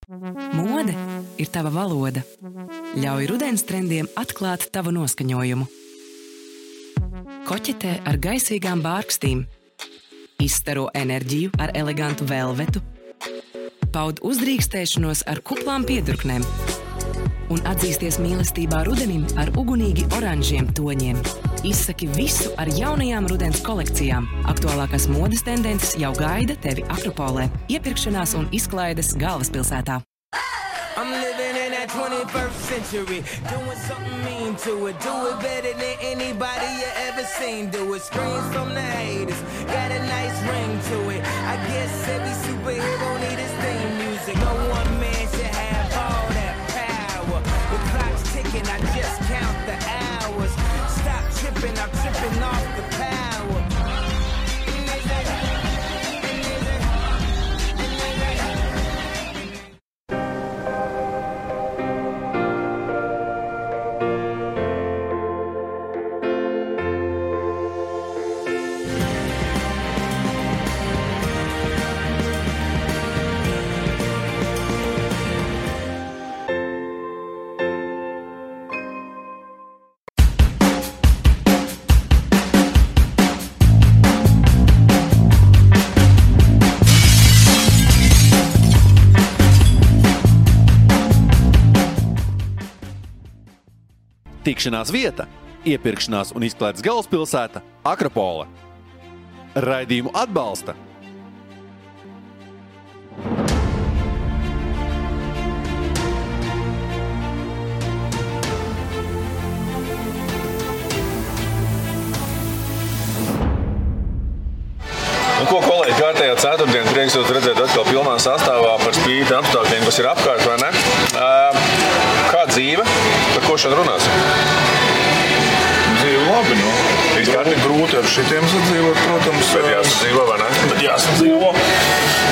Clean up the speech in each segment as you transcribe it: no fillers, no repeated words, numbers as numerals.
Mode ir tava valoda. Ļauj rudens trendiem atklāt tavu noskaņojumu. Koķetē ar gaisīgām bārkstīm. Izstaro enerģiju ar elegantu velvetu. Paud uzdrīkstēšanos ar kuplām piedurknēm. Un atzīsties mīlestībā rudenim ar ugunīgi oranžiem toņiem. Izsaki visu ar jaunajām rudens kolekcijām. Aktuālākās modes tendences jau gaida tevi Akropolē. Iepirkšanās un izklaides galvaspilsētā. I'm living in that 21st century, doing something mean to it. Do it better than anybody you ever seen. Do it, screams from the haters, got a nice ring to it. I guess every superhero need his theme music. No one man should have all that power. The clock's ticking, I just count the hours. Stop tripping, I'm tripping off the power. Tikšanās vieta, iepirkšanās un izklaides galvaspilsēta Akropole. Raidījumu atbalsta Ko, kolēģi, kārtējā ceturtdiena, prieks jūs redzēt atkal pilnā sastāvā par spīti apstākļiem, kas ir apkārt, vai ne? Kā dzīve? Par ko šodien runāsim? Dzīve labi, nu. Ir grūti ar šitiem sadzīvot, protams. Bet jāsadzīvo, vai ne? Bet jāsadzīvo.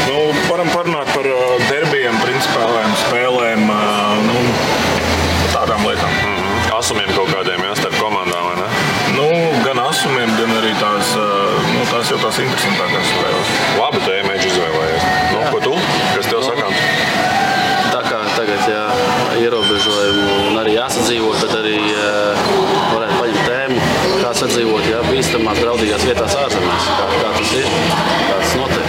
Nu, varam parunāt par derbijiem, principālēm spēlēm, tādām lietām. Asumiem kaut kādiem, jā, starp komandām, vai ne? Nu, gan asumiem, gan arī tās jau tās interesantākās spēles. Labi, tu ēmēģi izvēlējies. Nu, ko tu? Kas tev sakām? Tā kā tagad ierobežojumu un arī jāsadzīvo, tad arī varētu paņemt tēmu, kā sadzīvot, bīstamās, draudīgās vietās ārzemēs. Kā tas ir, kā tas notiek.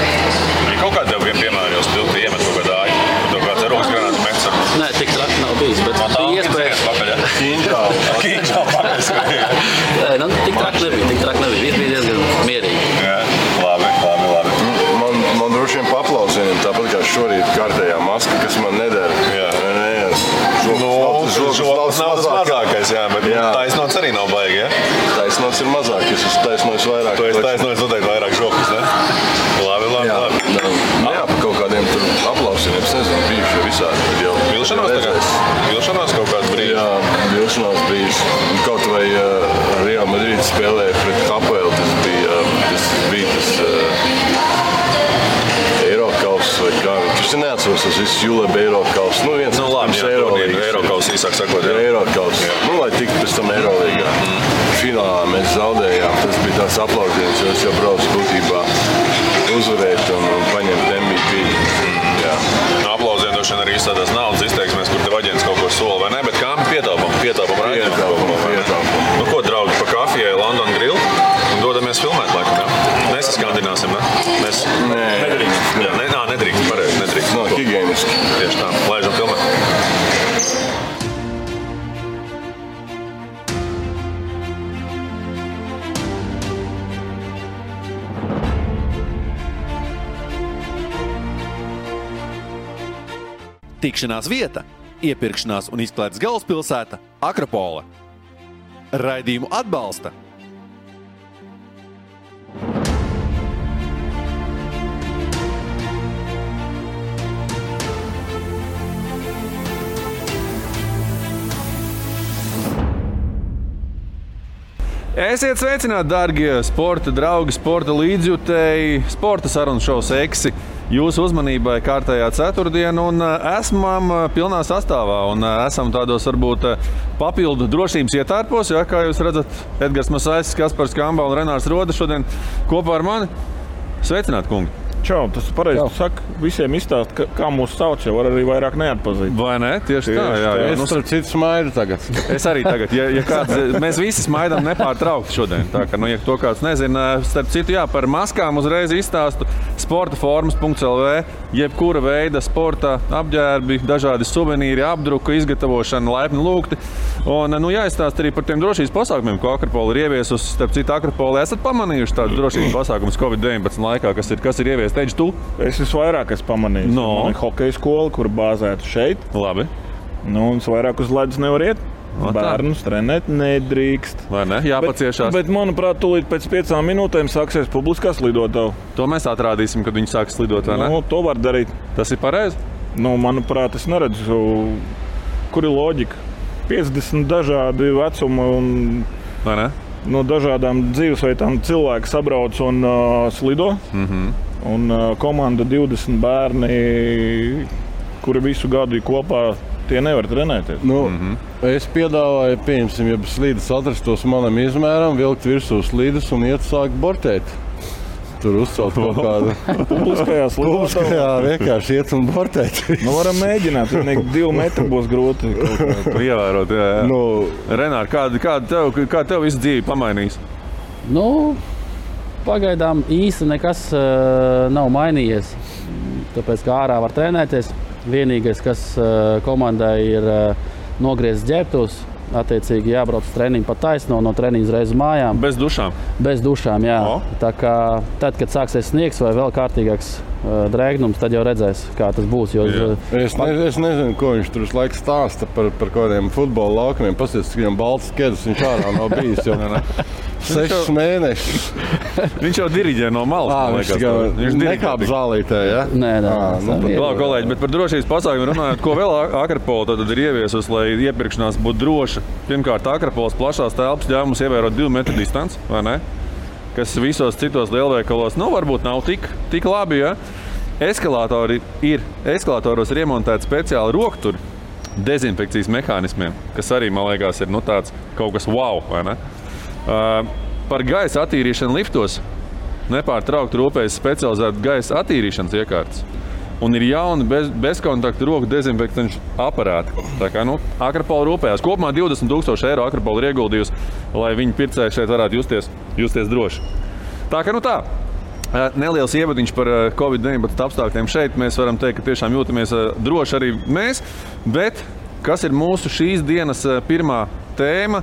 Ir kaut kādā tev piemēram jau stilti iemet kaut kādā āļu? Tev kāds eroks granāts mets ar? Nē, tik traki nav bijis, bet bija iespēja. Kīņģā pakaļ. Nē, tik traki nebija. Viss bija diezgan mierīgi. Jā, labi. Man droši vien paplausieniem, tāpat kā šorīt kārtējā maska, kas man nedara. Jā. Žoks nav tas mazākais, jā, bet taisnots arī nav baigi, jā? Taisnots ir mazāk, es esmu taisnojis vairāk. Tu esi taisnojis noteikti vairāk žokus, ne? Labi. Jā, pa kaut kādiem tur aplausieniem, es nezinu, bijuši visādi. Vilšanās tagad? Vilšanās kaut kāds brīdis? Jā, vilšanās brīdis. Kaut vai Real Madrid spēlēja pret Hapoel, tas bija Eirokauss vai kā. Es neatceros tas viss Juleba Eirokauss. Viens Eirokauss īsāk sakot. Eirokauss. Lai tiktu pēc tam Eirolīgā. Finālā mēs zaudējām. Tas bija tās aplaudienas, jo es jau braucu būtībā uzvarēt un paņemt MVP. Aplauzieni droši vien arī izstādās naudas izteiksmēs, kur tev aģents kaut ko sola, vai ne? Bet kā pietaupam raidījumam. Nu ko, draugi, pa kafijai London Grill un dodamies filmēt laikam, jā? Nesaskandināsim, ne? Nedrīkst. Nedrīkst, pareizi, nedrīkst. Nav higieniski. Tieši tā, laižam filmēt. Tikšanās vieta, iepirkšanās un izklaides galvaspilsēta Akropole. Raidījumu atbalsta Esiet sveicināti, dārgie sporta draugi, sporta līdzjutēji, sporta sarunu šovs Eksi. Jūsu uzmanībai kārtējā ceturtdiena un esam pilnā sastāvā un esam tādos varbūt papildu drošības ietērpos, kā jūs redzat, Edgars Masaitis, Kaspars Kamba un Renārs Roda šodien kopā ar mani. Sveicināti, kungi! Čau, tas pareizi. Tu saki, visiem izstāst, kā mūs sauc, jau var arī vairāk neatpazīt. Vai ne? Tieši tā, jā. Es starp citu smaidu tagad. Es arī tagad, ja kāds, mēs visi smaidām nepārtraukti šodien. Tā kā, ja to kāds nezina, starp citu, jā, par maskām uzreiz izstāstu sportaformas.lv, jebkura veida sporta apģērbi, dažādi suvenīri, apdruka, izgatavošana, laipni lūgti. Un, jāizstāst arī par tiem drošības pasākumiem, ko Akropola ir ieviesusi. Starp citu, Akropola esat pamanījuši tādus drošības pasākumus Covid-19 laikā, kas ir ieviest. Teici tu? Es visvairāk esmu pamanījis. Man ir hokeja skola, kur bāzēta šeit. Labi. Un es vairāk uz ledus nevar iet. Bērnus trenēt nedrīkst. Vai ne? Jāpaciešās. Bet manuprāt, tūlīt pēc 5 minūtēm sāksies publiskās lidotava. To mēs atrādīsim, kad viņi sāks lidot, vai ne? To var darīt. Tas ir pareizi? Manuprāt, es neredzu, kur ir loģika. 50 dažādi vecumi un vai ne? No dažādām dzīvesveidām cilvēki sabrauc un slido. Un komanda 20 bērni, kuri visu gadu ir kopā, tie nevar trenēties. Es piedāvāju, pieņemsim, ja slīdes atrastos manam izmēram, vilkt virsū slīdes un iet sākt bortēt. Tur uzcelt kaut kādu publiskajā slidotavā. Jā, vienkārši iet un bortēt. Varam mēģināt, 2 metri būs grūti. Ievērot, jā. Renār, kā tev visu dzīvi pamainījis? Pagaidām īsti nekas nav mainījies. Tāpēc, kā ārā var trenēties, vienīgais, kas komandai ir nogriezts ģērbtos, attiecīgi jābrauc uz treniņu pa taisno, no treniņa uzreiz uz mājām. Bez dušām? Bez dušām, jā. Tā kā tad, kad sāksies sniegs vai vēl kārtīgāks drēgnums, tad jau redzēs, kā tas būs. Es nezinu, ko viņš tur laiku stāsta par kādiem futbola laukumiem. Pasies, cik viņam balts skedus, viņš ārā nav bijis jau 6 mēnešus. Viņš jau diriģē no malas. Viņš nekāp zālītē, ja? Nē. Labi, kolēģi, bet par drošības pasākumiem runājot, ko vēl Akropola tad ir ieviesusi, lai iepirkšanās būtu droša? Pirmkārt, Akropolas plašās telpas ļauj mums ievērot 2 metru distanci, vai ne? Kas visos citos lielveikalos varbūt nav tik labi, ja? Eskalatoros ir iemontēti speciāli rokturi dezinfekcijas mehānismiem, kas arī, man liekas, ir tāds kaut kas wow, vai ne? Par gaisa attīrīšanu liftos nepārtraukti rūpējas specializēta gaisa attīrīšanas iekārtas. Un ir jauni bezkontaktu roku dezinfektanšu aparāti. Tā kā Akropola rūpējās. Kopumā 20,000 eiro Akropola ir ieguldījusi, lai viņu pircēji šeit varētu justies droši. Tā kā tā. Neliels ievadiņš par Covid-19 apstākļiem šeit. Mēs varam teikt, ka tiešām jūtamies droši arī mēs. Bet kas ir mūsu šīs dienas pirmā tēma?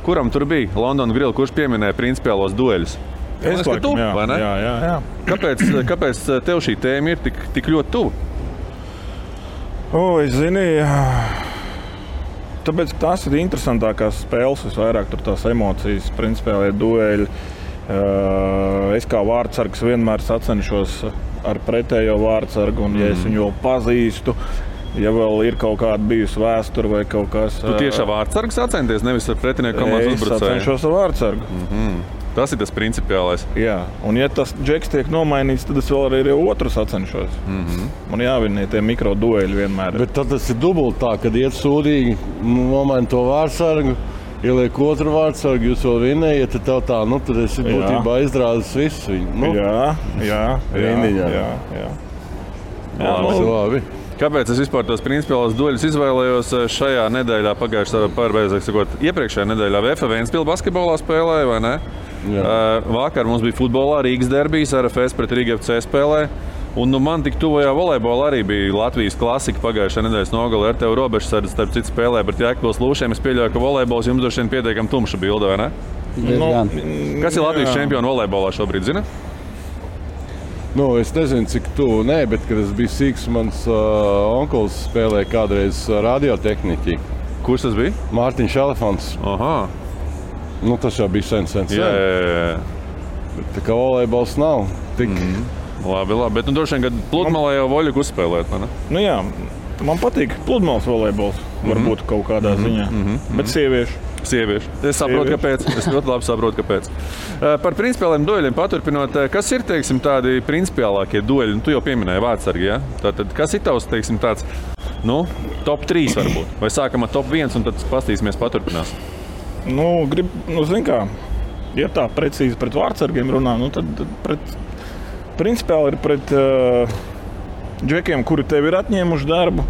Kuram tur bija London Grill, kurš pieminēja principiālos dueļus? Es laikam, vai ne? Jā. Kāpēc tev šī tēma ir tik ļoti tuva? Es zinu, tāpēc tās ir interesantākās spēles, visvairāk tur tās emocijas, principiālie dueļi. Es kā vārdsargs vienmēr sacenšos ar pretējo vārdsargu, un ja es viņu vēl pazīstu, ja vēl ir kaut kāda bijusi vēsture vai kaut kas. Tu tieši ar vārdsargu sacenties, nevis ar pretinieku komandas uzbrucēju? Es sacenšos ar vārdsargu. Tas ir tas principiālais. Jā, un ja tas džeks tiek nomainīts, tad es vēl arī otru sacenšos. Man jāvinē tie mikrodueļi vienmēr. Bet tad tas ir dubult tā, kad iet sūdīgi, nomaina to vārdsargu, ieliek otru vārdsargu, jūs vēl vinējat, tad tev tā, tad esi būtībā izrādis visu viņu. Jā. Labi. Kāpēc es vispār tos principiālos dueļus izvēlējos šajā nedēļā, iepriekšējā nedēļā VF Ventspils basketbolā spēlēja, vai ne? Vakar mums bija futbolā Rīgas derbijs, RFS pret Rīga FC spēlē. Un man tik tuvajā volejbolā arī bija Latvijas klasika pagājušā nedēļas nogalē ar tevi robežsardzi, starp citu spēlē pret Jēkabpils Lūšiem. Es pieļauju, ka volejbols jums droši vien pietiekami tumša bilde, vai ne? Kas ir Latvijas čempioni volejbolā šobrīd, zina? Es nezinu, cik tuvu, bet, kad es biju sīks, mans onkulis spēlēja kādreiz radiotehniķi. Kurš tas bija? Mārtiņš Elefants. Aha. Tas jau bija sen. Jā. Bet tā kā volejbols nav tik... Labi, bet droši vien, kad pludmalē jau voļuku uzspēlēt, vai ne? Jā, man patīk pludmales volejbols, varbūt kaut kādā ziņā, bet sieviešu. Es saprotu, kāpēc. Es ļoti labi saprotu, kāpēc. Par principiāliem dueļiem paturpinot, kas ir, tādi principiālākie dueļi? Tu jau pieminēji vārdsargi, ja? Tātad, kas ir tavs, tāds, top 3 varbūt? Vai sākam ar top 1 un tad pastīsimies paturpinās? Zin kā, ja tā precīzi pret vārdsargiem runā, tad pret principiāli ir pret džekiem, kuri tev ir atņēmuši darbu.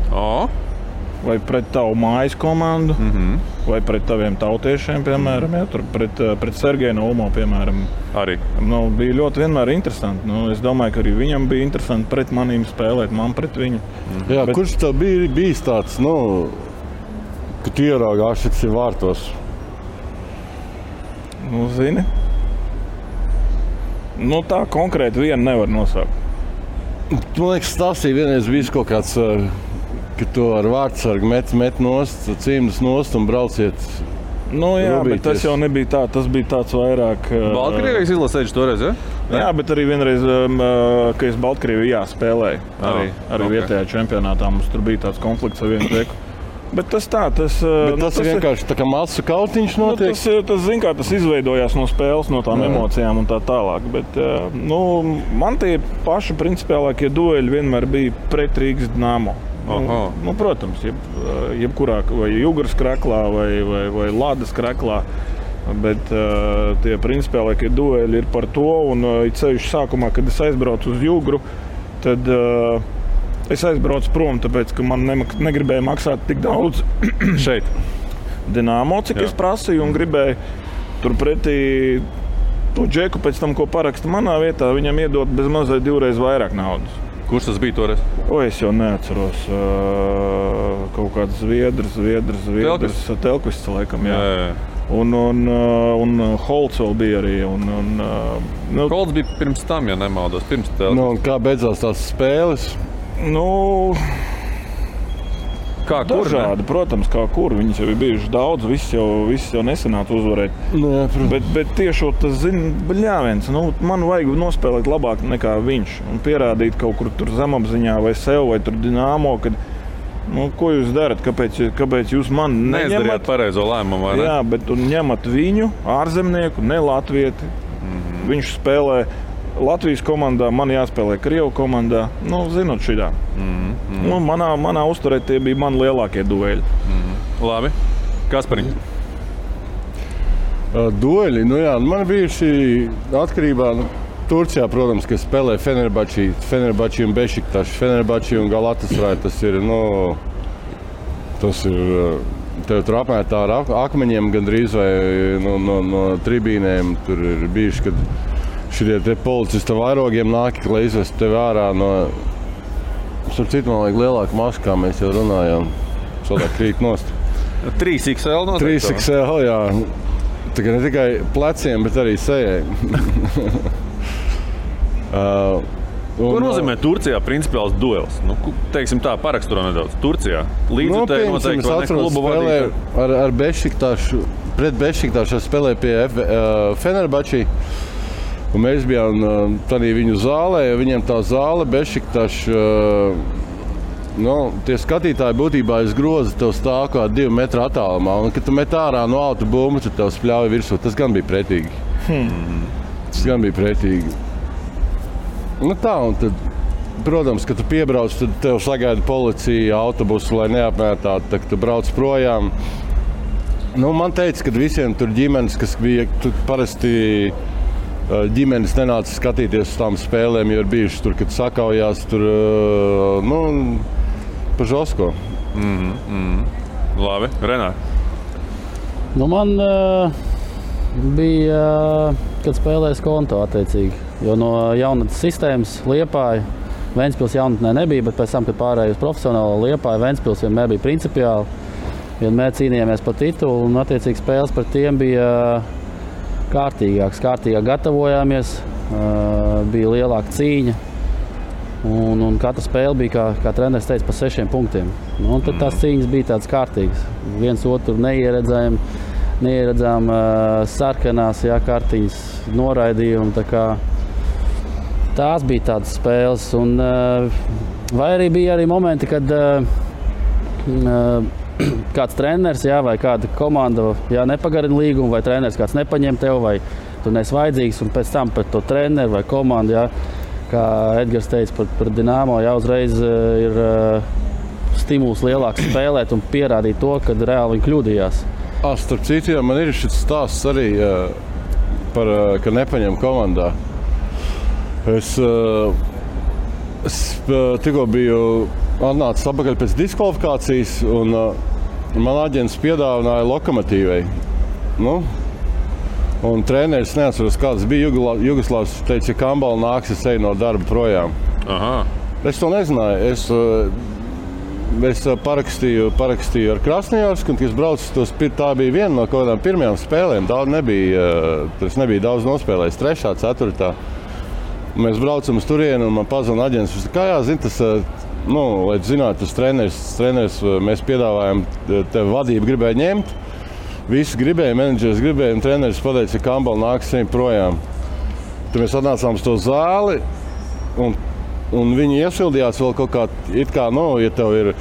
Vai pret tavu mājas komandu, vai pret taviem tautiešiem, piemēram, tur pret Sergeju Naumo, piemēram. Arī. Bija ļoti vienmēr interesanti. Es domāju, ka arī viņam bija interesanti pret manīm spēlēt, man pret viņu. Jā, kurš tev bijis tāds, ka tu ieraugāši vārtos? Zini? Tā konkrēti vienu nevar nosaukt. Man liekas, stāstīja vienreiz bijis kaut kāds, ka tu ar vārdsargu met nost, cīmdas nost un brauciet. Jā, bet tas jau nebija tā. Tas bija tāds vairāk... Baltkrievijas izlasēģis toreiz, ja? Jā, bet arī vienreiz, ka es Baltkrievijā spēlēju. Arī vietējā čempionātā mums tur bija tāds konflikts ar vienu teku. Bet tas ir vienkārši tā kā masu kautiņš notiek? Tas izveidojās no spēles, no tām emocijām un tā tālāk. Bet, man tie paši principiālākie dueļi vienmēr bija pret Rīgas Dinamo. Protams, jebkurā vai Jugras kraklā vai Ladas kraklā. Bet tie principiālākie dueļi ir par to. Un ceļš sākumā, kad es aizbraucu uz Jugru, tad... Es aizbraucu prom, tāpēc, ka man negribēja maksāt tik daudz šeit. Dinamo, cik es prasīju, un gribēju turpretī to džeku pēc tam, ko paraksta manā vietā, viņam iedot bez mazliet 2 reizes vairāk naudas. Kurš tas bija toreiz? Es jau neatceros. Kaut kāds Zviedrs. Telkvists, laikam, jā. Un Holts vēl bija arī. Holts bija pirms tam, ja nemaldos, pirms Telkvists. Un kā beidzās tās spēles? Kā kur? Dažādi, protams, kā kur. Viņas jau ir bijušas daudz, viss jau nesanāca uzvarēt. Bet tieši tas, bļāviens, man vajag nospēlēt labāk nekā viņš. Un pierādīt kaut kur tur zemapziņā vai sev, vai tur Dinamo, kad, ko jūs darat, kāpēc jūs man neņemat? Neizdarījāt pareizo lēmumu, vai ne? Jā, bet ņemat viņu, ārzemnieku, ne latvieti. Viņš spēlē Latvijas komandā, man jāspēlē Krievu komandā. Zinot šitā. Manā uzturē tie bija mani lielākie dueļi. Labi. Kaspariņ? Dueļi? Man bijuši atkarībā Turcijā, protams, ka spēlē Fenerbahči un Bešiktaši. Fenerbahči un Galatasaray. Tas ir, tev tur apmētā ar akmeņiem gandrīz vai no tribīnēm. Tur ir bijuši, kad šitie te policisti vairogiem nāk, lai izvestu tevi ārā no... Starp citu, man vajag lielāku masku, kā mēs jau runājām. Sodāk krīt nost. 3XL noteikti? 3XL, jā. Tā kā ne tikai pleciem, bet arī sejai. Ko nozīmē Turcijā principiāls duels? Teiksim tā, paraksturo nedaudz. Turcijā līdzutēji noteikti vai ne klubu vadītāji? Ar Bešiktašu, pret Bešiktašu spēlēja pie Fenerbahči. Un mēs bijām tādā viņu zālē, viņiem tā zāle, Bešiktaši, tie skatītāji būtībā aiz groza tev stāv kā 2 metru attālumā. Un, kad tu met ārā no auto bumbu, tad tev spļauj virsū. Tas gan bija pretīgi. Un tad, protams, kad tu piebrauc, tad tev sagaida policija, autobusu, lai neapmētātu, tad tu brauc projām. Man teica, ka visiem tur ģimenes, kas bija parasti... Ģimenes nenāca skatīties uz tām spēlēm, jo ir bijuši tur, kad sakaujās tur, pa žosko. Labi, Renār. Man bija, kad spēlēju konto attiecīgi, jo no jaunatnes sistēmas Liepāja, Ventspils jaunatnē nebija, bet pēc tam, kad pārēju uz profesionālo Liepāju, Ventspils vienmēr bija principiāli. Vienmēr cīnījāmies par titulu un attiecīgi spēles par tiem bija kārtīgāk gatavojāmies, bija lielāka cīņa un katra spēle bija, kā treneris teica, pa 6 punktiem. Un tad tās cīņas bija tādas kārtīgas. Viens otru neieredzām sarkanās kartiņas noraidījumu. Tās bija tādas spēles. Vai arī bija arī momenti, kad kāds treneris vai kāda komanda nepagarina līgumu, vai treneris kāds nepaņem tev, vai tu neesi vajadzīgs, un pēc tam pret to treneru vai komandu, kā Edgars teica par Dinamo, uzreiz ir stimuls lielāks spēlēt un pierādīt to, kad reāli viņi kļūdījās. Starp citu, man ir šis stāsts arī, ka nepaņem komandā. Es tikko biju atnācis atpakaļ pēc diskvalifikācijas, un man aģents piedāvināja Lokomotīvai. Nu, un treneris neatceros, kāds bija Jugoslavs, teica, ja Kambala nāks, es eju no darba projām. Aha. Es to nezināju. Es parakstīju ar Krasnojarsku, un es braucu, tā bija viena no kaut kādām pirmajām spēlēm. Tas nebija daudz nospēlējis, 3., 4. Mēs braucam uz turieni, un man pazvana aģents. Kā zini, tas, lai zinātu, tas treneris, mēs piedāvājam, tev vadību gribēja ņemt. Visi gribēja, menedžers gribēja, un treneris pateica, ka Kambala nāks projām. Tad mēs atnācām uz to zāli, un viņi iesildījās vēl kaut kā, ja tev ir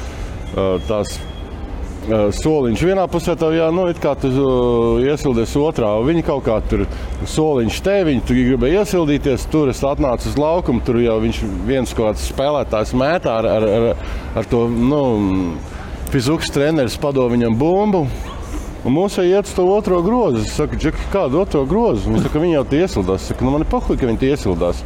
tās soliņš vienā pusē, tev it kā tu iesildies otrā. Viņi kaut kā tur soliņš te, viņi tur gribēja iesildīties, tur es atnācu uz laukumu, tur jau viņš viens kaut kāds spēlētājs mētā ar to, fizikas treneris padod viņam bumbu. Un mums iet uz to otro grozu. Es saku, Džeki, kādu otro grozu? Viņš saka, viņi jau tie iesildās. Es saku, man ir pahuļ, ka viņi tie iesildās.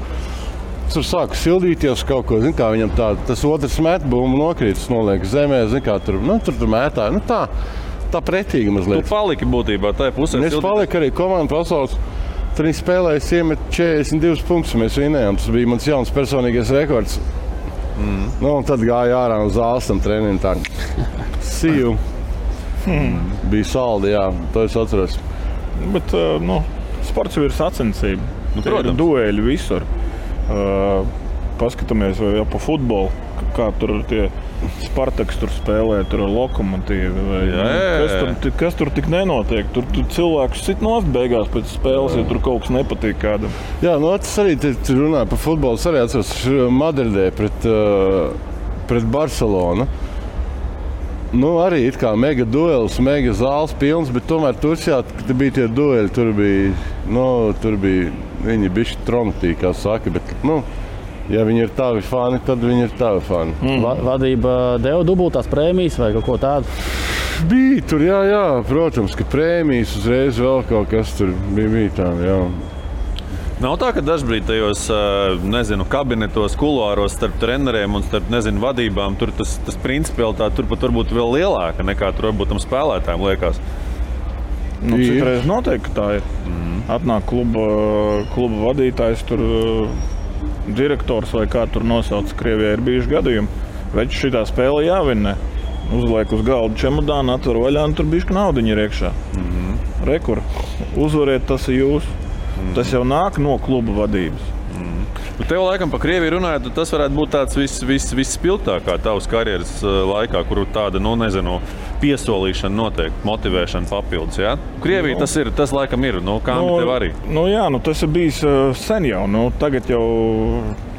Tur sāku sildīties kaut ko, zin kā viņam tas otrs met bumbu nokrītas, noliek zemē, zin kā tur mētāja. Tā pretīgi mazliet. Tu paliki būtībā tajā pusē. Es paliku arī komanda pasaules. Tad viņi spēlējas iemet 42 punktus, mēs vinējām. Tas bija mans jauns personīgais rekords. Un tad gāja ārā uz zāles tam trenim tā. See you. Bija saldi, jā, to es atceros. Bet, sports jau ir sacensība. Ir dueļi visur. Paskatāmies jau pa futbolu, kā tur tie Spartaks tur spēlē, tur ar Lokomotīvu. Kas tur tik nenotiek? Tur cilvēkus sit nost beigās pēc spēles, ja tur kaut kas nepatīk kādam. Jā, tas arī runāja par futbolu. Es arī atceros Madridē pret Barcelonu. Arī it kā mega duels, mega zāles pilns, bet tomēr Turcijā bija tie dueli. Tur bija viņi bišķi tromtī, kā saka, bet, ja viņi ir tavi fani, tad viņi ir tavi fani. Vadība deva dubultās prēmijas vai kaut ko tādu? Bija tur, jā, protams, ka prēmijas uzreiz vēl kaut kas tur bija tāda, jā. Nav tā, ka dažbrīd tajos, kabinetos, kuluāros starp treneriem un starp, vadībām, tur tas principialitāte tur pat varbūt vēl lielāka nekā tur varbūt tam spēlētājiem liekas. Citreiz noteikti, ka tā ir. Atnāk kluba vadītājs, tur direktors vai kā tur nosauc, Krievijā ir bijuši gadījumi. Veči šitā spēle jāvinnē. Uzliek uz galdu čemodānu, atver vaļā un tur bišķi naudiņi ir iekšā. Rekur, uzvariet, tas ir jūs. Tas jau nāk no kluba vadības. Tev laikam pa Krieviju runājot, tas varētu būt tāds visspilgtākā tavas karjeras laikā, kur tāda, piesolīšana notiek, motivēšana papildus, jā? Krievija tas laikam ir, Kambi tev arī. Tas ir bijis sen jau, tagad jau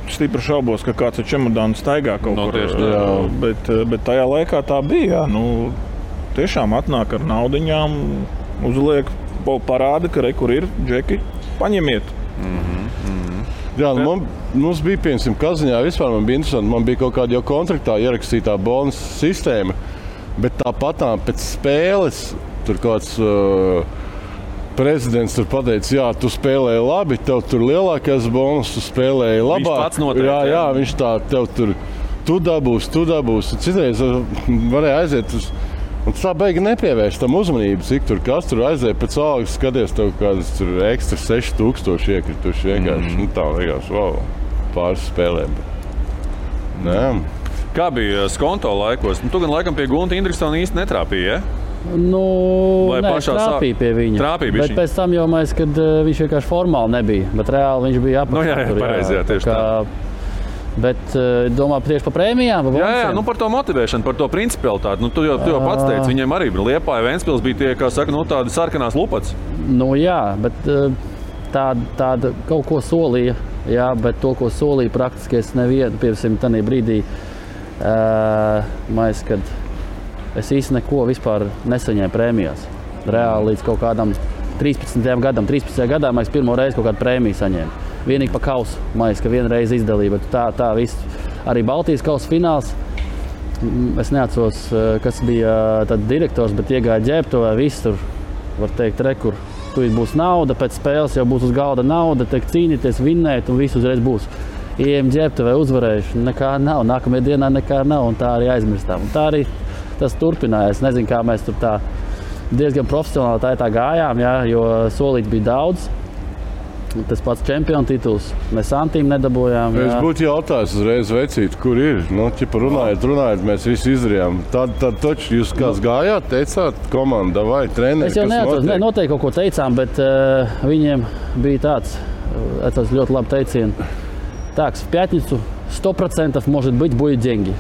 stipri šaubos, ka kāds ar čemodānu staigā kaut kur. Bet tajā laikā tā bija, tiešām atnāk ar naudiņām, uzliek, parāda, ka kur ir, Džeki, paņemiet. Jā, mums bija, piemēram, Kaziņā vispār man bija interesanti. Man bija kaut kāda jau kontraktā ierakstītā bonusa sistēma, bet tāpat pēc spēles tur kāds prezidents tur pateica, jā, tu spēlēji labi, tev tur lielākais bonus, tu spēlēji labāk. Viņš pats noteikti. Jā, viņš tev tur, tu dabūs. Citreiz varēja aiziet uz... Un tā beigi nepievērš tam uzmanību, cik tur kas tur aiziet pēc algas, skaties tev kādas tur ekstra 6000 iekrituši vienkārši. Tā liekas, pāris spēlēm. Kā bija Skonto laikos? Tu gan laikam pie Gunta Indriksona īsti netrāpīja, ja? Trāpīja pie viņa. Bet pēc tam jau mēs, kad viņš vienkārši formāli nebija, bet reāli viņš bija apakšā. Jā, pareizi, tieši tā. Bet domā tieši par prēmijām? Jā, par to motivēšanu, par to principialitāti. Tu jau pats teici, viņiem arī Liepāja, Ventspils bija tie, kā saka, tādi sarkanās lupats. Jā, bet tāda kaut ko solīja, jā, bet to, ko solīja praktiski es nevienu, piemēram, tādā brīdī, kad es īsti neko vispār nesaņēmu prēmijās. Reāli līdz kaut kādam 13. gadā mēs pirmo reizi kaut kādu prēmiju saņēmu. Vienīgi pa kausu, ka vienreiz izdalīja, bet tā viss. Arī Baltijas kausa fināls. Es neatceros, kas bija tad direktors, bet iegāja ģērbtuvē, viss tur, var teikt, rekur. Tūlīt būs nauda, pēc spēles jau būs uz galda nauda, tiek cīnīties, vinnēt un viss uzreiz būs. Ejam ģērbtuvē uzvarējuši, nekā nav, nākamajā dienā nekā nav un tā arī aizmirstām. Un tā arī tas turpinājās. Nezinu, kā mēs tur tā diezgan profesionāli tā gājām, jā, jo solīt bija daudz. Tas pats čempionu tituls, mēs santīm nedabūjām. Es būtu jautājis uzreiz vecīt, kur ir. Nu, ķipa runājot, mēs visi izdarījām. Tad taču jūs kāds gājāt, teicāt, komanda vai treneri, es jau neatceros, noteikti kaut ko teicām, bet viņiem bija tāds ļoti labi teicieni. Так, в пятницу 100% может быть будет деньги.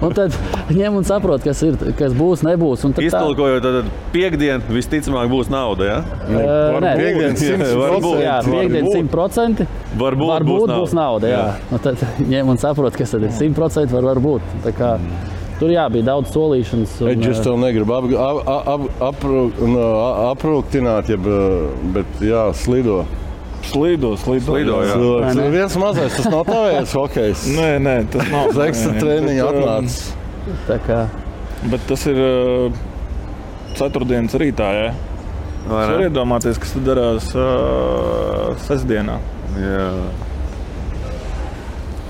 Un tad ņem un saprot, kas būs, nebūs. Iztulkojot, tad piekdien visticamāk būs nauda, ja? Nē, piekdien 100%. Jā, piekdien 100%. Varbūt būs nauda, jā. Un tad ņem un saprot, kas tad ir 100% varbūt. Tā kā tur bija daudz solīšanas. Es tev negribu aprūktināt, bet jā, slido. Slido, jā. Viens mazais, tas nav tavējais hokejs. Nē, tas nav. Uz ekstra treniņu atnācis. Tā kā. Bet tas ir ceturtdienas rītā, jā. Es varu iedomāties, kas tad darās sestdienā. Jā.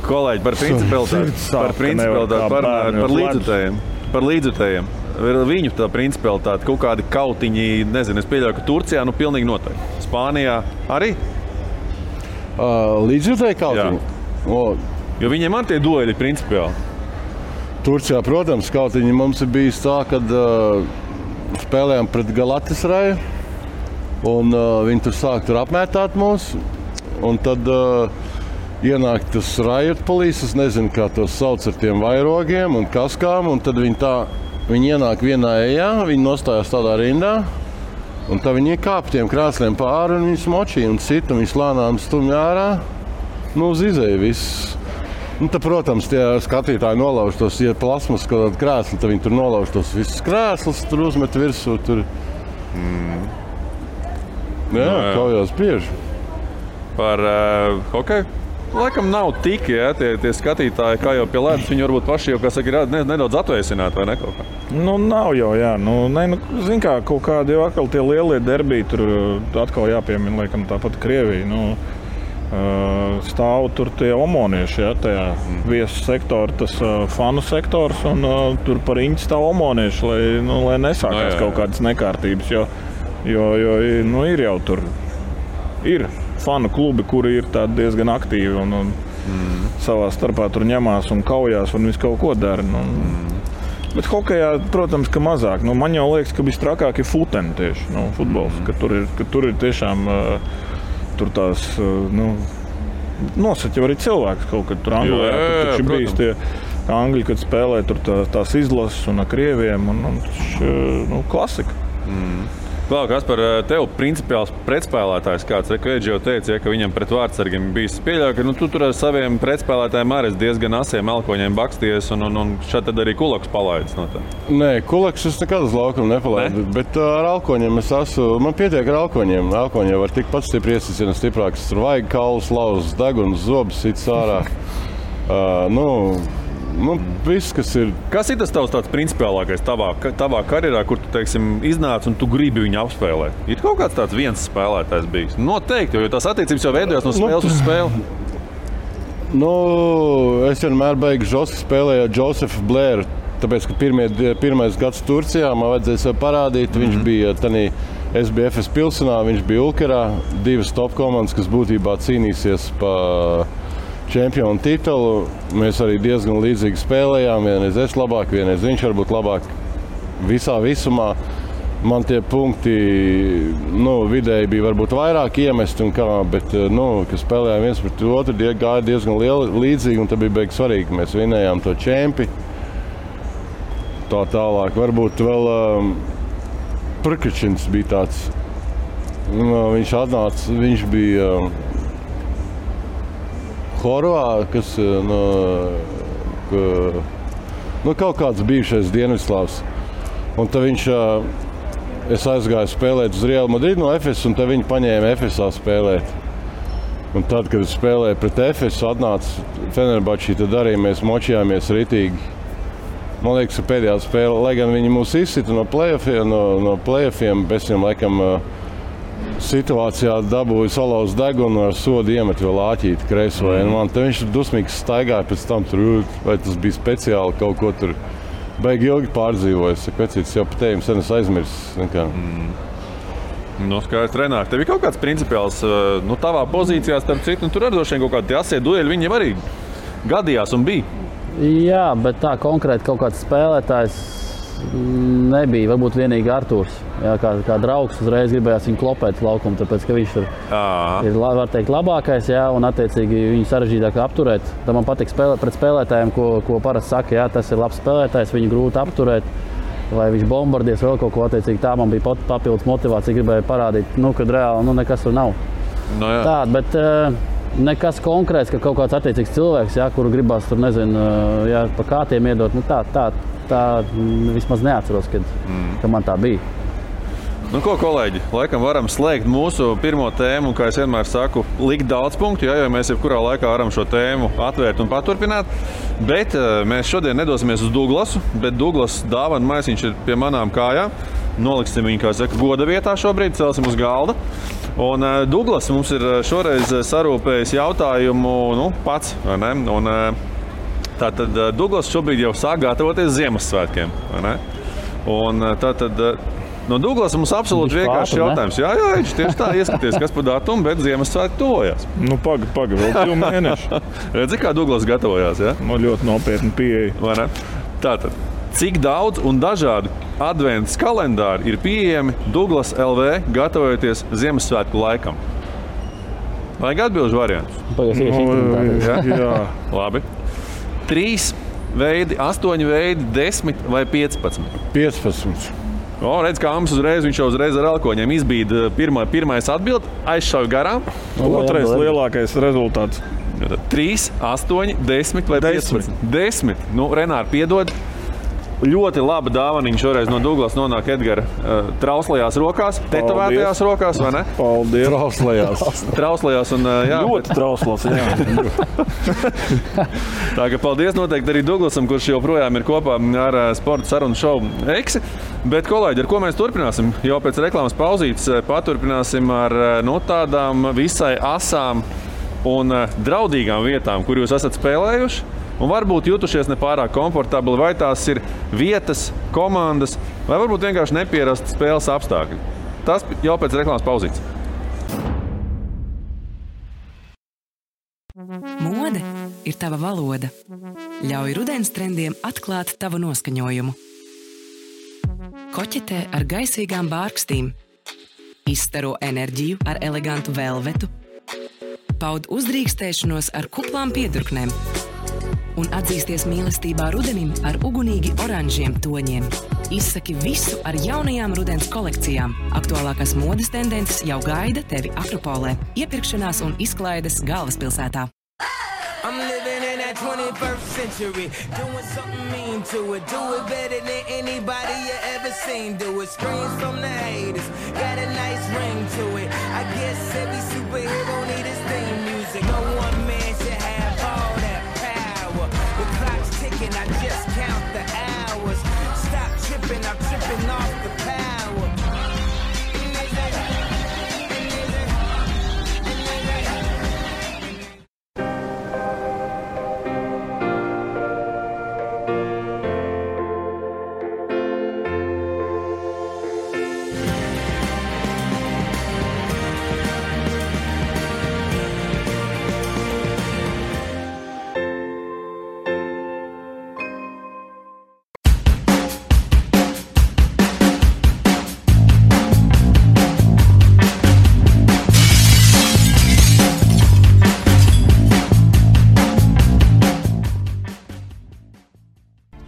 Kolēģi, par principalitāti, par līdzjutējiem. Viņu tā principalitāte, kaut kādi kautiņi, nezinu, es pieļauju, ka Turcijā pilnīgi noteikti. Spānijā arī? Līdzjutēji kautiņi? Jo viņiem ar tie dueļi principiāli. Turcijā, protams, kautiņi mums ir bijis tā, kad spēlējām pret Galatasaraju un viņi tur sāk apmētāt mūs. Un tad ienāk tas riot police, es nezinu, kā tos sauc ar tiem vairogiem un kaskām, un tad viņi ienāk vienā ejā, viņi nostājās tādā rindā. Un tā viņi kāp tiem krāsliem pāri un viņus močīja un cita, un viņus lānām stumja ārā, uz izēju viss. Un tad, protams, tie skatītāji nolauž tos, ja plasmas kaut kādu krēslu, tad viņi tur nolauž tos visus krēslus, tur uzmet virsū, tur. Jā, kaujās bieži. Par hokeju? Laikam nav tik, ja, tie skatītāji, kā jau pie ledus, viņi varbūt paši jau, kā saka, ir nedaudz atvēsināti, vai ne kaut kā? Nu, nav jau, jā. Zin kā, kaut kādi jau atkal tie lielie derbiji, tur atkal jāpiemina, laikam, tāpat Krievija. Stāv tur tie omonieši, ja, tajā viesu sektora, tas fanu sektors, un tur par riņķi stāv omonieši, lai nesākās kaut kādas nekārtības, jo ir jau tur, ir fanu klubi, kuri ir diezgan aktīvi un savā starpā tur ņemās un kaujās un visu kaut ko dara. Bet hokejā, protams, ka mazāk. Man jau liekas, ka visstrakāk ir futeni tieši, futbols, ka tur ir tiešām tur tās, nosaķi arī cilvēks kaut kad tur Anglijā. Tur taču bijis tie Angļi, kad spēlē tur tās izlases un ar krieviem un klasika. Klau, kas par tevi principiāls pretspēlētājs kāds? Reku jau teica, ka viņam pret vārdsargiem bijis pieļauj, ka tu tur ar saviem pretspēlētājiem arī diezgan asiem elkoņiem baksties un šādi tad arī Kulaks palaidis no tā. Nē, Kulaks es nekad uz laukumu nepalaidu, bet ar elkoņiem es esmu, man pietiek ar elkoņiem. Elkoņi var tik pats stipri iesicina stiprāks, tur vajag kaulus, lauzas, degunas, zobus, cits ārā. Viss, kas ir. Kas ir tas tavs tāds principiālākais tavā karjerā, kur tu, teiksim, iznāc un tu gribi viņu apspēlēt? Ir kaut kāds tāds viens spēlētājs bijis? Noteikti, jo tās attiecības jau veidojās no spēles uz spēli. Es vienmēr beigšu Žosu spēlēju ar Josefu Blēru, tāpēc, ka pirmais gads Turcijā man vajadzēja sev parādīt. Viņš bija tanī SBFS Pilsenā, viņš bija Ulkerā, divas top komandas, kas būtībā cīnīsies pa čempionu titulu. Mēs arī diezgan līdzīgi spēlējām. Vienreiz es labāk, vienreiz viņš varbūt labāk. Visā visumā man tie punkti vidēji bija varbūt vairāk iemesti, bet kad spēlējām viens pret otru, gāja diezgan līdzīgi, un tad bija beigas svarīgi, ka mēs vinējām to čempi. Tā tālāk. Varbūt vēl Prkačins bija tāds. Viņš atnāca, viņš bija Horvā, kas kaut kāds bijušais Dienvidslavs. Un tad es aizgāju spēlēt uz Real Madrid no Efes, un tad viņi paņēma Efesā spēlēt. Un tad, kad es spēlēju pret Efesu, atnāca Fenerbahči, tad arī mēs močījāmies ritīgi. Man liekas, ka pēdējā spēle, lai gan viņi mūs izsita no play-offiem, bez viņam laikam situācijā dabūja salauzt degunu ar sodu iemet vēl āķīti kreiso. Man te viņš dusmīgs staigāja pēc tam tur, vai tas bija speciāli kaut ko tur. Baigi ilgi pārdzīvojas. Vecītis jau pat ejam sen es aizmirsis. Skaidrs, Renāri, tev ir kaut kāds principiāls, tavā pozīcijā starp citu, tur arī droši vien kaut kādi tie asie dueļi, viņi arī gadījās un bija. Jā, bet tā konkrēti kaut kāds spēlētājs nebija. Varbūt vienīgi Artūrs. Jā, kā draugs uzreiz gribējās viņu klopēt laukumu, tāpēc, ka viņš ir, var teikt, labākais, jā, un attiecīgi viņu sarežģītāk apturēt. Tā man patīk pret spēlētājiem, ko parasti saka, jā, tas ir labs spēlētājs, viņu grūti apturēt, vai viņš bombardies vēl kaut ko attiecīgi. Tā man bija papildus motivācija, gribēja parādīt, kad reāli nekas tur nav. Tā, bet nekas konkrēts, ka kaut kāds attiecīgs cilvēks, jā, kuru gribās tur, nezinu, jā, pa kātiem iedot, tā vismaz neatceros, ka man tā bija. Ko, kolēģi, laikam varam slēgt mūsu pirmo tēmu, kā es vienmēr saku, likt daudz punktu, jo mēs jebkurā laikā varam šo tēmu atvērt un paturpināt. Bet mēs šodien nedosimies uz Douglasu, bet Douglas dāvana maisiņš ir pie manām kājām. Noliksim viņu, kā saka, goda vietā šobrīd, celsim uz galda. Un Douglas mums ir šoreiz sarūpējis jautājumu, pats, vai ne? Un tātad Douglas šobrīd jau sāk gatavoties Ziemassvētkiem, vai ne? Un tātad no Douglas mums absolūti vienkārši jautājums. Jā, tieši tā, ieskaties, kas par datumu, bet Ziemassvētki tuvojās. Paga, vēl 2 mēneši. Redzi, kā Douglas gatavojās, jā? Ļoti nopietni pieeja. Vai ne? Tātad, cik daudz un dažādi adventas kalendāri ir pieejami Douglas LV gatavojoties Ziemassvētku laikam? Vajag atbilžu variantus? Jā. Labi. 3 veidi, 8 veidi, 10 vai 15? 15. Redz, kā mums viņš jau uzreiz ar elkoņiem izbīda pirmais atbild, aizšauja garām. Otrais lielākais rezultāts. 3, 8, 10 vai 15? 10. Renāri, piedod. Ļoti laba dāvaniņa šoreiz no Douglas nonāk Edgara trauslajās rokās, tetovētajās rokās, vai ne? Paldies. Trauslajās un jā. Ļoti trauslas, jā. Tā ka paldies noteikti arī Douglasam, kurš joprojām ir kopā ar sporta sarunu šovu Eksi. Bet, kolēģi, ar ko mēs turpināsim? Jau pēc reklāmas pauzītes paturpināsim ar tādām visai asām un draudīgām vietām, kur jūs esat spēlējuši. Un varbūt jutušies nepārāk komfortabli, vai tās ir vietas, komandas, vai varbūt vienkārši nepierasti spēles apstākļi. Tas jau pēc reklāmas pauzītes. Mode ir tava valoda. Ļauj rudens trendiem atklāt tavu noskaņojumu. Koķetē ar gaisīgām bārkstīm. Izstaro enerģiju ar elegantu velvetu. Paud uzdrīkstēšanos ar kuplām piedurknēm. Un atzīsties mīlestībā rudenim ar ugunīgi oranžiem toņiem. Izsaki visu ar jaunajām rudens kolekcijām. Aktuālākās modes tendences jau gaida tevi Akropolē. Iepirkšanās un izklaides galvaspilsētā. I'm living in that 21st century, doing something mean to it. Do it better than anybody you ever seen. Do it, screams from the haters, got a nice ring to it. I guess every superhero need his theme music. No one man should have all that power. The clock's ticking, I just count the hours. Stop tripping, I'm tripping off the power.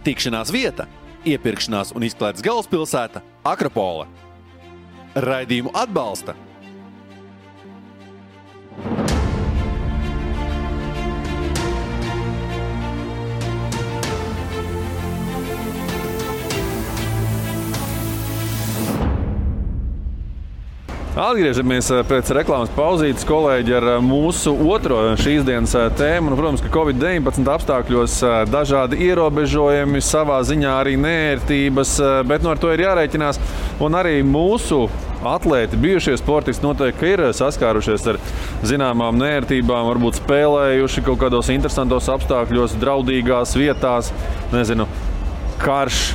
Tikšanās vieta, iepirkšanās un izklaides galvaspilsēta Akropole. Raidījumu atbalsta Atgriežamies pēc reklāmas pauzītes, kolēģi, ar mūsu otro šīs dienas tēmu. Protams, ka Covid-19 apstākļos dažādi ierobežojumi, savā ziņā arī neērtības, bet ar to ir jārēķinās. Un arī mūsu atlēti, bijušie sportisti noteikti ir saskārušies ar zināmām neērtībām, varbūt spēlējuši kaut kādos interesantos apstākļos, draudīgās vietās, karš,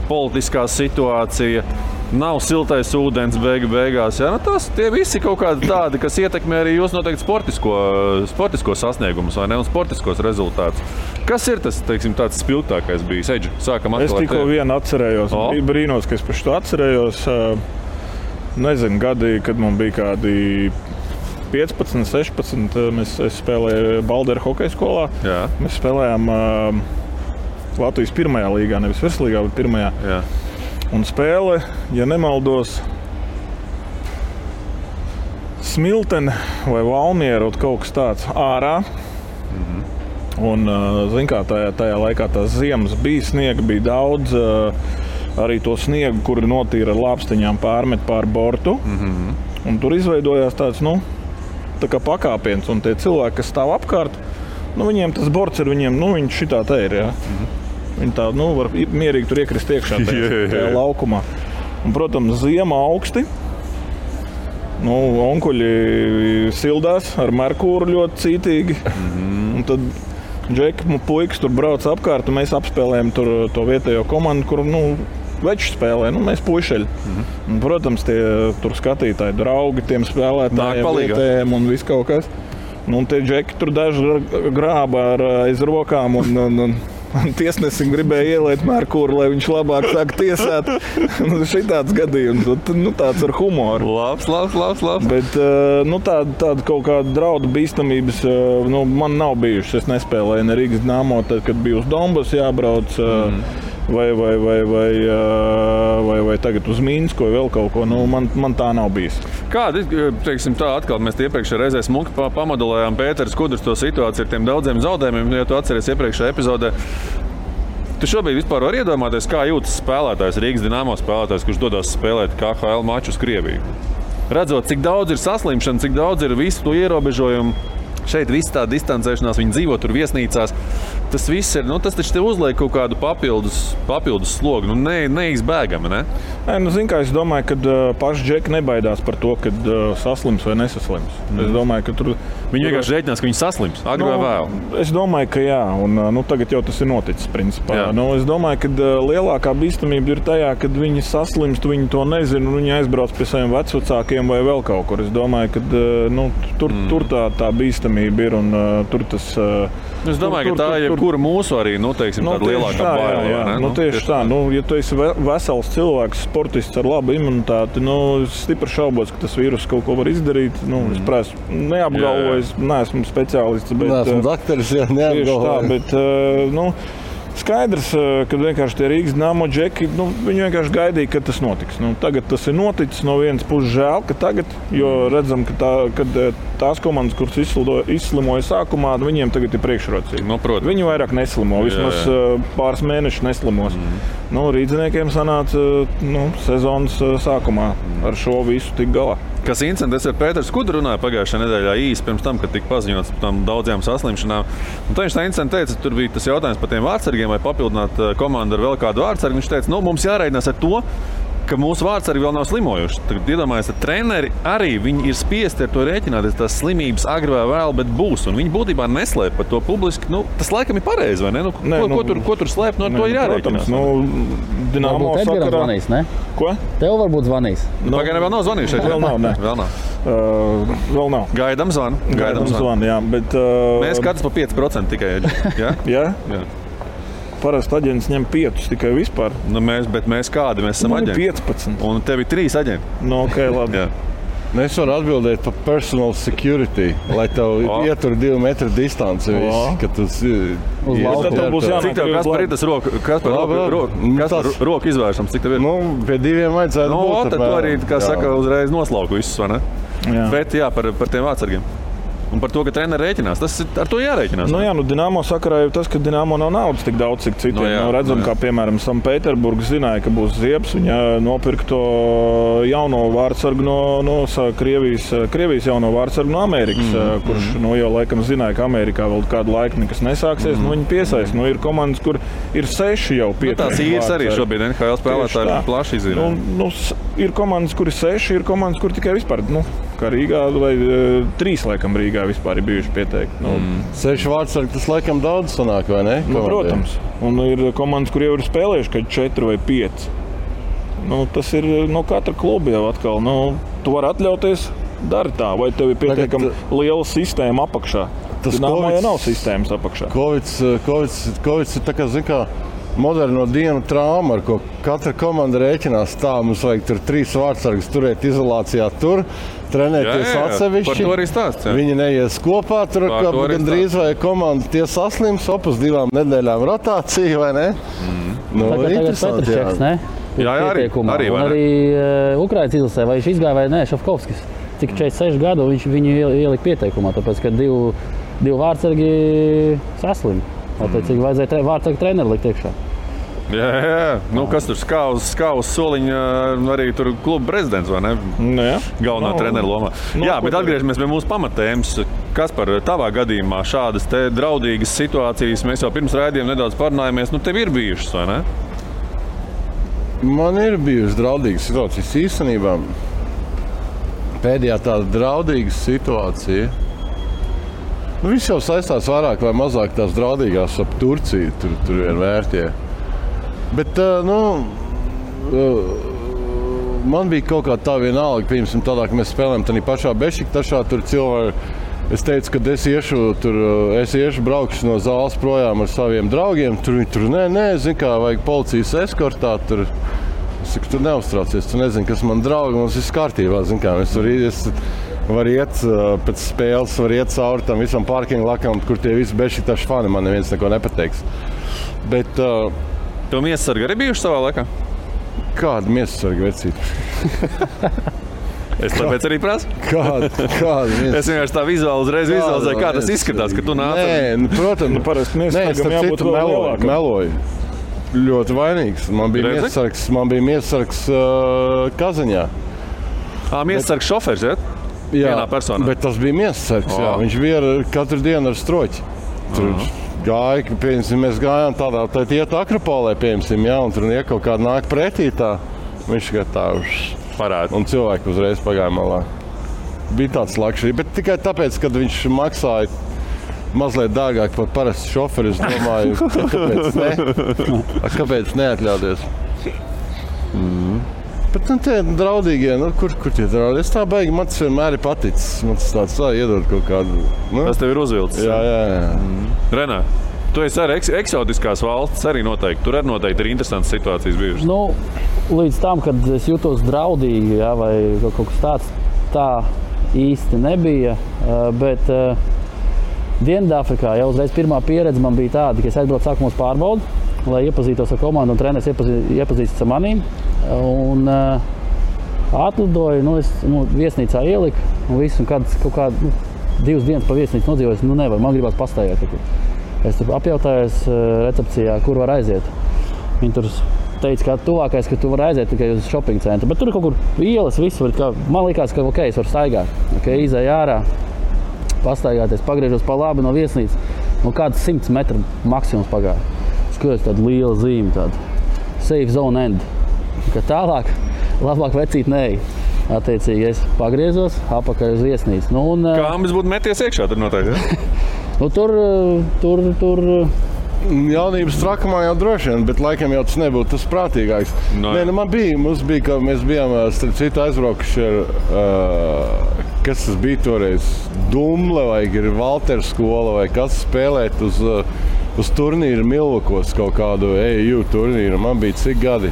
politiskā situācija. Nav siltais ūdens beigās. Ja? Tie visi kaut kādi tādi, kas ietekmē arī jūs noteikti sportisko sasniegumus vai ne, un sportiskos rezultātus. Kas ir tas, tāds spilgtākais bijis? Eģi, sākam atkal. Es tikko vienu atcerējos. Bija brīnos, ka es par šo atcerējos. Nezinu, gadi, kad man bija kādi 15, 16. Es spēlēju Balderu hokeja skolā. Jā. Mēs spēlējām Latvijas pirmajā līgā, nevis virslīgā, bet pirmajā. Jā. Un spēle, ja nemaldos, Smiltene vai Valmiera, kaut kas tāds ārā. Un, zin kā, tajā laikā tās ziemas bija, sniega bija daudz. Arī to sniegu, kuri notīra ar lāpstiņām, pārmet pār bortu. Un tur izveidojās tāds, tā kā pakāpiens. Un tie cilvēki, kas stāv apkārt, viņiem tas borts ir viņiem, viņi šitā te ir, jā. Viņi tā, var mierīgi tur iekrist iekšā tajā laukumā. Un, protams, ziema augsti. Onkuļi sildās ar merkūru ļoti cītīgi. Un tad džeki puikas tur brauc apkārt, un mēs apspēlējam tur to vietējo komandu, kur, veču spēlē, mēs puišeļi. Un, protams, tie tur skatītāji draugi tiem spēlētājiem, vietējiem un viss kaut kas. Un tie džeki tur daži grāba aiz rokām un tiesnesim gribēja ieliet merkūru, lai viņš labāk sāk tiesāt. Šitāds gadījums, tāds ar humoru. Labs. Bet tāda kaut kāda draudu bīstamības man nav bijušas. Es nespēlēju ne Rīgas Dynamo, tad, kad bija uz Donbasu jābrauc. Vai tagad uz Minsku vai vēl kaut ko. Man tā nav bijis. Kāda, atkal mēs iepriekšējā reizē smuki pamodelējām Pēters Kudrs to situāciju ar tiem daudziem zaudējumiem, ja tu atceries iepriekšējā epizodē. Tu šobrīd vispār var iedomāties, kā jūtas spēlētājs, Rīgas Dynamo spēlētājs, kurš dodas spēlēt KHL maču uz Krieviju. Redzot, cik daudz ir saslimšana, cik daudz ir visu to ierobežojumu. Šeit viss tā distancēšanās, viņi dzīvo tur viesnīcās. Tas viss ir, tas taču tev uzliek kaut kādu papildus slogu, neizbēgami, ne? Zin kā, es domāju, ka paši džeki nebaidās par to, kad saslims vai nesaslims. Es domāju, ka tur... Viņi vienkārši rēķinās, ka viņi saslims, agri vai vēl? Es domāju, ka jā, un tagad jau tas ir noticis, principā. Es domāju, ka lielākā bīstamība ir tajā, kad viņi saslimst, viņi to nezina, un viņi aizbrauc pie saviem vecvecākiem vai vēl kaut kur. Es domāju, ka tur tā bīstamība ir, un tur tas... Es domāju, ka tā ir jebkura mūsu arī, tāda lielākā baila. Tieši tā. Ja tu esi vesels cilvēks, sportists ar labu imunitāti, es stipri šaubos, ka tas vīrus kaut ko var izdarīt. Es prāstu, neapgalvoju, neesmu speciālists, bet... Neesmu dakteris, neapgalvoju. Tieši tā, bet, skaidrs, ka vienkārši tie Rīgas Dynamo džeki, viņi vienkārši gaidīja, kad tas notiks. Tagad tas ir noticis, no vienas puses žēl, ka tagad, jo redzam, ka tās komandas, kuras izslimoja sākumā, viņiem tagad ir priekšrocība. Viņi vairāk neslimo, vismaz pāris mēnešus neslimos. Rīdziniekiem sanāca sezonas sākumā ar šo visu tik galā. Kas incidents ar Pēters Kudru runāja pagājušajā nedēļā īsi pirms tam, kad tika paziņots par tām daudzajām saslimšanām. Un viņš tā incidents teica, tur bija tas jautājums par tiem vārdsargiem, vai papildināt komandu ar vēl kādu vārdsargu. Viņš teica, mums jārēķinās ar to, ka mūsu vārdsargi vēl nav slimojuši. Tagad iedomājies, ka treneri arī viņi ir spiesti ar to rēķināties, tās slimības agri vai vēl, bet būs. Un viņi būtībā neslēp par to publiski. Tas laikam ir pareizi, vai ne? Ko tur slēpt, ar to ir jārēķinās. Dynamo sakarā zvanīs, ne? Ko? Tev varbūt zvanīs. Pagaidām vēl nav zvanījuši. Vēl nav, ne? Vēl nav. Gaidām zvanu. Jā, bet... Mēs katrs pa 5% tikai. Jā? Parasti aģents ņem 5 tikai vispār. Bet mēs kādi? Mēs esam aģenti. 15. Un tev ir 3 aģenti. Ok, labi. Es varu atbildēt par personal security, lai tev ietur 2 metru distanci. Kad tas cik tev Kaspar ir tas roku izvēršams? Cik tev ir? Pie 2 vajadzētu būt. Tad tu arī, kā saka, uzreiz noslauku visus, vai ne? Bet par tiem vārdsargiem. Un par to, ka treneri rēķinās. Tas ar to jārēķinās. Nu, jā, Dinamo sakarā jau tas, ka Dinamo nav naudas tik daudz, cik citiem. Redzam, kā piemēram Sanktpēterburga zināja, ka būs ziebs. Viņa nopirka to jauno vārdsargu no Krievijas jauno vārdsargu no Amerikas, kurš jau laikam zināja, ka Amerikā vēl kādu laiku nekas nesāksies. Viņi piesaist. Ir komandas, kur ir 6 jau pieteikti. Tās īres arī šobrīd NHL spēlētāji plaši izzīmē. Ir komandas, kur ir 6, ir komandas, kur tikai vispār, kā Rīgā vai 3 laikam Rīgā vispār ir bijuši pieteikti. 6 vārdsargi, tas laikam daudz sanāk, vai ne? Protams. Un ir komandas, kur jau ir spēlējuši, kad 4 vai 5. Tas ir no katra kluba jau atkal. Tu vari atļauties, dari tā, vai tev ir pietiekami liela sistēma apakšā. Dinamo jau nav sistēmas apakšā. Kovids ir tā kā, zin kā, moderno dienu trauma, ar ko katra komanda rēķinās tā. Mums vajag tur 3 vārdsargus turēt izolācijā tur, trenēties atsevišķi. Par to arī stāsts. Viņi neies kopā, tur gandrīz vai komanda tie saslims, opus 2 nedēļām rotācija, vai ne? Interesanti, jā. Jā, arī Ukrainas izlasē, vai viņš izgāja vai nē, Šafkovskis. Cik 46 gadu viņu ielika pieteikumā, tāpēc, ka 2 vārdsargi saslim. Tāpēc, vajadzēja vārdsargu treneri likt iekšā. Jā. Kas tur skāvus soliņa, arī tur kluba prezidents, vai ne? Jā. Galvenā trenera lomā. Jā, bet atgriežamies pie mūsu pamatēmas. Kas par tavā gadījumā šādas te draudīgas situācijas, mēs jau pirms raidījuma nedaudz parunājāmies, tev ir bijušas, vai ne? Man ir bijušas draudīgas situācijas īstenībā. Pēdējā tāda draudīga situācija. Viss jau saistās vairāk vai mazāk tās draudīgās ap Turciju, tur ir vērtie. Bet, man bija kaut kā tā vienalga, piemēram, tādā, ka mēs spēlējam tādā pašā Bešiktašā, tur cilvēki. Es teicu, ka es iešu braukšu no zāles projām ar saviem draugiem. Tur zin kā, vajag policijas eskortā. Es saku, tu neuztraucies, tu nezini, kas man draugi, mums viss kārtībā, zin kā. Es varu iet pēc spēles, varu iet cauri tam visam parkingu lakam, kur tie visi Bešiktaši fani, man neviens neko nepateiks. Bet... Tev miesasargi arī bijuši savā laikā? Kāda miesasarga vecība? Es tāpēc arī prasu. Kāda es vienkārši tā vizualizēju, kā tas izskatās, ka tu nāc. Nē, protams. Parasti miesasargam jābūt vēl lielākam. Meloju. Ļoti vainīgs. Man bija miesasargs Kazaņā. Miesasargs šofers, ja? Vienā personā. Bet tas bija miesasargs, jā. Viņš bija katru dienu ar stroķi. Tur gāja, mēs gājām tādā, tad iet Akropolē, jā, un tur kaut kāda nāk pretī tā. Viņš tā parāda. Un cilvēki uzreiz pagāja malā. Bija tāds lakšķi, bet tikai tāpēc, kad viņš maksāja mazliet dārgāk par parastu šoferi, es domāju, kāpēc neatļauties? Bet tie draudīgie, kur tie draudīgi? Es tā baigi, man tas vienmēr ir paticis. Man tas tāds iedod kaut kādu. Tas tev ir uzvilcis? Jā. Renā, tu esi arī eksotiskās valsts, arī noteikti. Tur arī noteikti ir interesantas situācijas bijušas. Līdz tam, kad es jutos draudīgi, vai kaut kas tāds, tā īsti nebija. Bet Dienvidāfrikā jau uzreiz pirmā pieredze man bija tāda, ka es aizbraucu sākumos pārbaudi, lai iepazītos ar komandu un treneris iepazīstas ar manīm. Un atlidoju, es viesnīcā ieliku un visu, un kaut kādu 2 dienas pa viesnīcu nodzīvoju, nevar, man gribās pastaigāt. Es tur apjautājos recepcijā, kur var aiziet. Viņi tur teica, ka tuvākais, ka tu vari aiziet tikai uz shopping centru, bet tur ir kaut kur ielas, visu var, man likās, ka es varu staigāt. Izēju ārā, pastaigāties, pagriežos pa labi no viesnīcas, kāds 100 metru maksimums pagāja. Skatos tādu lielu zīmi, tādu safe zone end. Ka tālāk, labāk vecīt neej. Attiecīgi es pagriezos apakaļ uz viesnīcu. Kā ambis būtu meties iekšā tur noteikti, ja? Tur... Jaunības trakumā jau droši vien, bet laikam jau tas nebūtu tas prātīgāks. Mums bija, ka mēs bijām starp citu aizbraukuši ar, kas tas bija toreiz, Dumle vai Valtera skola vai kas spēlēt uz turnīru Milvakos kaut kādu EU turnīru. Man bija cik gadi?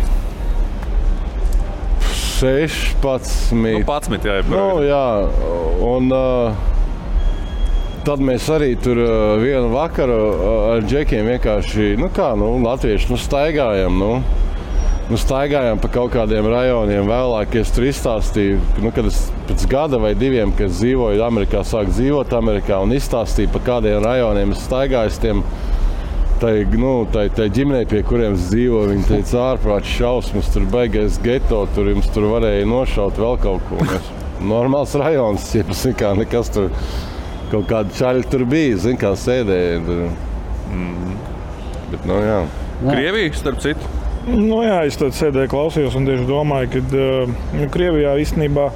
16. 11, jā. Jā, un... Tad mēs arī tur vienu vakaru ar džekiem vienkārši, latvieši, staigājam, staigājām pa kaut kādiem rajoniem. Vēlāk es tur izstāstīju, kad es pēc gada vai 2, kad es dzīvoju Amerikā, sāku dzīvot Amerikā un izstāstīju, pa kādiem rajoniem es staigāju tiem tai ģimenei, pie kuriem es dzīvoju. Viņi teica, ārprāts šausmas, tur baigais geto, tur jums tur varēja nošaut vēl kaut ko. Normāls rajons, ja nekas tur, kaut kāda čaļa tur bija, kā sēdēja. Bet, jā. Krievija, starp citu? Jā, es tad sēdēju, klausījos un tieši domāju, ka Krievijā īstenībā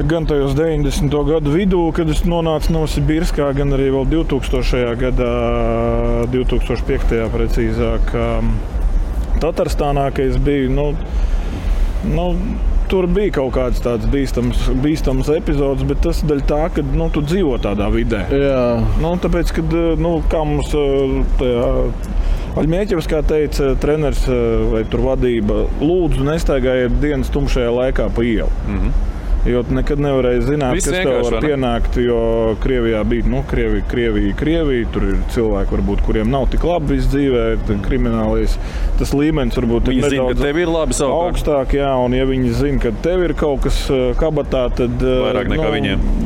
gan tajos 90. gadu vidū, kad es nonācu Novosibirskā, gan arī vēl 2000. gadā, 2005. precīzāk, Tatarstānā, ka es biju, tur bija kaut kāds tāds bīstams epizods, bet tas daļa tā, ka tu dzīvo tādā vidē. Jā. Tāpēc, kad, kā mums Aļmieķevs, kā teica treneris vai tur vadība, lūdzu nestaigājiet dienas tumšajā laikā pa ielu. Jo tu nekad nevarēji zināt, kas tev var pienākt, jo Krievijā bija, Krievija, tur ir cilvēki, varbūt, kuriem nav tik labi viss dzīvē, kriminālais, tas līmenis varbūt ir nedaudz tev ir labi augstāk, jā, un ja viņi zina, ka tev ir kaut kas kabatā, tad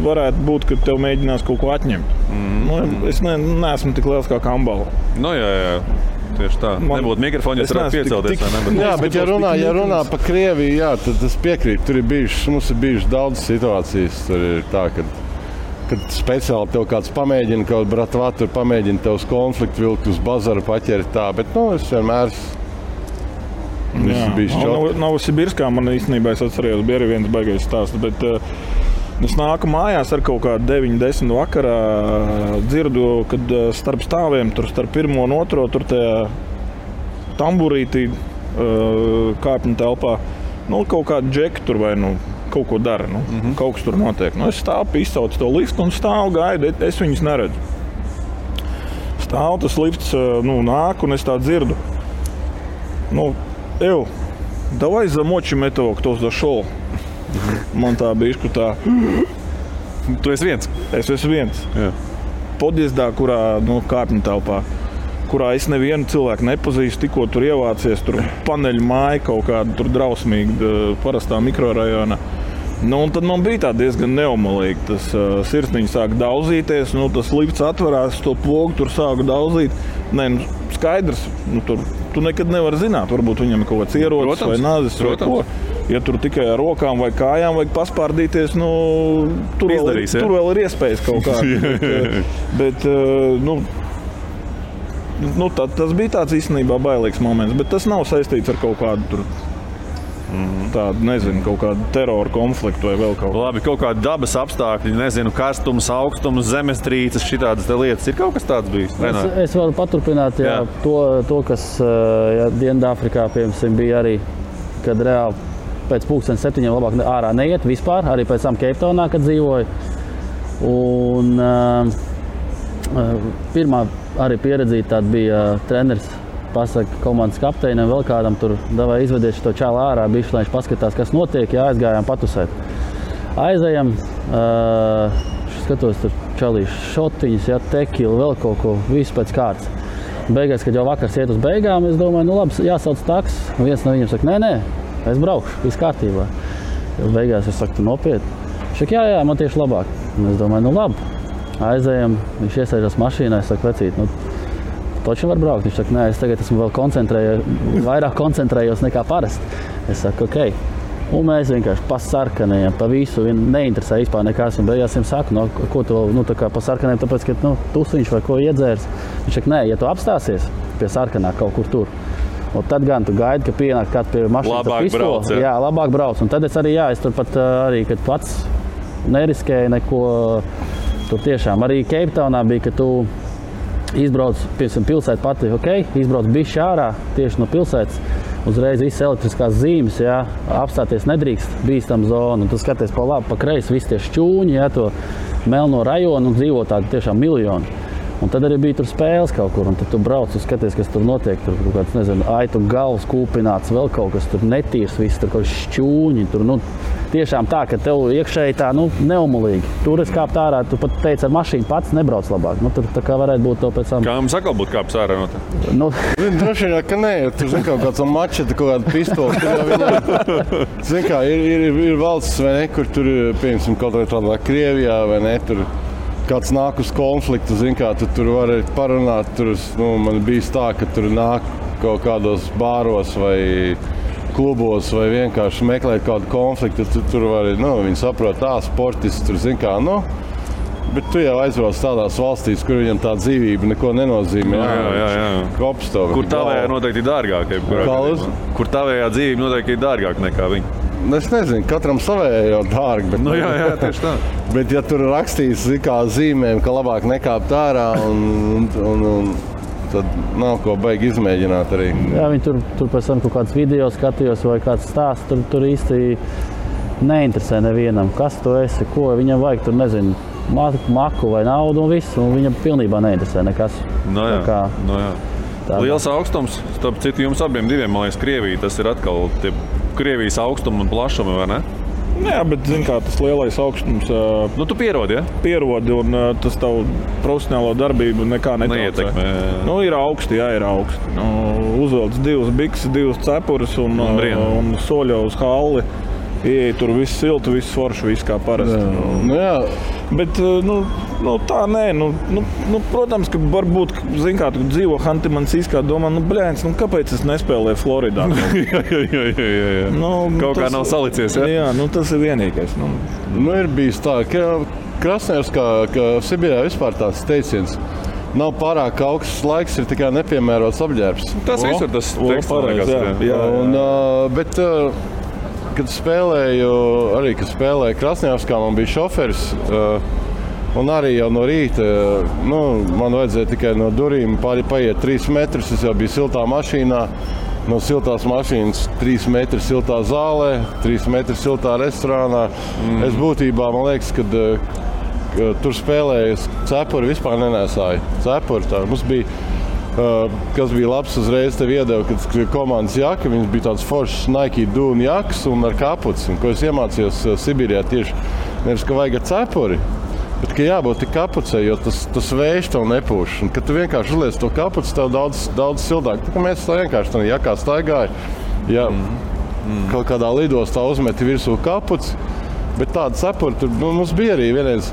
varētu būt, ka tev mēģinās kaut ko atņemt. Es neesmu tik liels kā Kambala. Jā. Tieši tā. Nebūtu mikrofoni, ja varētu piecelties. Jā, bet ja runā pa Krieviju, jā, tad es piekrītu. Mums ir bijušas daudz situācijas. Tur ir tā, kad speciāli tev kāds pamēģina, kaut bratvā tur pamēģina tev uz konfliktu vilkt, uz bazaru paķert tā. Bet, es vienmēr Novosibirskā man īstenībā, es atcerējos, bija arī viens baigais stāsts, bet es nāku mājās ar kaut kādu 9-10 vakarā, dzirdu, kad starp stāviem, tur starp 1 un 2, tur tajā tamburītī kāpņu telpā, kaut kādu džeku tur vai kaut ko dara, kaut kas tur notiek. Es stāvu, izsaucu to liftu un stāvu gaidu, es viņus neredzu. Stāvu, tas lifts nāk un es tā dzirdu. Давай замочим этого, кто зашел. Man tā bišķi tā. Tu esi viens? Es esmu viens. Jā. Podjezdā, kurā kāpņu telpā, kurā es nevienu cilvēku nepazīstu, tikko tur ievācies, tur paneļu māja kaut kāda tur drausmīga, parastā mikrorajonā. Un tad man bija tā diezgan neomalīgi. Tas sirsniņš sāka daudzīties, tas lifts atverās, to pogu tur sāka daudzīt. Skaidrs, tu nekad nevari zināt, varbūt viņam ir kaut kāds ierocis vai nazis vai ko. Ja tur tikai ar rokām vai kājām vajag paspārdīties, tur vēl ir iespējas kaut kādā. bet tas bija tāds īstenībā bailīgs moments, bet tas nav saistīts ar kaut kādu tur tādu, nezinu, kaut kādu terora konfliktu vai vēl kaut ko. Labi, kaut kādi dabas apstākļi, nezinu, karstums, augstums, zemestrīces, šitādas lietas. Ir kaut kas tāds bijis? Es varu paturpināt, to kas Dienvidāfrikā, piemēram, bija arī, kad reāli pēc 7:00 labāk ārā neiet vispār, arī pēc tam Keiptaunā, kad dzīvoju. Un pirmā arī pieredzīta tāda bija treneris, pasaka komandas kapteinam, vēl kādam tur davai izvedies šo čālu ārā, bišķi, lai viņš paskatās, kas notiek, aizgājām patusēt. Aizējam, skatos tur čalīšu šotiņas, tekilu, vēl kaut ko, visu pēc kārtas. Beigās, kad jau vakars iet uz beigām, es domāju, labi, jāsauc taks. Viens no viņiem saka, nē, es braukšu, viss kārtībā. Beigās es saku, tu nopietni. Viņš saka, jā, man tieši labāk. Un es domāju, labi. Aizējam, viņš iesēžas mašīnā, es saku, vecīt, toči var braukt. Viņš saka, nē, es tagad esmu vēl vairāk koncentrējos nekā parasti. Es saku, ok. Un mēs vienkārši pa sarkanajiem, pa visu, neinteresē vispār nekas. Un beigās viņam saku, ko tu tā kā pa sarkanajiem, tāpēc, ka tusiņš vai ko iedzērs. Viņš saka, nē, ja tu apstāsies pie sarkanā kaut kur tur, un tad gan tu gaidi, ka pienāk kāds pie mašīnas ar pistoli. Jā, labāk brauc. Un tad es arī, es tur pat arī, kad pats neriskēju neko, tur tiešām arī Keiptaunā bija, ka tu izbrauc, piemēram, pilsēta pati, izbrauc bišķi ārā tieši no pilsētas, uzreiz visas elektriskās zīmes, apstāties nedrīkst, bīstam zonu, un tu skaties pa labi, pa kreisi, visi tie šķūņi, to melno rajonu un dzīvo tādi tiešām miljoni. Un tad arī bija tur spēles kaut kur, un tad tu brauc un skaties, kas tur notiek. Tur kaut kāds, nezinu, aitu galvas kūpināts, vēl kaut kas tur netīrs, viss tur kaut kas šķūņi. Tur, tiešām tā, ka tev iekšēji tā, neumulīgi. Tur es kāpt ārā, tu pat teici, ar mašīnu pats nebrauc labāk. Tur tā kā varētu būt to pēc tam. Kā mums atkal būtu kāps ārā no tā? Droši vien, ka nē, tur zin kaut kāds mačeta, kaut kāda pistola. Zin kā, ir valsts, vai ne, kur tur, piemēram, kaut kādā Krievijā, vai ne, tur kāds nāk uz konfliktu, zin kā, tu tur vari parunāt, tur, man bijis tā, ka tur nāk kaut kādos bāros vai klubos vai vienkārši meklēt kādu konfliktu, tur vari, viņi saprot, sportists, tur zin kā, bet tu jau aizbrauc tādās valstīs, kur viņam tā dzīvība neko nenozīmē. Jā. Kops tev. Kur tavējā noteikti ir dārgāk? Kur tavējā dzīvība noteikti ir dārgāk nekā viņa? Es nezinu, katram savējā jau dārgi. Bet, jā, tieši tā. Bet ja tur rakstīs kā zīmēm, ka labāk nekāpt ārā, tad nav ko baigi izmēģināt arī. Jā, viņi tur pēc tam kaut kāds video skatījos vai kāds stāsts, tur īsti neinteresē nevienam, kas tu esi, ko viņam vajag, tur nezinu, maku vai naudu un viss, un viņam pilnībā neinteresē nekas. Jā. Liels augstums, starp citu jums abiem diviem, man liekas, Krievija, tas ir atkal tie Krievijas augstumi un plašumi, vai ne? Jā, bet zin kā, tas lielais augstums... tu pierodi, ja? Pierodi, un tas tavu profesionālo darbību nekā neietekmē. Ir augsti, jā, ir augsti. Uzvelc 2 bikses, 2 cepurus un soļo uz halli. Ieej tur viss silti, viss forši, viss kā parasti. Jā. Bet, tā nē, protams, ka varbūt, zin kā, tu dzīvo Hanti-Mansijskā, domā, kāpēc es nespēlēju Floridā? Jā. Kaut kā nav salicies, ja? Jā, tas ir vienīgais. Ir bijis tā, ka Krasnojarskā, ka Sibīrijā vispār tāds teiciens. Nav pārāk augsts laiks, ir tikai nepiemērots apģērbs. Tas visur tas teksts. Jā. Bet, kad spēlēju Krasnojarskā, man bija šoferis, un arī jau no rīta, man vajadzēja tikai no durīm paiet 3 metrus, es jau biju siltā mašīnā, no siltās mašīnas 3 metri siltā zālē, 3 metri siltā restorānā. Es būtībā, man liekas, kad tur spēlēju, cepuri vispār nenēsāju. Cepuri tā, mums bija, kas bija labs, uzreiz tev iedeva, kad komandas jaka, viņas bija tāds foršs Nike dūna jaks un ar kapuci, un ko es iemācījos Sibīrijā tieši, nevis, ka vajag cepuri, bet ka jābūt tik kapucei, jo tas vējš tev nepūš, un kad tu vienkārši uzliec to kapuci, tev daudz sildāk. Tā kā mēs tā vienkārši tā jakā staigāja, kaut kādā lidostā uzmeti virsū kapuci, bet tāda cepuri, tur mums bija arī vienreiz,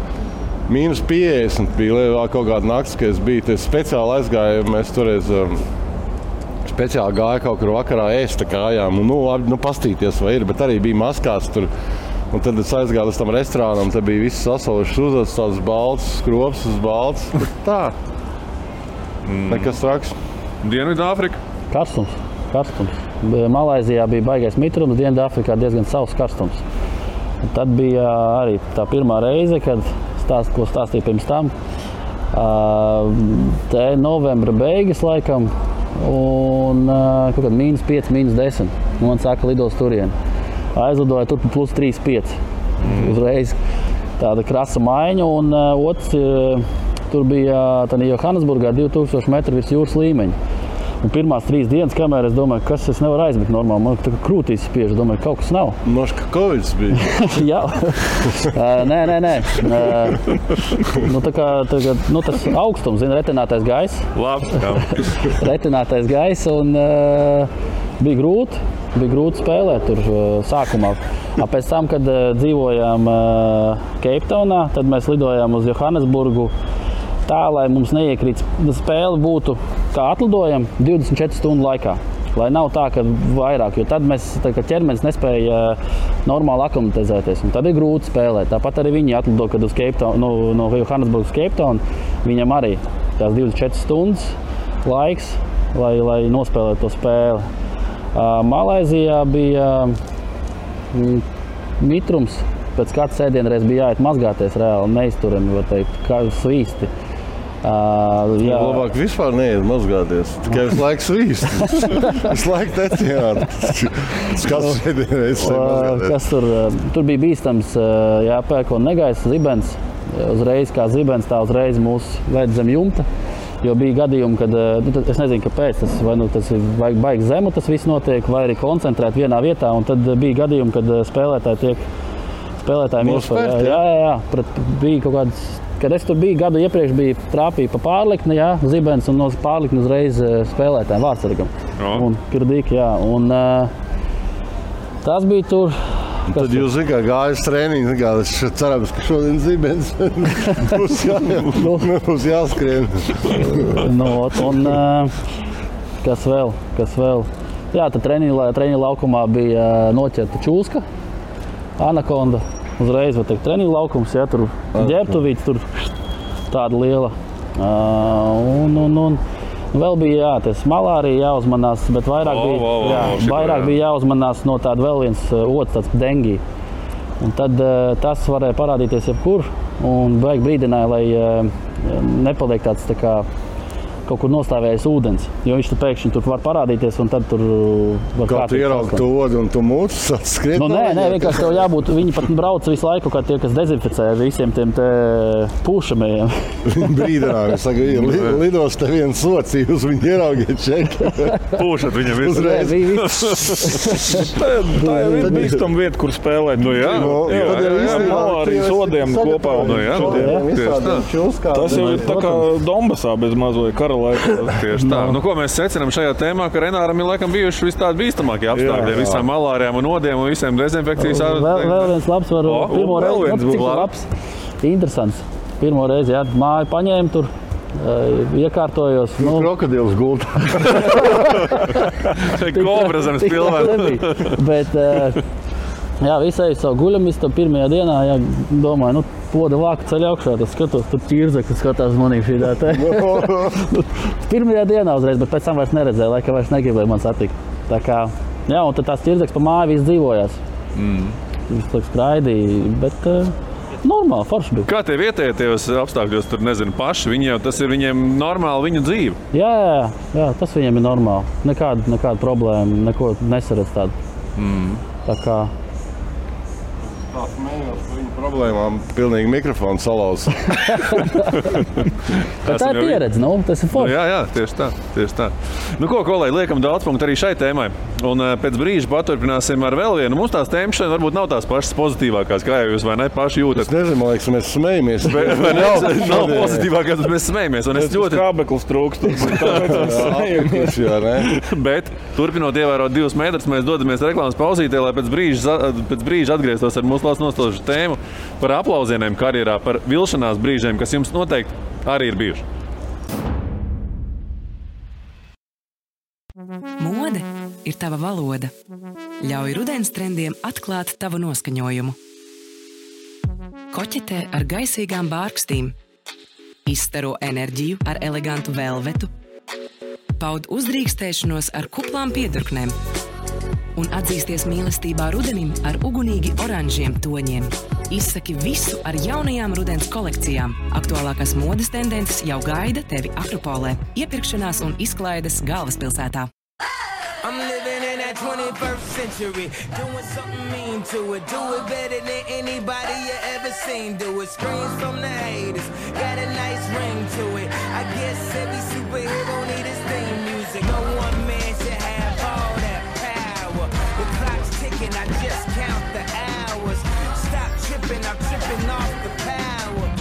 -50 bija kaut kāda nakts, kad es biju, es speciāli aizgāju, mēs toreiz speciāli gāju kaut kur vakarā ēst kājām, un pastīties vai ir, bet arī bija maskās tur, un tad es aizgāju līdz tam restorānam, tad bija viss sasalušas uzvedas, tāds balts, skrops uz balts, tā. Nekas traks. Dienvidāfrika? Karstums. Malaizijā bija baigais mitrums, Dienvidāfrikā diezgan savs karstums. Un tad bija arī tā pirmā reize, kad ko stāstīju pirms tam. Te novembra beigas laikam un kaut kād -5, -10. Man saka, lidos turien. Aizlidoja tur plus 3,5. Uzreiz tāda krasa maiņa un otrs tur bija Johannesburgā 2000 metru virs jūras līmeņa. Un pirmās 3 dienas, kamēr es domāju, kas es nevaru aizmigt normāli, man tā kā krūtīs spiež, domāju, kaut kas nav. Noška Kovids bija. Jā. Nē. Tā kā tas augstums, retinātais gaiss. Labi, jā. Retinātais gaiss un bija grūti spēlēt tur sākumā. Pēc tam, kad dzīvojām Keiptaunā, tad mēs lidojām uz Johannesburgu tā, lai mums neiekrīt spēle būtu, kā atlidojam, 24 stundu laikā. Lai nav tā, ka vairāk, jo tad ķermenis nespēja normāli aklimatizēties. Un tad ir grūti spēlēt. Tāpat arī viņi atlido, kad uz no Johannesburgas uz Keiptaunu, viņam arī tās 24 stundas laiks, lai nospēlētu to spēli. Malaizijā bija mitrums, pēc kāds sēdienreiz bija jāiet mazgāties reāli, neizturami, var teikt, kā svīsti. Labāk vispār neiet mazgāties, tikai visu laiku svīst. Visu laiku teciāni. Kas sēdienreiz mazgāties. Tur bija bīstams jāpērk un negaisa zibens. uzreiz kā zibens, tā uzreiz mūs ved zem jumta. Jo bija gadījumi, kad, es nezinu, kāpēc, vai tas ir baigi zemu, tas viss notiek, vai arī koncentrēt vienā vietā, un tad bija gadījumi, kad spēlētājiem iespēja. Jā, bija kaut kāds, kad es tur biju gadu iepriekš, trāpīja pa pārlikni, zibens, un no pārlikni uzreiz spēlētājiem vārdsargam. Un kirdīgi, un tas bija tur. Tad jūs gājat treniņu, es cerams, ka šodien zibens būs jāskrien. Un kas vēl? Jā, tad treniņu laukumā bija noķerta čūska, anakonda. Uzreiz, var teikt, treniņu laukums, tur ģērbtuvīts, tur tāda liela. Un vēl bija, tas malārija jāuzmanās, bet vairāk bija jāuzmanās no tāda vēl viens otrs, tāds dengi. Un tad tas varēja parādīties jebkur, un beig brīdināja, lai nepaliek tāds tā kā kaut kur nostāvējis ūdens, jo viņš pēkšņi tur var parādīties, un tad tur var kā tu ieraugi to odu un tu mūcis skriet? Nē, vienkārši tev jābūt, viņi pat brauc visu laiku, kā tie, kas dezinficē visiem tiem te pūšamajiem. Viņi brīdinājumi, saka, lidos te viens socī, uz viņu ieraugiet čeki. Pūšat viņam uzreiz. Tā jau ir bīstama vieta, kur spēlēt. Malārijas odiem kopā. Tas jau ir tā kā Donbasā bez mazoja kara. Tieši tā. Ko mēs secinām šajā tēmā, ka Renāram ir laikam bijuši vis tādi bīstamākie apstākļi, visām malārijām un odiem un visiem dezinfekcijas. Vēl viens labs var pirmo reizi, cik labs, interesants. Pirmo reizi, māju paņēmu tur, iekārtojos. Krokodils gultā. Kobra zemes pilvē. Bet, visai savu guļamistu pirmajā dienā, domāju, poda vāku ceļ augšā, tas skatos, tur ķirzeklis skatās manī šī tā. Pirmajā dienā uzreiz, bet pēc tam vairs neredzēju, laikam vairs negribēju man satikt. Tā kā, un tad tās ķirzeklis pa māju viss dzīvojās. Viss laik skraidīja, bet normāli, forši bija. Kā tie vietējie tajos apstākļos, tur nezinu, paši, tas ir viņiem normāli viņu dzīve? Jā, tas viņiem ir normāli. Nekāda problēma, neko nesaredz tādu. Tā kā... Tā smējos par viņu problēmām, pilnīgi mikrofonu salauz. Tā ir pieredze, tas ir forši. Jā, tieši tā. Ko, lai liekam daudz punktu arī šai tēmai. Un pēc brīža paturpināsim ar vēl vienu. Mums tās tēmas šodien varbūt nav tās pašas pozitīvākās, kā jau jūs vai ne paši jūtat. Es nezinu, man liekas, mēs smejamies. Nav pozitīvākās, bet mēs smejamies. Skābeklis trūkst. Bet, turpinot ievērot 2 metrus, mēs dodamies reklāmas pauzītē, lai pēc brīža atgrieztos ar mūsu klāsts nostāžu tēmu par aplausieniem karjerā, par vilšanās brīžiem, kas jums noteikti arī ir bijuši. Mode ir tava valoda. Ļauj rudens trendiem atklāt tavu noskaņojumu. Koķetē ar gaisīgām bārkstīm. Izstaro enerģiju ar elegantu velvetu. Paud uzdrīkstēšanos ar kuplām piedurknēm. Un atzīsties mīlestībā rudenim ar ugunīgi oranžiem toņiem. Izsaki visu ar jaunajām rudens kolekcijām. Aktuālākās modes tendences jau gaida tevi Akropolē, iepirkšanās un izklaides galvaspilsētā. I'm living in that 21st century, doing something mean to it. Do it better than anybody you ever seen. Do it, screams from the haters, got a nice ring to it. I guess every superhero need his theme music. No one man should have all that power. The clock's ticking, I just count the hours. Stop tripping, I'm tripping off the power.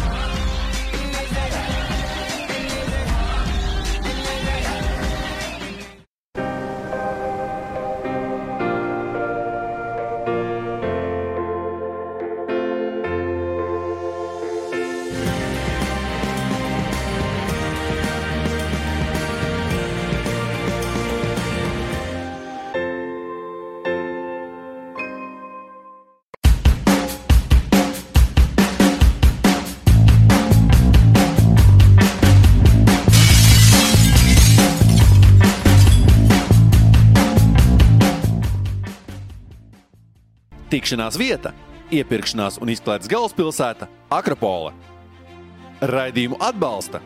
Tikšanās vieta, iepirkšanās un izklaides galvaspilsēta Akropole. Raidījumu atbalsta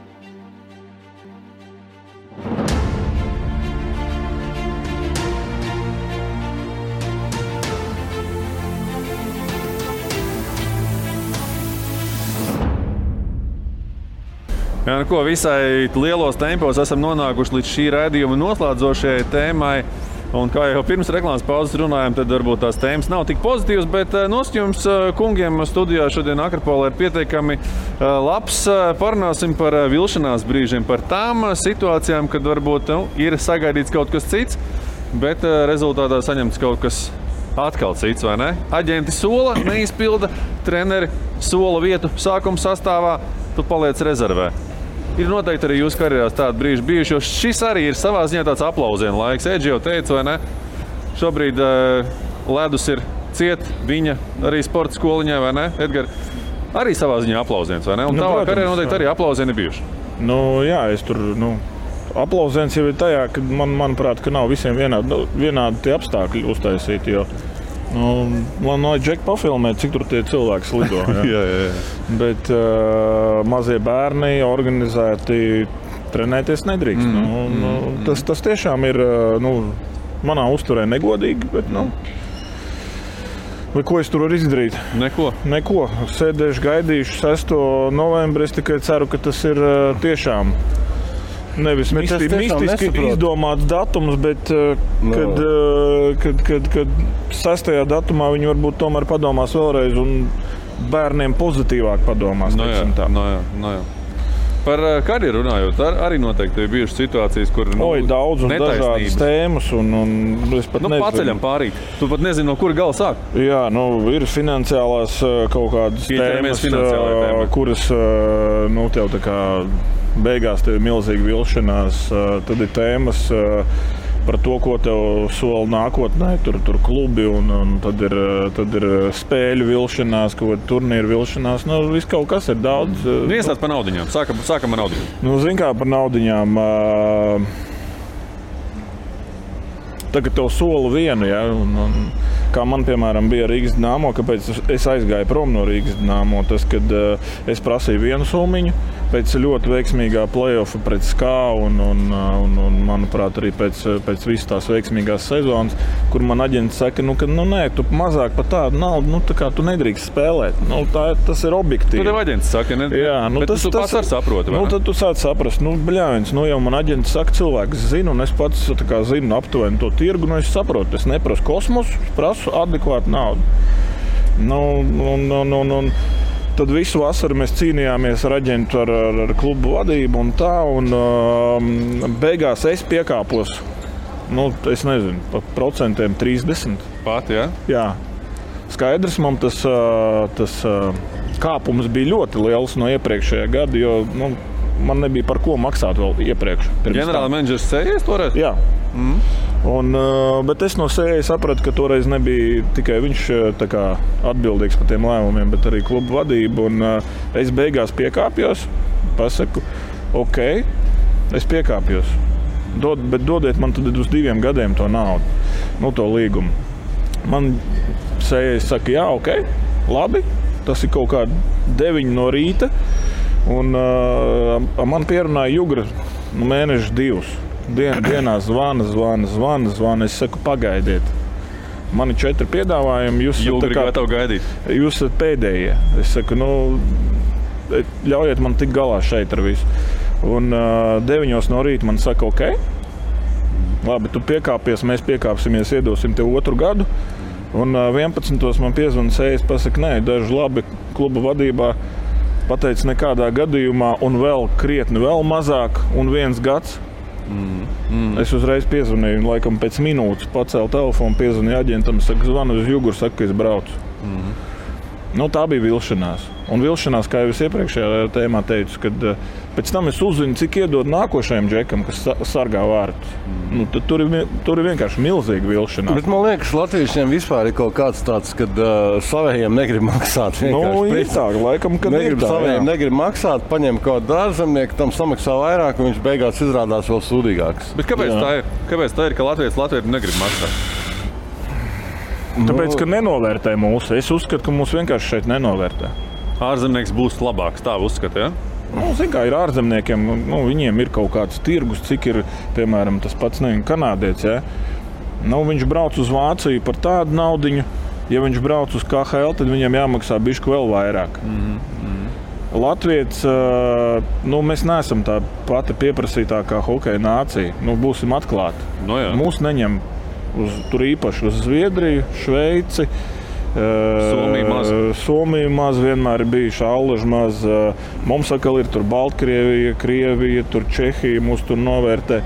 Jā, nu ko, visai lielos tempos esam nonākuši līdz šī raidījuma noslēdzošajai tēmai. Un kā jau pirms reklāmas pauzes runājām, tad varbūt tās tēmas nav tik pozitīvas, bet noskatījums kungiem studijā šodien Akropolē ir pietiekami labs. Parunāsim par vilšanās brīžiem, par tām situācijām, kad varbūt ir sagaidīts kaut kas cits, bet rezultātā saņemts kaut kas atkal cits, vai ne? Aģenti sola, neizpilda, treneri sola vietu sākuma sastāvā, tu paliec rezervē. Ir noteikti arī jūsu karjerās tādi brīži bijuši, jo šis arī ir savā ziņā tāds aplausienu laiks. Edži jau teica, vai ne? Šobrīd ledus ir ciet, viņa arī sporta skoliņā, vai ne? Edgar, arī savā ziņā aplausiens, vai ne? Un tavā karjerā noteikti arī aplausieni bijuši. Jā, es tur, aplausiens jau ir tajā, ka manuprāt, ka nav visiem vienādi tie apstākļi uztaisīti, jo man Džeki pafilmēt, cik tur tie cilvēki slido. Jā. Bet mazie bērni organizēti trenēties nedrīkst. Tas tiešām ir manā uzturē negodīgi, bet vai ko es tur varu izdarīt? Neko. Sēdēšu, gaidīšu 6. novembri. Es tikai ceru, ka tas ir tiešām nevis mistiski izdomāts datums, bet kad 6. datumā viņi varbūt tomēr padomās vēlreiz un bērniem pozitīvāk padomās. Jā. Par karjeru runājot, arī noteikti ir bijušas situācijas, kur daudz un dažādas tēmas. Un es pat nezinu. Paceļam pārīt. Tu pat nezini, no kura gala sāk. Jā, ir finansiālās kaut kādas tēmas, kuras tev tā kā beigās tev ir milzīga vilšanās, tad ir tēmas par to, ko tev sola nākotnē, tur klubi un tad ir spēļu vilšanās, kaut kāda turnīra vilšanās, viss kaut kas ir daudz. Iestāds par naudiņām, sākam ar naudiņām. Zin kā par naudiņām, tagad tev sola vienu, ja, un kā man, piemēram, bija Rīgas Dinamo, kāpēc es aizgāju prom no Rīgas Dinamo, tas, kad es prasīju vienu summiņu, pēc ļoti veiksmīgā play-offa pret SKA un manuprāt, arī pēc visas tās veiksmīgās sezonas, kur man aģents saka, ka nē, tu mazāk par tādu naudu, tā kā tu nedrīkst spēlēt. Tas ir objektīvi. Tu tev aģents saka, ne? Jā, bet tu pats ar saproti, vai ne? Tad tu sāc saprast, jau man aģents saka, cilvēks zina, un es pats zinu aptuveni to tirgu, es saprotu, es neprasu kosmosu, prasu adekvātu naudu. Tad visu vasaru mēs cīnījāmies ar aģentu, ar klubu vadību un tā, un beigās es piekāpos, es nezinu, pa procentiem 30. Pat, jā? Jā. Skaidrs, man tas kāpums bija ļoti liels no iepriekšējā gada, jo man nebija par ko maksāt vēl iepriekš. Ģenerāla menedžers sējies toreiz? Jā. Bet es no sējas sapratu, ka toreiz nebija tikai viņš atbildīgs par tiem lēmumiem, bet arī klubu vadība. Un es beigās piekāpjos, pasaku, ok, es piekāpjos, bet dodiet man tad uz 2 gadiem to naudu, to līgumu. Man sējas saka, jā, ok, labi, tas ir kaut kādi 9 no rīta, un man pierunāja Jugra mēneši 2. Dienā zvana. Es saku, pagaidiet. Man ir 4 piedāvājumi. Jūs esat pēdējie. Es saku, ļaujiet man tikt galā šeit ar visu. Un 9 no rīta man saka, ok, labi, tu piekāpies, mēs piekāpsimies, iedosim tev 2 gadu. Un 11. man piezvana sējas, pasaka, nē, daži labi kluba vadībā pateica nekādā gadījumā un vēl krietni vēl mazāk un 1 gads. Es uzreiz piezvanīju, un laikam pēc minūtes pacēlu telefonu, piezvanīju aģentam, saka, zvanu uz Juguru, saka, ka es braucu. Tā bija vilšanās. Un vilšanās, kā jau es iepriekšējā tēmā teicu, kad pēc tam es uzzinu, cik iedod nākošajam džekam, kas sargā vārtus. Tad tur ir vienkārši milzīga vilšanās. Bet man liekas, latviešiem vispār ir kaut kāds tāds, kad savējiem negrib maksāt. Laikam, kad negrib maksāt, paņem kaut kādu ārzemnieku, tam samaksā vairāk, un viņš beigās izrādās vēl sūdīgāks. Bet kāpēc tā ir, ka latvieši negrib maksāt? Tāpēc, ka nenovērtē mūsu. Es uzskatu, ka mūs vienkārši šeit nenovērtē. Ārzemnieks būs labāks, tā uzskata, ja? Ir ārzemniekiem, viņiem ir kaut kāds tirgus, cik ir, piemēram, tas pats kanādietis, ja? Viņš brauc uz Vāciju par tādu naudiņu, ja viņš brauc uz KHL, tad viņam jāmaksā bišķi vēl vairāk. Latvijas, mēs neesam tā pati pieprasītākā hokeja nācija. Būsim atklāti. Mūs neņem tur īpaši uz Zviedriju, Šveici. Somija maz vienmēr ir bijuši, Allaži maz. Mums atkal ir tur Baltkrievija, Krievija, tur Čehija mūs tur novērtē.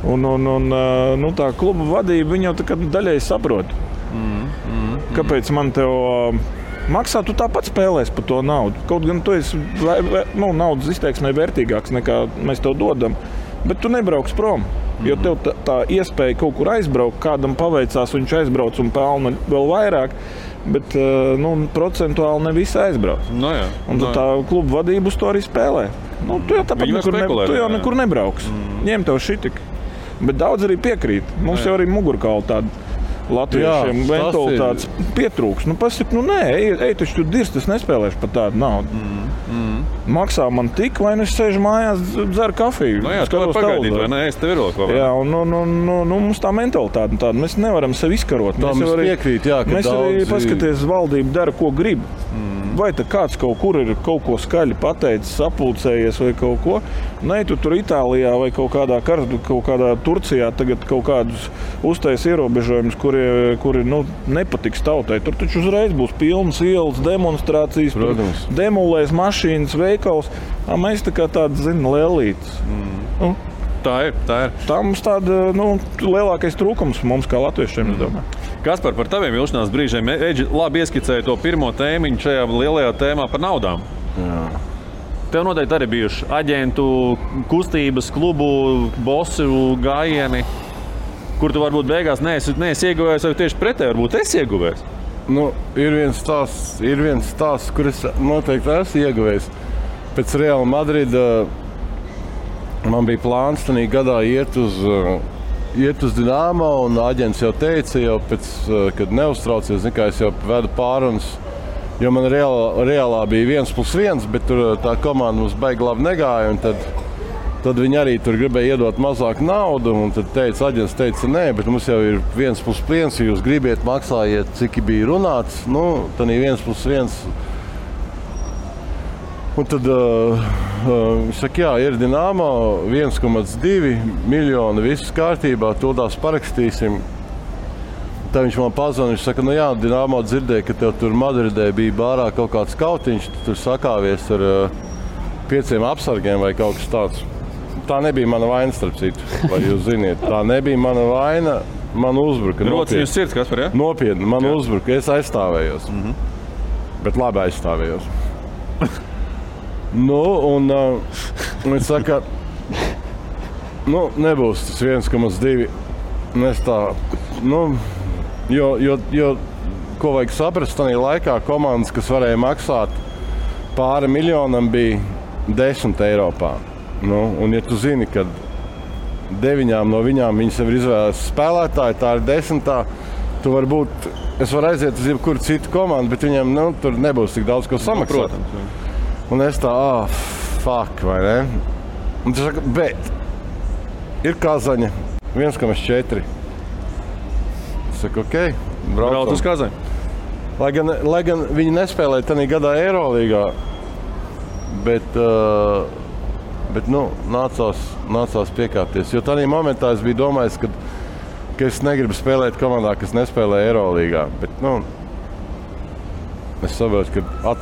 Un tā kluba vadība, viņa jau tā kā daļai saprot. Kāpēc man tev maksā, tu tāpat spēlēs par to naudu. Kaut gan tu esi naudas izteiksmē vērtīgāks nekā mēs tev dodam, bet tu nebrauks prom. Jo tev tā iespēja kaut kur aizbraukt, kādam paveicās, viņš aizbrauc un pelna vēl vairāk, bet procentuāli ne visi aizbrauc. Un tā kluba vadība uz to arī spēlē. Tu jau nekur nebrauks. Ņem tev šitik. Bet daudz arī piekrīt. Mums jau arī mugurkauli tāda. Latviešiem mentalitātes pietrūks. Nē, ej taču tu dirst, es nespēlēšu par tādu naudu. Maksā man tik, vai es sēžu mājās, dzeru kafiju. Tu var pagaidīt, vai ne? Es tev ir vēl kaut kā. Mums tā mentalitāte tāda. Mēs nevaram sevi izkarot. Mēs piekrīt, ka mēs arī paskaties, valdība dara, ko grib. Vai tad kāds kaut kur ir kaut ko skaļi pateicis, sapulcējies vai kaut ko. Nē, tu tur Itālijā vai kaut kādā Turcijā tagad kaut kādus uztais ierobežojumus, kuri nepatiks tautai. Tur taču uzreiz būs pilnas ielas, demonstrācijas, demolēs mašīnas, veikals. Mēs tā kā tādi, lēlītes. Tā ir. Tā mums tāda, lielākais trūkums mums kā latviešiem, es domāju. Kaspar, par taviem vilšanās brīžiem. Eģi labi ieskicēja to pirmo tēmiņu šajā lielajā tēmā par naudām. Jā. Tev noteikti arī bijuši aģentu kustības, klubu, bosu gājieni, kur tu varbūt beigās neesi ieguvējis, vai tieši pretēji varbūt esi ieguvējis? Ir viens stāsts, kur es noteikti esmu ieguvējis. Pēc Real Madrida man bija plāns tanī gadā iet uz Dinamo, un aģents jau teica, kad neuztraucies, es jau vedu pārunas, jo man reālā bija 1+1, bet tur tā komanda mums baigi labi negāja, un tad viņi arī tur gribēja iedot mazāk naudu, un tad aģents teica, nē, bet mums jau ir 1+1, ja jūs gribiet, maksājiet, cik bija runāts, tanī 1+1. Un tad viņš saka, ir Dinamo, 1,2 miljoni, viss kārtībā, tūdās parakstīsim. Tad viņš man pazvana, viņš saka, Dinamo dzirdēja, ka tev tur Madridē bija bārā kaut kāds kautiņš, tu tur sakāvies ar 5 apsargiem vai kaut kas tāds. Tā nebija mana vaina, starp citu, vai jūs ziniet. Tā nebija mana vaina, man uzbruka. Rociņu sirds, Kaspar, ja? Nopietni, man uzbruka, es aizstāvējos. Bet labi aizstāvējos. Un viņš saka, nebūs tas 1,2. Es tā, jo, ko vajag saprast, tajā laikā komandas, kas varēja maksāt pāri miljonam, bija 10 Eiropā. Un ja tu zini, ka 9 no viņām viņas jau ir izvēlētas spēlētāji, tā ir 10. Tu varbūt, es varu aiziet uz jebkuru citu komandu, bet viņiem tur nebūs tik daudz, ko samaksāt. Un es tā, fuck, vai ne? Un tu saka, bet ir Kazaņa, 1,4. Es saku, okei, brauc uz Kazaņu. Lai gan viņi nespēlēja tanī gadā Eirolīgā, bet nācās piekāpties. Jo tanī momentā es biju domājis, ka es negribu spēlēt komandā, kas nespēlē Eirolīgā. Bet, es saprotu, ka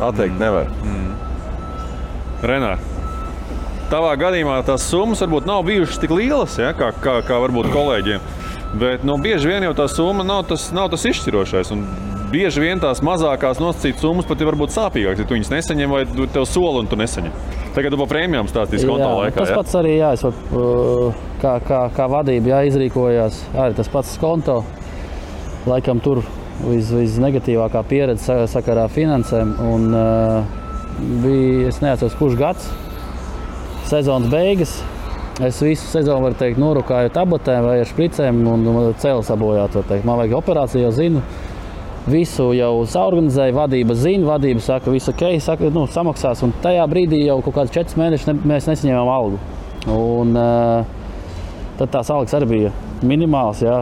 atteikt nevar. Renār, tavā gadījumā tās summas varbūt nav bijušas tik lielas, ja, kā varbūt kolēģiem. Bet bieži vien jau tā summa nav tas izšķirošais. Un bieži vien tās mazākās nosacītas summas pat ir varbūt sāpīgākas, ja tu viņas nesaņem vai tev sola un tu nesaņem. Tagad tu pa prēmijām stāstīsi konto laikā. Tas pats arī, kā vadība izrīkojās. Arī tas pats konto. Laikam tur visnegatīvākā pieredze sakarā finansēm. Un bija, es neatceros, kurš gads, sezonas beigas. Es visu sezonu, var teikt, norukāju tabletēm vai ar špricēm un cēlu sabojāt, var teikt. Man vajag operāciju, jau zinu. Visu jau saorganizēju, vadība zina, vadība saka, visu ok, saka, samaksās. Un tajā brīdī jau kaut kāds 4 mēnešus mēs nesaņēmām algu. Un tad tās algas arī bija minimāls, jā.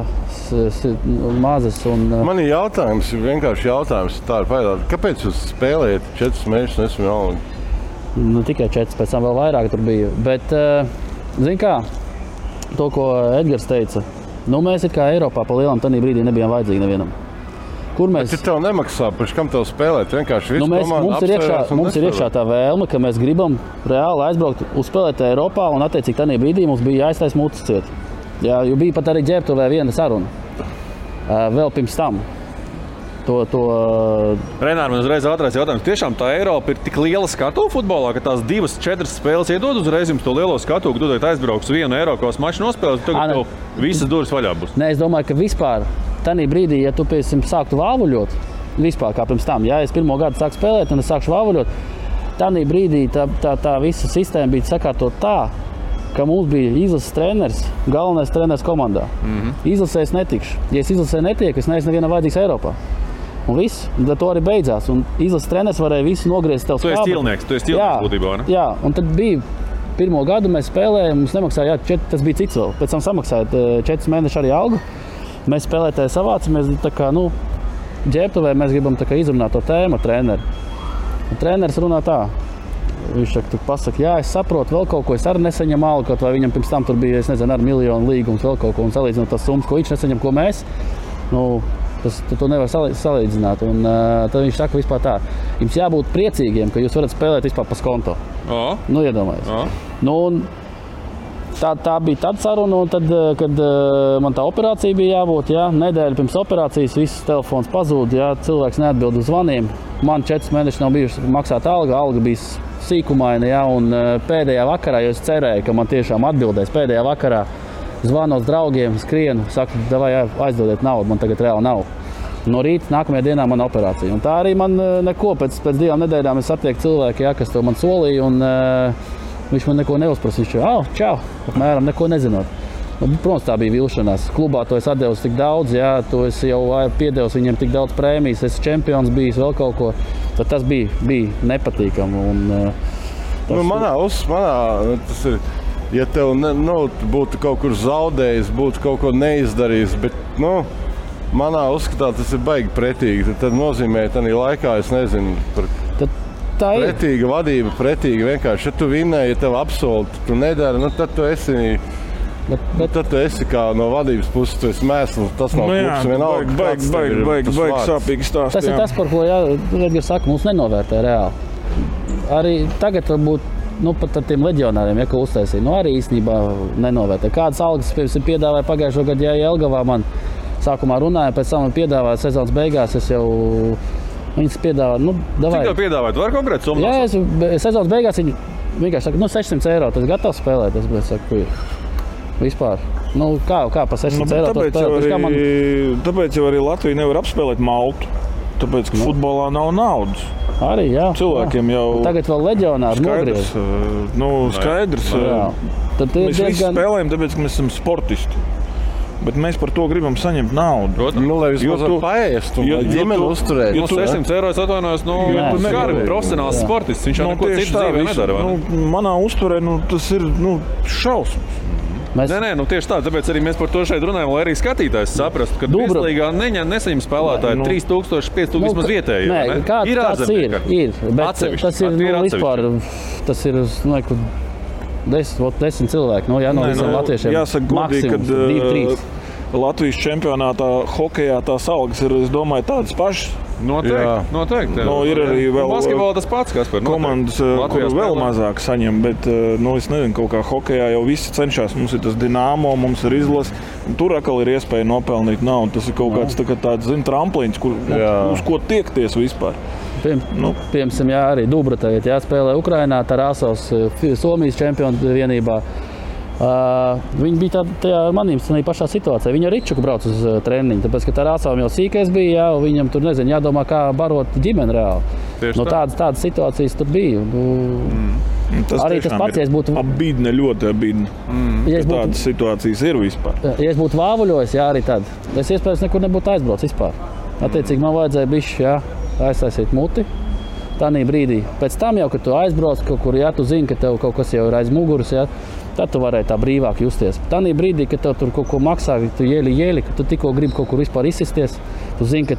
mazas. Man ir jautājums, vienkārši jautājums. Tā ir paidāt. Kāpēc jūs spēlējat 4 mēnešus nesmu Alliņu? Nu, tikai 4, pēc tam vēl vairāk tur bija. Bet, zini kā, to, ko Edgars teica, mēs it kā Eiropā pa lielam tanī brīdī nebijām vajadzīgi nevienam. Kur mēs... Bet tev nemaksā, par kam tev spēlēt? Vienkārši visu komandu apsvērās mums ir iekšā tā vēlme, ka mēs gribam reāli aizbraukt uzspēlēt Eiropā un attiecīgi tanī brīdī mums bija jāiztais mutis ciet. Jā, jo bija pat arī Ģērbtuvē viena saruna. Vēl pirms tam. Renār, man uzreiz ātrais jautājums. Tiešām tā Eiropa ir tik liela skatu futbolā, ka tās 2-4 spēles iedod uzreiz jums to lielo skatu, ka tu aizbrauks vienu Eiropas maču nospēlēt, tagad tev visas durvis vaļā būs. Nē, es domāju, ka vispār tanī brīdī, ja tu sāktu vāvuļot, vispār kā pirms tam, ja es pirmo gadu sāku spēlēt un es sākšu vāvuļot, tanī brīdī tā visa sistēma bija sakārtot tā, ka mums bija izlases treneris, galvenais treneris komandā. Izlasē es netikšu. Ja es izlasē netieku, es neesmu nevienam vajadzīgs Eiropā. Un viss, tad to arī beidzās. Un izlases treneris varēja visu nogriezt tev skābu. Tu esi ķilnieks būtībā, ne? Jā, un tad bija pirmo gadu mēs spēlējām, mums nemaksāja, tas bija cits vēl. Pēc tam samaksāja 4 mēneši arī algu. Mēs spēlētāji savācamies, tā kā, Ģērbtuvē mēs gribam tā kā izrunāt to tēmu ar treneri. Un treneris runā tā. Viņš pasaka, es saprotu vēl kaut ko, es arī nesaņemu algu, kaut vai viņam pirms tam tur bija, es nezinu, ar miljonu līgums vēl kaut ko un salīdzinot tās summas, ko viņš nesaņem, ko mēs. To nevar salīdzināt. Un tad viņš saka vispār tā, jums jābūt priecīgiem, ka jūs varat spēlēt vispār pa skonto. Iedomājies. Tā bija tāda saruna, un tad, kad man tā operācija bija jābūt, nedēļa pirms operācijas, viss telefons pazūd, cilvēks neatbild uz zvaniem. Man 4 mēneši nav bijuši maksāt alga bija sīkumaina, un pēdējā vakarā, jo es cerēju, ka man tiešām atbildēs pēdējā vakarā, zvanu uz draugiem, skrienu, saku, davai aizdodiet naudu, man tagad reāli nav. No rīta nākamajā dienā man operācija. Un tā arī man neko, pēc 2 nedēļām es satieku cilvēku, kas to man solīja, un viņš man neko neuzprasīja. Čau, apmēram neko nezinot. Protams, tā bija vilšanās. Klubā to es atdevusi tik daudz, to es jau piedevusi viņiem tik daudz prēmijas, es čempions bijis, vēl kaut ko. Tad tas bija nepatīkami. Manā tas ir... Ja tev būtu kaut kur zaudējis, būtu kaut ko neizdarījis, bet, manā uzskatā tas ir baigi pretīgi. Tad nozīmē, tādā laikā, es nezinu, pretīga vadība, pretīga vienkārši. Ja tu vinnēji, ja tev apsoli, tu nedari, tad tu esi... Tad tu esi kā no vadības puses, tu esi mēsls, tas nav klubs vienalga. Baigi sāpīgi stāst. Tas ir tas, par ko Edgars saka, mums nenovērtē reāli. Arī tagad varbūt pat ar tiem leģionāriem, ko uztaisīja, arī īstenībā nenovērtē. Kādas algas piedāvāja pagājušo gadu, Jelgavā man sākumā runāja, pēc tam man piedāvāja sezonas beigās, es jau viņas piedāvāju, davai. Cik tev piedāvāja? Tu vari konkrēti summu? Jā, sezonas beigās viņi vienkārši saka, 600 eiro, tas gatavs spēlēt, es saku, vispār. Kā pa 600 eiro? Tāpēc jau arī Latvija nevar apspēlēt Maltu, tāpēc, ka futbolā nav naudas. Arī, cilvēkiem jau... Tagad vēl leģionāri nogriez. Skaidrs. Mēs visi spēlējam, tāpēc, ka mēs esam sportisti. Bet mēs par to gribam saņemt naudu. Lai vismaz paēst un ģimeni uzturēt. 600 eiro es atvainojos, skarbi profesionāls sportists. Viņš jau neko citu dzīvē nedara. Manā uzturē tas ir šausmas. Nē, tieši tā, tāpēc arī mēs par to šeit runājam, lai arī skatītājs saprastu, ka Virslīgā nesaņem spēlētāji 3000, 5000 vismaz vietēji. Nē, kāds ir, bet tas ir vispār, tas ir 10 cilvēki, no visiem latviešiem. Jāsaka godīgi, kad 2-3. Latvijas čempionātā hokejā tās algas ir, es domāju, tādas pašas. Noteikti. Ir arī vēl basketbolā tas pats, Kaspar. Komandas, kur vēl mazāk saņem, bet es nezinu, kaut kā hokejā jau visi cenšas. Mums ir tas Dinamo, mums ir izlase. Tur atkal ir iespēja nopelnīt naudu. Tas ir kaut kāds tāds tramplīns, uz ko tiekties vispār. Piemēram, arī Dubra tagad spēlē Ukrainā, Tarasovs, Somijas čempionu vienībā. Viņi bija tajā manīm pašā situācijā. Viņi ar Ričuku brauc uz treniņu, tāpēc, ka Tarasovim jau sīkais bija, un viņam tur, jādomā, kā barot ģimeni reāli. Tādas situācijas tur bija. Arī tas pats, ja es būtu... Abīdne, ļoti abīdne. Tādas situācijas ir vispār. Ja es būtu vāvuļojis, arī tad. Es iespējams nekur nebūtu aizbraucis vispār. Attiecīgi man vajadzēja bišķi, aiztaisīt muti. Tādā brīdī. Pēc tam jau, kad tu aizbrauc kaut kur, tu zini, ka tev kaut kas jau ir aiz muguras, Tad tu varēji tā brīvāk justies. Tanī brīdī, kad tev tur kaut ko maksā, tu jēli, ka tu tikko gribi kaut kur vispār izsisties, tu zini, ka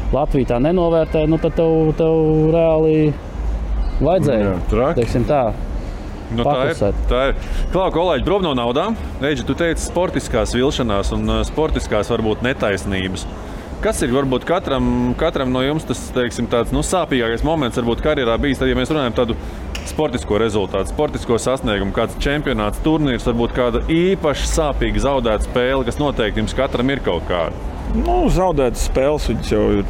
Latvija tā nenovērtē, nu tad tev reāli vajadzēja, teiksim tā. Nu, tā ir. Klau, kolēģi, prom no naudām. Reģi, tu teici sportiskās vilšanās un sportiskās varbūt netaisnības. Kas ir varbūt katram no jums tas, teiksim, tāds sāpīgākais moments varbūt karjerā bijis, tad, ja mēs runājam tādu sportisko rezultātu, sportisko sasniegumu, kāds čempionāts, turnīrs, varbūt kāda īpaši sāpīga zaudēta spēle, kas noteikti jums katram ir kaut kāda? Zaudētas spēles, viņas jau ir.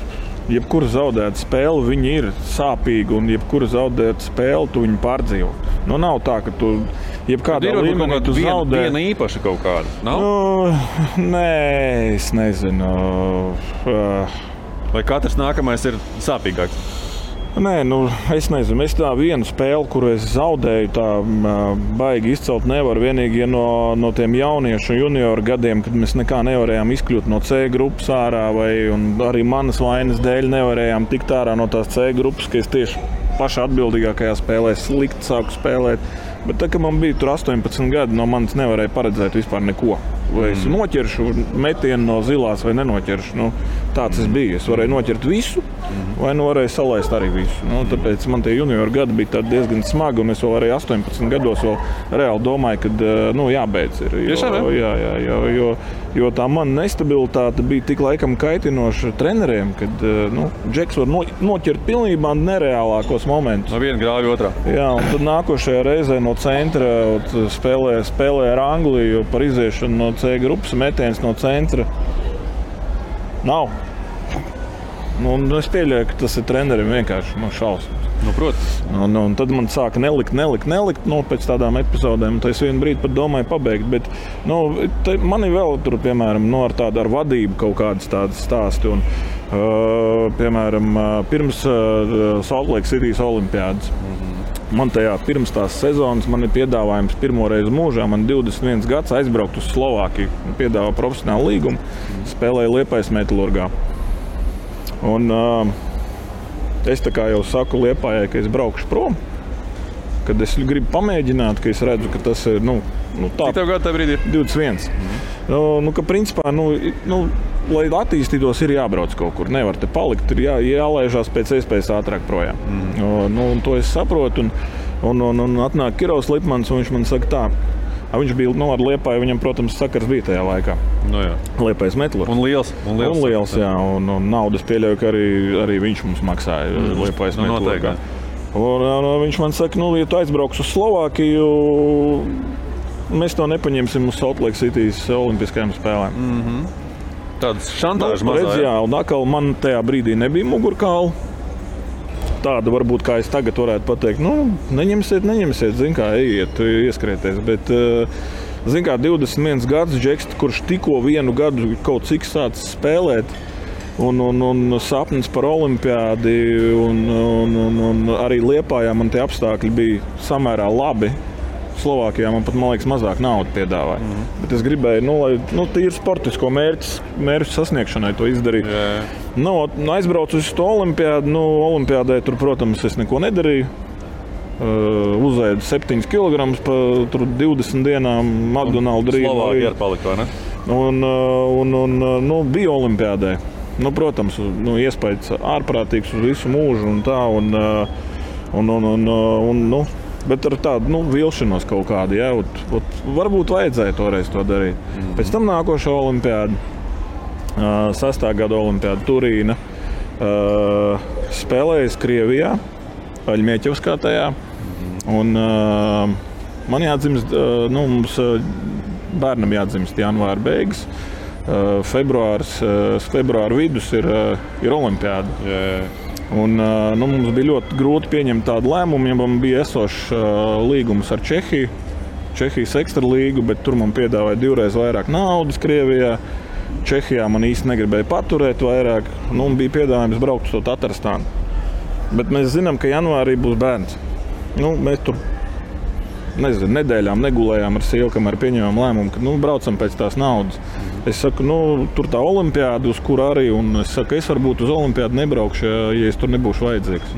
Jebkura zaudēta spēle, viņa ir sāpīga, un jebkura zaudēta spēle, tu viņu pārdzīvo. Nav tā, ka tu jebkādā līmenī tu zaudē. Viena īpaša kaut kāda, nav? Nē, es nezinu. Vai katrs nākamais ir sāpīgāks? Nē, es nezinu. Es tā vienu spēli, kuru es zaudēju, tā baigi izcelt nevaru. Vienīgi no tiem jauniešu junioru gadiem, kad mēs nekā nevarējām izkļūt no C grupas ārā, un arī manas vainas dēļ nevarējām tikt ārā no tās C grupas, ka es tieši pašā atbildīgākajā spēlē slikti sāku spēlēt. Bet tā, kad man bija tur 18 gadi, no manis nevarēja paredzēt vispār neko. Vai es noķeršu metienu no zilās vai nenoķeršu. Tāds es biju. Es varēju noķert visu, vai varēju salaist arī visu. Tāpēc man tie junioru gadi bija diezgan smagi, un es vēl arī 18 gados vēl reāli domāju, ka jābeidz ir. Jo tā mana nestabilitāte bija tik laikam kaitinoša treneriem, kad Džeks var noķert pilnībā nereālākos momentus. No viena grāvja otrā. Jā, un tad nākošajā reizē no centra spēlē ar Angliju par iziešanu no C grupas, metiens no centra nav. Es pieļauju, ka tas ir trenerim vienkārši šausmas. Protams. Un tad man sāka nelikt pēc tādām epizodēm. Tad es vienu brīdi pat domāju pabeigt. Bet man ir vēl tur, piemēram, ar vadību kaut kādas tādas stāsti. Un, piemēram, pirms Salt Lake City's olimpiādas. Man pirms tās sezonas man ir piedāvājums pirmo reizi mūžā. Man 21 gads aizbraukt uz Slovākiju. Piedāvā profesionālu līgumu. Spēlēju Liepājas Metalurgā. Un es tā kā jau saku Liepājai, ka es braukšu prom. Kad es gribu pamēģināt, ka es redzu, ka tas ir tā. Cik tev gadu tā brīdī? 21. Ka principā, lai attīstītos, ir jābrauc kaut kur. Nevar te palikt, ir jālaižās pēc iespējas ātrāk projām. To es saprotu. Un atnāk Kirovs Lipmans, un viņš man saka tā. Viņš bija ar Liepāju, viņam, protams, sakars bija tajā laikā. Liepājas Metalurgs. Un liels. Jā. Un naudas pieļauju, ka arī viņš mums maksāja Liepājas Metalurgā. Un viņš man saka, ja tu aizbrauks uz Slovākiju, mēs to nepaņemsim uz Salt Lake City's olimpiskajām spēlēm. Tādas šantāžas mazā. Jā, un atkal man tajā brīdī nebija mugurkaula. Tāda varbūt, kā es tagad varētu pateikt, neņemsiet, zin kā, ejiet, ieskrieties. Bet, zin kā, 21 gadus Džeks, kurš tikko vienu gadu kaut cik sācis spēlēt, un sapnis par olimpiādi, un arī Liepājā man tie apstākļi bija samērā labi. Slovākijā man pat, man liekas, mazāk naudu piedāvāja. Bet es gribēju, lai tīri sportisko mērķu sasniegšanai to izdarīt. Aizbraucu uz to olimpiādu. Olimpiādē tur, protams, es neko nedarīju. Uzēdu 7 kg pa 20 dienām McDonald's rīvu. Slovākija ir palika, vai ne? Un bija olimpiādē. Protams, iespējas ārprātīgs uz visu mūžu un tā. Bet ar tādu vilšanos kaut kādu, jā, varbūt vajadzēja toreiz to darīt. Pēc tam nākošā olimpiāda, 6. gada olimpiāda Turīna, spēlējas Krievijā, Aļmieķevskā tajā. Un man jādzimst, mums bērnam jādzimst janvāra beigas, februāra vidus ir olimpiāda. Un, mums bija ļoti grūti pieņemt tādu lēmumu, ja man bija esošs līgums ar Čehijas ekstralīgu, bet tur man piedāvāja 2 reizes vairāk naudas Krievijā. Čehijā man īsti negribēja paturēt vairāk, bija piedāvājums braukt uz to Tatarstānu. Bet mēs zinām, ka janvārī būs bērns. Mēs tur nedēļām negulējām ar sievu, kamēr pieņēmām lēmumu, ka braucam pēc tās naudas. Es saku, tur tā olimpiāda, uz kur arī, un es saku, es varbūt uz olimpiādu nebraukšu, ja es tur nebūšu vajadzīgs.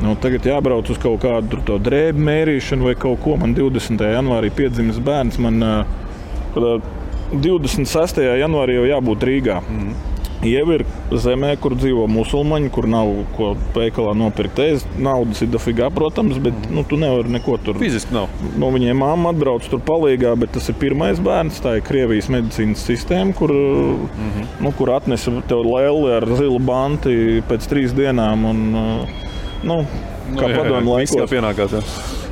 Nu, tagad jābrauc uz kaut kādu to drēbu mērīšanu vai kaut ko. Man 20. janvārī piedzimis bērns. Man 26. janvārī jau jābūt Rīgā. Jau ir zemē, kur dzīvo musulmaņi, kur nav ko veikalā nopirkt ēst. Naudas ir dafigā, protams, bet tu nevari neko tur. Fiziski nav. Viņiem mamma atbrauc tur palīgā, bet tas ir pirmais bērns. Tā ir Krievijas medicīnas sistēma, kur, kur atnesa tev lēli ar zilu banti pēc 3 dienām. Un, kā padomju laikos. Kā pienākās,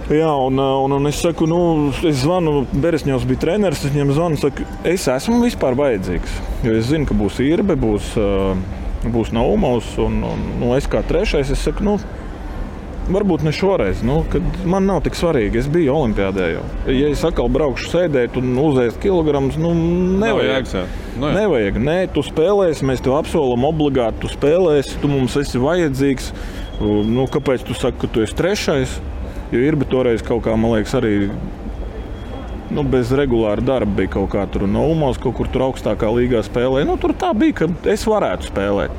Jā, un es saku, es zvanu, Beresņovs bija treneris, es viņam zvanu, saku, es esmu vispār vajadzīgs. Jo es zinu, ka būs Irbe, būs Naumovs, un es kā trešais, es saku, varbūt ne šoreiz, kad man nav tik svarīgi, es biju olimpiādē jau. Ja es atkal braukšu sēdēt un uzēst kilogramus, nevajag. Nevajag, nē, tu spēlēsi, mēs tev apsolam obligāti, tu spēlēsi, tu mums esi vajadzīgs. Kāpēc tu saki, ka tu esi trešais? Jo Irbe toreiz kaut kā, man liekas, arī bez regulāra darba bija kaut kā tur Naumovs, kaut kur tur augstākā līgā spēlēja. Tur tā bija, ka es varētu spēlēt.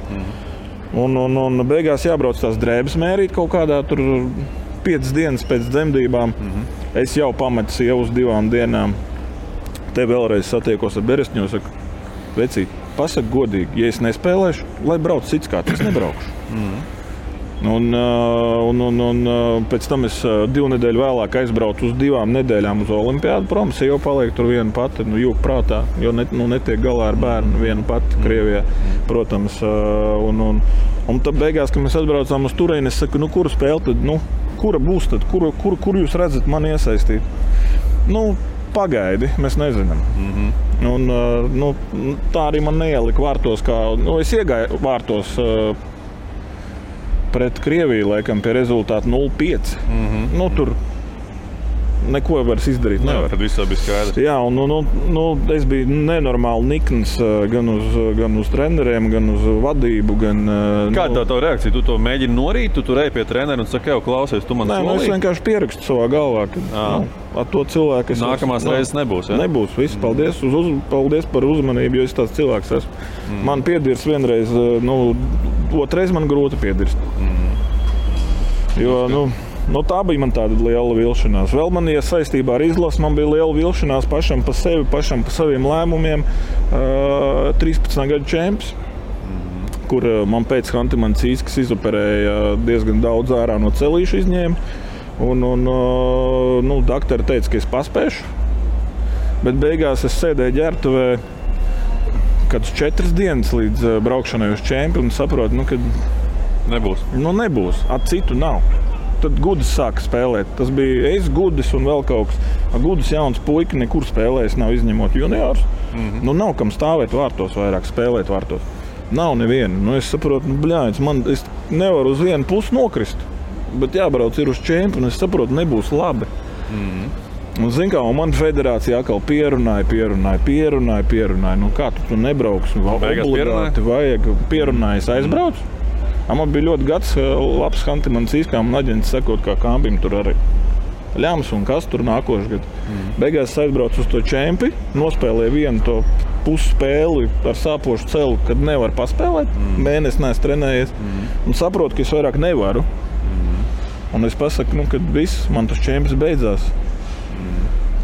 Un beigās jābrauc tās drēbes mērīt kaut kādā tur 5 dienas pēc dzemdībām. Es jau pametu sievu uz 2 dienām. Te vēlreiz satiekos ar Beresņovu, saku, vecīt, pasaki godīgi, ja es nespēlēšu, lai brauc cits kāds, es nebraukšu. Un pēc tam es 2 nedēļu vēlāk aizbraucu uz 2 nedēļām uz olimpiādu. Protams, jau paliek tur viena pati, jūg prātā, jo netiek galā ar bērnu viena pati Krievijā, protams. Un tad beigās, kad mēs atbraucām uz turieni, es saku, kura spēle tad, kura būs tad, kur jūs redzat mani iesaistīt? Pagaidi, mēs nezinām. Un, tā arī man neielika vārtos, es iegāju vārtos pret Krieviju, laikam, pie rezultāta 0-5. Tur neko vairs izdarīt nevar. Tad viss bija skaidrs. Jā, un es biju nenormāli nikns gan uz treneriem, gan uz vadību. Kāda tā reakcija? Tu to mēģini norīt, tu tur ej pie trenera un saki, klausies, tu man solīji? Es vienkārši pierakstu savā galvā, ka ar to cilvēku es... Nākamās reizes nebūs, ja? Nebūs, viss. Paldies, paldies par uzmanību, jo es tāds cilvēks esmu. Man piedirs vienreiz, otrais man grūti piedirst. Jo, tā bija man tāda liela vilšanās. Vēl man, ja saistībā ar izlasi, man bija liela vilšanās pašam pa sevi, pašam pa saviem lēmumiem. 13 gadu čemps, kur man pēc Hantimancīs izoperēja diezgan daudz ārā no celīšu izņēma. Un doktori teica, ka es paspēšu. Bet beigās es sēdēju ģērbtuvē kādus 4 dienas līdz braukšanai uz čempi un saprotu, ka nebūs. Nebūs. Citu nav. Tad Gudis sāka spēlēt. Tas bija es, Gudis un vēl kaut kas. Gudis jauns puika nekur spēlējis, nav izņemot juniors. Nav kam stāvēt vārtos vairāk, spēlēt vārtos. Nav neviena. Es saprotu, es nevaru uz vienu pusi nokrist. Bet jābrauc ir uz čempi un es saprotu, nebūs labi. Un zin kā, man federācija atkal pierunāja. Kā tu nebrauks? Obligāti vajag. Pierunājas aizbrauc. Man bija ļoti gads, labs Hantimancīs, kā man aģents sakot, kā Kambim tur arī ļams un kas tur nākošais gads. Beigās aizbraucu uz to čempi, nospēlēju vienu to pusspēli ar sāpošu celu, kad nevar paspēlēt. Mēnesi neesmu trenējies un saprotu, ka es vairāk nevaru. Un es pasaku, kad viss, man tas čemps beidzās.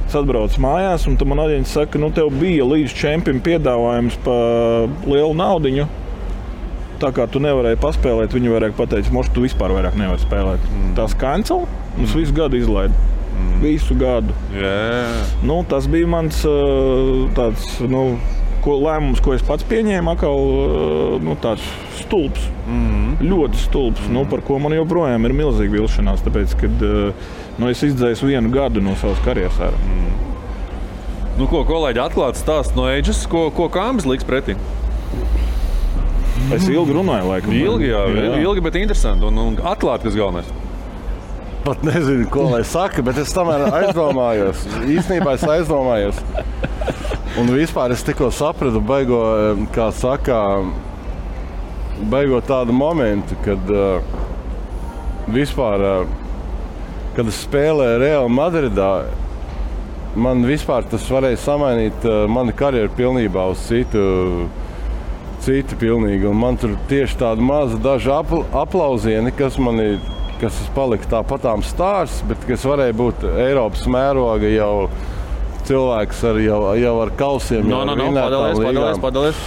Es atbraucu mājās un tad man aģents saka, tev bija līdz čempim piedāvājums pa lielu naudiņu. Tā kā tu nevarēji paspēlēt, viņi varēja pateikt, moš, tu vispār vairāk nevari spēlēt. Tās cancel, un es visu gadu izlaidu. Visu gadu. Tas bija mans tāds, lēmums, ko es pats pieņēmu, tāds stulbs. Ļoti stulbs, par ko man joprojām ir milzīga vilšanās, tāpēc, kad es izdzēju 1 gadu no savas karjeras ārā. Ko kolēģi atklāts stāst no Ages, ko Kambis liks pretī? Es ilgi runāju, laikam. Ilgi, bet interesanti un atklāt, kas galvenais. Pat nezinu, ko lai saka, bet es tomēr aizdomājos. Īstenībā es aizdomājos. Un vispār es tikko sapratu beigo tādu momentu, kad kad es spēlēju Real Madridā, man vispār tas varēja samainīt manu karjeru pilnībā uz citu pilnīgi. Un man tur tieši tāda maza daži aplauzieni, kas mani kas palika tāpatām stārs, bet kas varēja būt Eiropas mēroga jau cilvēks jau ar kausiem. Padalies.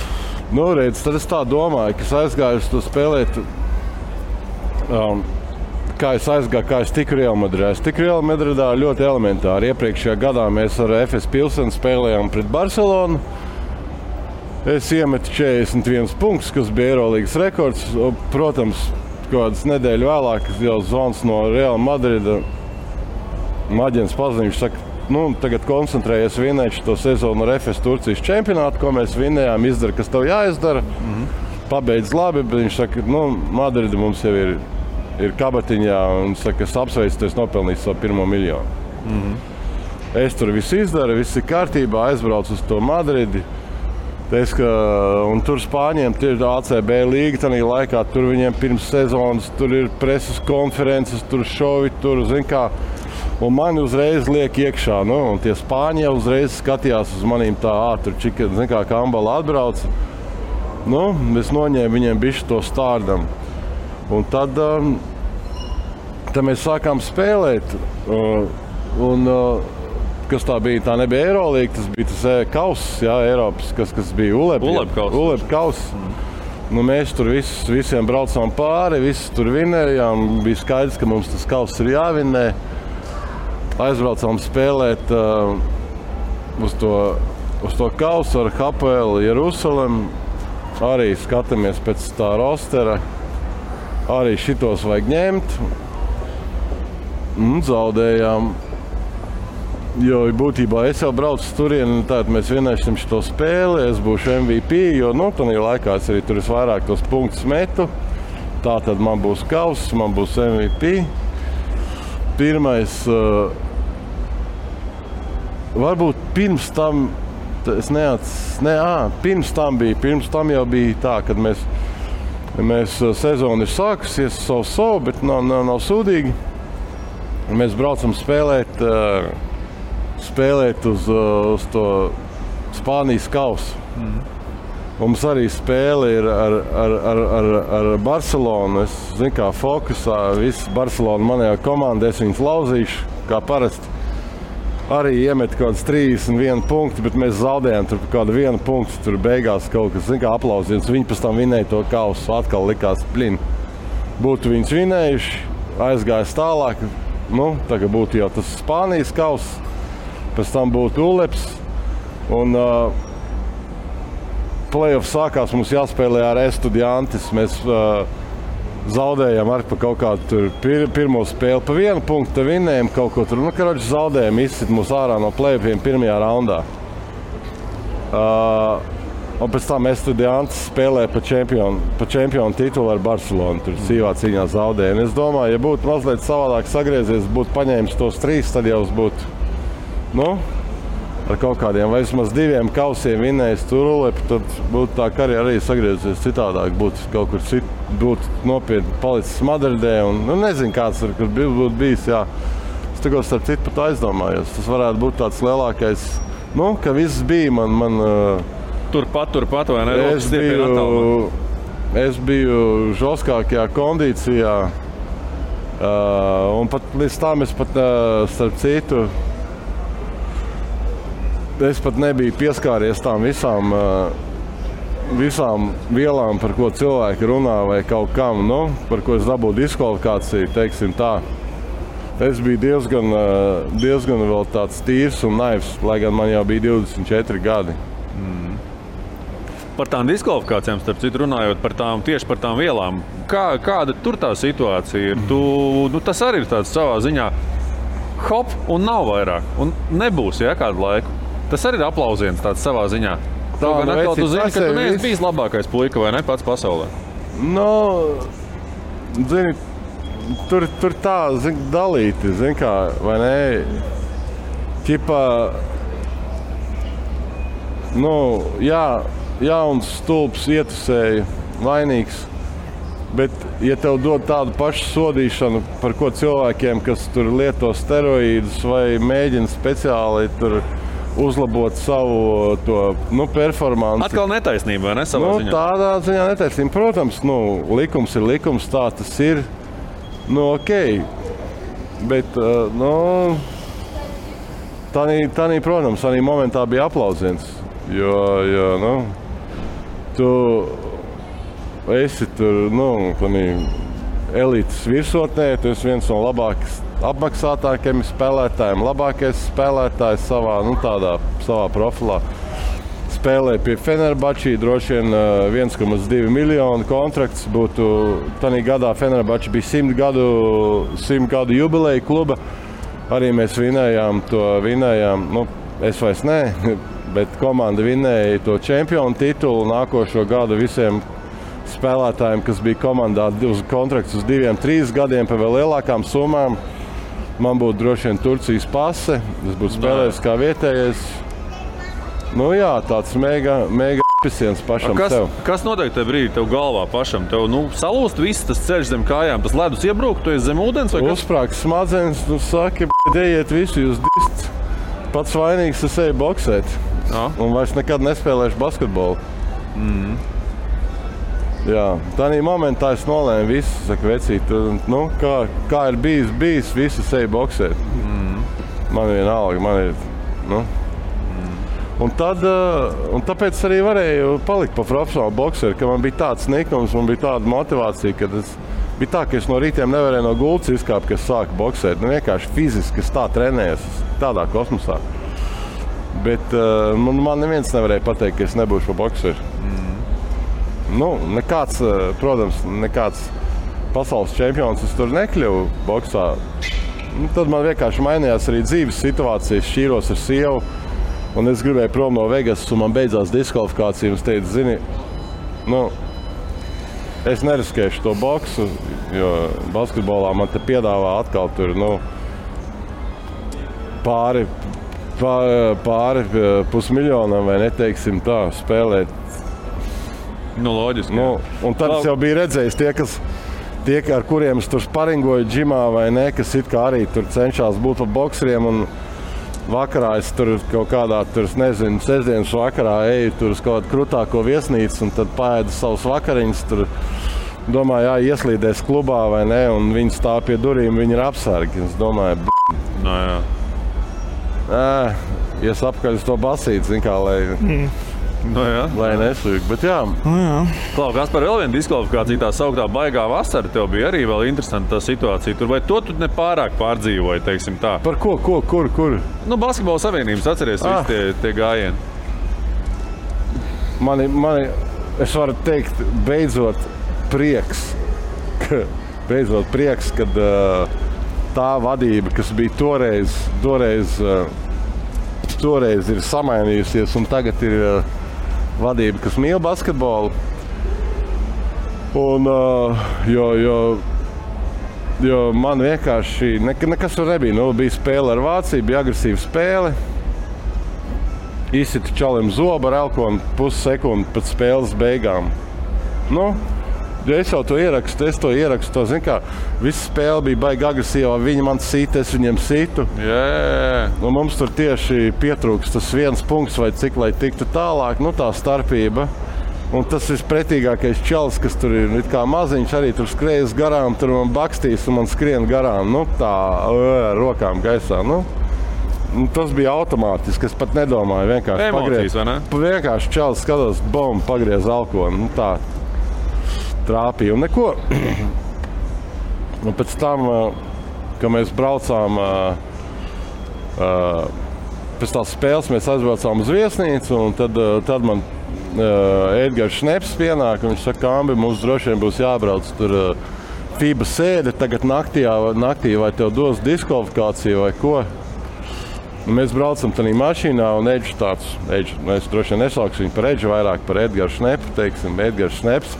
Nu, redz, tad es tā domāju, ka es aizgāju uz to spēlēt, kā es tiku Real Madridā. Es tiku Real Madridā ļoti elementāri. Iepriekšējā gadā mēs ar FS Pilsenu spēlējām pret Barcelonu. Es iemetu 41 punktus, kas bija Eirolīgas rekords. Protams, kādas nedēļu vēlāk jau zvans no Real Madrida. Maģens paziņš saka, tagad koncentrējies vinēt šo sezonu ar FS Turcijas čempionātu, ko mēs vinējām, izdara, kas tev jāizdara. Pabeidz labi, bet viņš saka, Madrida mums jau ir kabatiņā un saka, es apsveicu, es nopelnīju savu 1 miljonu. Es tur visu izdaru, viss ir kārtībā, aizbraucu uz to Madridi. Un tur Spāņiem ir ACB līga, tādā laikā tur viņiem pirms sezonas, tur ir preses konferences, tur šovi, tur, zin kā. Un mani uzreiz liek iekšā, un tie Spāņi jau uzreiz skatījās uz manīm tā, tur čika, zin kā Kambala atbrauc. Es noņēmu viņiem bišķi to stārdam. Un tad mēs sākām spēlēt. Kas tā bija? Tā nebija Eirolīga, tas bija tas kauss, Eiropas, kas bija ULEB kauss. Mēs tur visiem braucām pāri, visi tur vinējām. Bija skaidrs, ka mums tas kauss ir jāvinē. Aizbraucām spēlēt uz to kausu ar HPL Jerusalem. Arī skatāmies pēc tā rostera. Arī šitos vajag ņemt. Zaudējām. Jo būtībā es jau braucu turieni, tātad mēs vienēsim šo spēli, es būšu MVP, jo tādā laikā es arī tur vairāk tos punktus metu. Tātad man būs kauss, man būs MVP. Pirmais, varbūt pirms tam, pirms tam jau bija tā, kad mēs sezonu ir sākusies savu, bet nav sūdīgi. Mēs braucam spēlēt uz to Spānijas kausu. Mums arī spēle ir ar Barcelonu. Es zinu, kā fokusā, viss Barcelona manējā komanda, es viņus lauzīšu, kā parasti. Arī iemet kaut kāds 31 punkti, bet mēs zaudējām tur kādu 1 punktu, tur beigās kaut kas, zinu, kā aplausiens. Viņi pēc tam vinēja to kausu, atkal likās plin. Būtu viņus vinējuši, aizgājis tālāk, tagad būtu jau tas Spānijas kauss. Pēc tam būtu ULEPS, un play-off sākās, mums jāspēlē ar Estudiantes. Mēs zaudējām arī pa kaut kādu pirmo spēli pa 1 punktu, vinējām kaut ko tur. Zaudējām, izsit mūs ārā no play-offiem pirmajā raundā. Un pēc tam Estudiantes spēlē pa čempionu titulu ar Barcelonu. Tur sīvā cīņā zaudējām. Es domāju, ja būtu mazliet savādāk sagriezies, būtu paņēmis tos 3, tad jau būtu ar kaut kādiem vai vismaz 2 kausiem vinējis tur, tad būtu tā karjera arī sagriezies citādāk, būtu kaut kur būtu nopietni palicis Madridē un nezinu, kāds tur būtu bijis, jā. Es tikko starp citu pat aizdomājos, tas varētu būt tāds lielākais, ka viss bija man Turpat, vai ne? Es biju žoskākajā kondīcijā, un pat līdz tam es pat starp citu, es pat nebiju pieskāries tām visām vielām, par ko cilvēki runā vai kaut kam, par ko es dabūju diskvalifikāciju, teiksim tā. Es biju diezgan vēl tāds tīrs un naivs, lai gan man jau bija 24 gadi. Par tām diskvalifikācijām, starp citu runājot, tieši par tām vielām, kāda tur tā situācija ir? Tas arī ir tāds savā ziņā hop un nav vairāk, un nebūs, kādu laiku. Tas arī ir aplausiens tāds savā ziņā. Tā, atkal tu zini, ka tu neesi bijis labākais puika, vai ne, pats pasaulē? Zini, tur tā, dalīti, zini kā, vai ne? Ķipā, jauns stulbs ietusēja, vainīgs. Bet, ja tev dod tādu pašu sodīšanu, par ko cilvēkiem, kas tur lieto steroīdus vai mēģina speciāli tur uzlabot savu performanci. Atkal netaisnība, vai ne, savā ziņā? Tādā ziņā netaisnība. Protams, likums ir likums, tā tas ir. Nu, ok. Bet, Tādī, protams, arī momentā bija aplausiens, jo tu esi tur, tādī elites virsotnē, tu esi viens no labākais apmaksātākajiem spēlētājiem, labākais spēlētājs savā profilā. Spēlēja pie Fenerbahčī, droši vien 1,2 miljonu kontrakts būtu. Tanī gadā Fenerbahčī bija 100 gadu jubileja kluba. Arī mēs vinējām, es vairs ne, bet komanda vinēja to čempionu titulu nākošo gadu visiem spēlētājiem, kas bija komandā uz kontrakts uz 2-3 gadiem par vēl lielākām summām. Man būtu droši vien Turcijas pase, es būtu spēlējis kā vietējais. Tāds mega apisiens pašam sev. Kas notiek tajā brīdī tev galvā pašam? Tev salūst viss tas ceļš zem kājām, tas ledus iebrūk, tu esi zem ūdens vai kas? Uzsprāg smadzenes, saki, ejiet visu, jūs dists. Pats vainīgs, es eju boksēt. Un vairs nekad nespēlēšu basketbolu. Jā, tādā momentā es nolēmu visu, saku, vecīt, kā ir bijis, visi eju boksēt. Man vienalga, man ir, Un tāpēc arī varēju palikt pa profesionālu bokseru, ka man bija tāds niknums, man bija tāda motivācija, ka bija tā, ka es no rītiem nevarēju no gultas izkāpt, ka es sāku boksēt. Vienkārši fiziski es tā trenējos, tādā kosmosā. Bet man neviens nevarēja pateikt, ka es nebūšu pa bokseru. Nekāds pasaules čempions es tur nekļuvu boksā. Tad man vienkārši mainījās arī dzīves situācijas, šķīros ar sievu. Un es gribēju prom no Vegas, un man beidzās diskvalifikācija. Es teicu, zini, es neriskēšu to boksu, jo basketbolā man te piedāvā atkal tur, pāri pusmiljonam, vai neteiksim tā, spēlēt. Loģiski. Un tad es jau biju redzējis tie, ar kuriem es tur sparingoju džimā vai ne, kas it kā arī tur cenšās būt pa bokseriem. Un vakarā es tur kaut kādā, sestdienas vakarā eju tur uz kaut kādu krutāko viesnīcu un tad paēdu savus vakariņus. Tur domāju, ieslīdēs klubā vai ne, un viņi stāv pie durīm, viņi ir apsargi. Es domāju, ies apkaļ uz to basīti, zin kā, lai nesūk, bet jā. Klau, kas par vēl vienu diskvalifikāciju, tā sauktā baigā vasara, tev bija arī vēl interesanta tā situācija. Tur vai to tu nepārāk pārdzīvoji, teiksim tā? Par ko? Kur? Basketbola savienības, atceries visi tie gājieni. Mani, es varu teikt, beidzot prieks, kad tā vadība, kas bija toreiz ir samainījusies un tagad ir vadība, kas mīl basketbolu. Un, jo man vienkārši nekas tur nebija. Bija spēle ar Vāciju, bija agresīva spēle. Izsita čalim zobu ar elkonu pussekundi pēc spēles beigām. Es jau to ierakstu, zin kā, visa spēle bija baigi agresīvā, viņi man sita, es viņiem situ. Un mums tur tieši pietrūks tas viens punkts vai cik, lai tiktu tālāk, tā starpība. Un tas vispretīgākais čalis, kas tur ir it kā maziņš, arī tur skrējas garām, tur man bakstīs un man skrien garām, tā rokām gaisā. Tas bija automātiski, es pat nedomāju, vienkārši emocijas, vai ne? Vienkārši čalis skatos, bom, pagriez elkonu, tā. Trāpīja un neko. Un pēc tam, kad mēs braucām pēc tās spēles, mēs aizbraucām uz viesnīcu un tad man Edgars Šneps pienāk un viņš saka, Ambi, mums droši vien būs jābrauc tur FIBA sēde tagad naktī vai tev dos diskvalifikāciju vai ko. Un mēs braucam tādā mašīnā un Edžs mēs droši vien nesauksim viņu par Edžu, vairāk par Edgars Šnepu, teiksim, Edgars Šneps.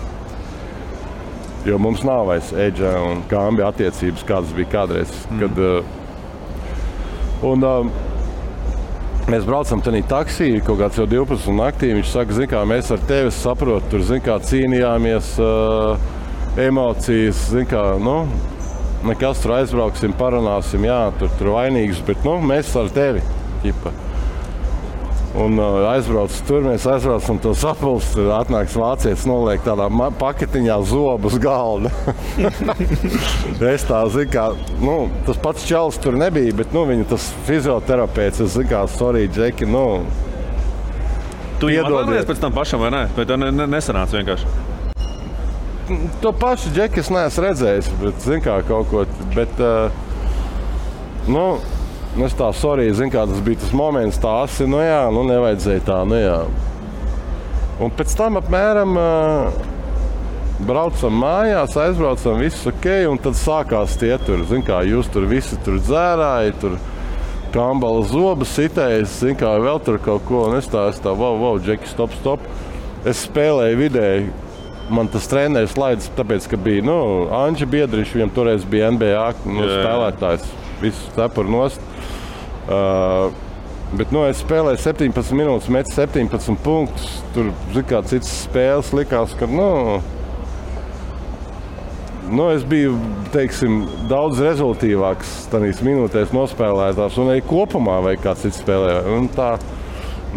Jo mums nav vairs Edža un Kambi attiecības, kādas bija kādreiz. Mēs braucam tādā taksī, kaut kāds jau 12 naktī. Viņš saka, zin kā, mēs ar tevi saprotu, tur zin kā cīnījāmies, emocijas, zin kā, nekas tur aizbrauksim, parunāsim, jā, tur vainīgs, bet mēs ar tevi. Ķipa. Un aizbraucu tur, mēs aizbraucam to sapulci, tur atnāks vācietis, noliek tādā paketiņā zobu uz galda. Es tā, zinu kā, tas pats čalis tur nebija, bet, viņa tas fizioterapeits, es zinu kā, sorry, Džeki, Tu jau atvainojies pēc tam pašam, vai ne? Vai tā nesanāca vienkārši? To pašu Džeki es neesmu redzējis, bet, zinu kā, kaut ko, bet, es tā, sorry, zinu kā, tas bija tas moments, tā asi, nevajadzēja tā, Un pēc tam apmēram braucam mājās, aizbraucam, viss ok, un tad sākās tie tur, zinu kā, jūs tur visi tur dzērāji, tur kambala zobas sitējas, zinu kā, vēl tur kaut ko, un es tā, wow, Džeki, stop. Es spēlēju vidēji, man tas treneris laidis, tāpēc, ka bija, Anģi Biedriņš, viņam toreiz bija NBA spēlētājs, visu cepuru nost. Bet es spēlēju 17 minūtes, metu 17 punktus. Tur, kā citas spēles likās, ka es biju, teiksim, daudz rezultīvāks tādīs minūtēs nospēlētājs un arī kopumā vai kāds cits spēlēja. Un tā,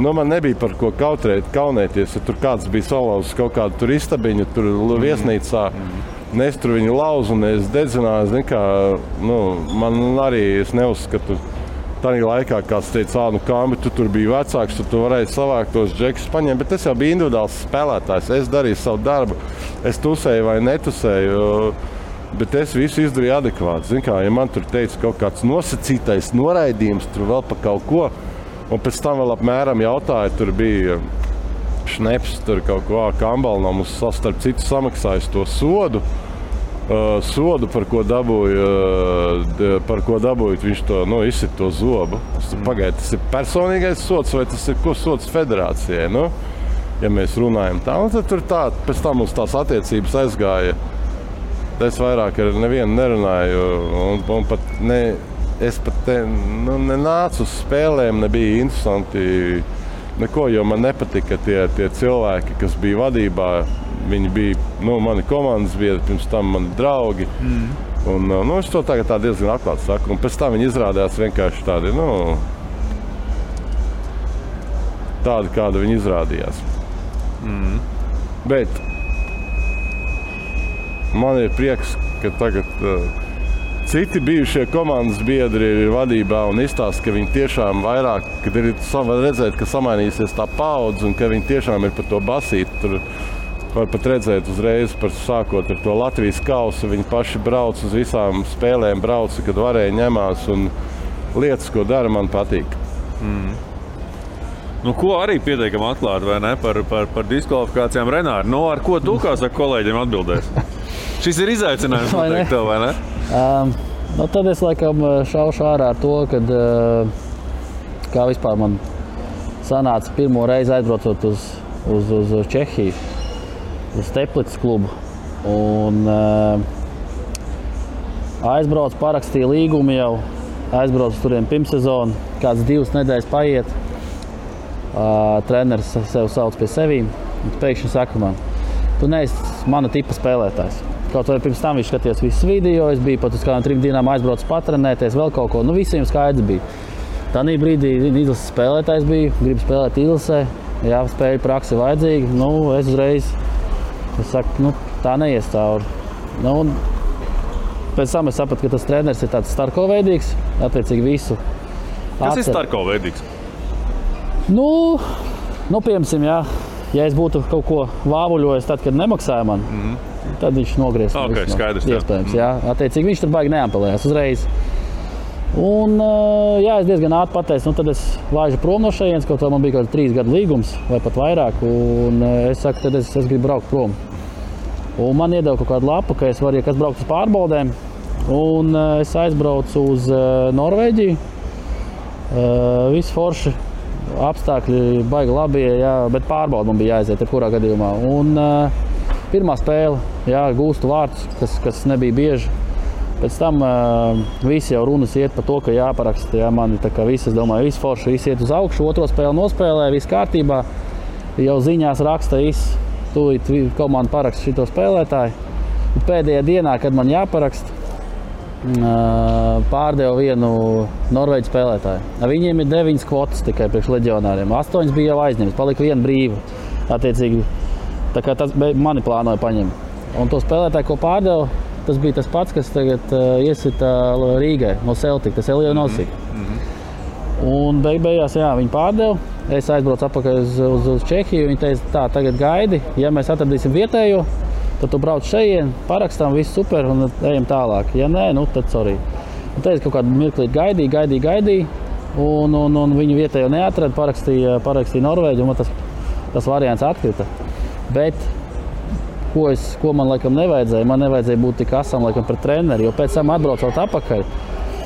man nebija par ko kaunēties, ja tur kāds bija salauzis kaut kādu tur istabiņu, tur viesnīcā. Es tur viņu lauzu un es dedzināju, man arī es neuzskatu. Tādā laikā kāds teica, Kambi, tu tur biji vecāks, tu varēji savākt tos džekus paņemt, bet es jau biju individuāls spēlētājs. Es darīju savu darbu, es tusēju vai netusēju, bet es visu izdarīju adekvāti. Ja man tur teica kaut kāds nosacītais noraidījums, tur vēl pa kaut ko, un pēc tam vēl apmēram jautāja, tur bija šneps, tur kaut ko Kambalnam uz starp citu samaksājis to sodu. Par ko dabūju, viņš to izsit to zobu. Pagaid, tas ir personīgais sods vai tas ir sods federācijai? Ja mēs runājam tā, un tad tur tā, pēc tam mums tās attiecības aizgāja. Es vairāk ar nevienu nerunāju, un es pat nenācu uz spēlēm, nebija interesanti neko, jo man nepatika tie cilvēki, kas bija vadībā. Viņi bija, mani komandas biedri, pirms tam mani draugi. Un, es to tagad tā diezgan atklāti saku. Un pēc tam viņi izrādījās vienkārši tādi, tādi, kādi viņi izrādījās. Bet man ir prieks, ka tagad citi bijušie komandas biedri ir vadībā un izstāsta, ka viņi tiešām vairāk, kad ir redzēt, ka samainīsies tā paudze un ka viņi tiešām ir par to basīti. Tur var pat redzēt uzreiz, sākot ar to Latvijas kausu, viņi paši brauc uz visām spēlēm, kad varēja ņemās, un lietas, ko dara, man patīk. Ko arī pietiekam atklāt, vai ne, par diskvalifikācijām Renāri? Ar ko tu, kā saka, kolēģiem atbildēs? Šis ir izaicinājums, noteikti tev, vai ne? Tad es laikam šaušu ārā ar to, kad kā vispār man sanāca pirmo reizi aizbraucot uz Čehiju. Uz Teplицas klubu. Un aizbraucu, parakstīju līgumu jau. Aizbraucu turien pirmsezonu. Kāds 2 nedēļas paiet. Treneris sev sauc pie sevīm. Pēkšņi saka man, tu neesi mana tipa spēlētājs. Kaut vai pirms tam viņš skatījās visus video. Es biju pat uz kādām 3 dienām aizbraucu patrenēties, vēl kaut ko. Visiem skaidrs bija. Tanī brīdī izlases spēlētājs biju. Gribu spēlēt izlasē. Jā, spēļu praksi vajadzīgi. Es uzreiz es saku, tā neies cauri. Pēc tam es sapratu, ka tas treneris ir tāds starkoveidīgs, attiecīgi visu. Kas ir starkoveidīgs? Piemēram, ja es būtu kaut ko vāvuļojis tad, kad nemaksāja man, tad viņš nogriez. Okay, skaidrs. Iespējams, jā. Attiecīgi viņš tur baigi neampelējās uzreiz. Un, es diezgan ātri pateicu, tad es laižu prom no šejienes, kaut vai man bija kaut 3 gadu līgums vai pat vairāk, un es saku, tad es gribu braukt prom. Un man iedeva kaut kādu lapu, ka es varu, ja kas braukt uz pārbaudēm, un es aizbraucu uz Norvēģiju. Visi forši, apstākļi baigi labi, bet pārbaudu man bija jāaiziet jebkurā gadījumā. Un pirmā spēle, gūstu vārdus, kas nebija bieži. Pēc tam visi jau runas iet par to, ka jāparaksta. Mani tā kā visi, es domāju, visi forši, visi iet uz augšu, otro spēli nospēlē, viss kārtībā. Jau ziņās raksta, tūlīt komanda paraksta šito spēlētāju. Un pēdējā dienā, kad man jāparaksta, pārdeva vienu norvēģu spēlētāju. Viņiem ir 9 kvotas tikai priekš leģionāriem. 8 bija jau aizņemts, palika viena brīva. Attiecīgi, tā kā tas mani plānoja paņemt. Un to spēlētāju, ko pārdeva, tas bija tas pats, kas tagad iesita Rīgai no Celtic, tas Elija Nosik. Un beigās, jā, viņi pārdeva. Es aizbraucu atpakaļ uz Čehiju. Viņi teica, tā, tagad gaidi, ja mēs atradīsim vietējo, tad tu brauc šeit, parakstām, viss super un ejam tālāk. Ja nē, nu tad sorry. Un teica, kaut kādu mirklīt gaidīja. Un viņi vietējo neatrada, parakstīja Norvēģi, un tas variants atkrita. Bet ko man laikam nevajadzēja? Man nevajadzēja būt tik asam laikam pret treneri, jo pēc tam atbraucot atpakaļ,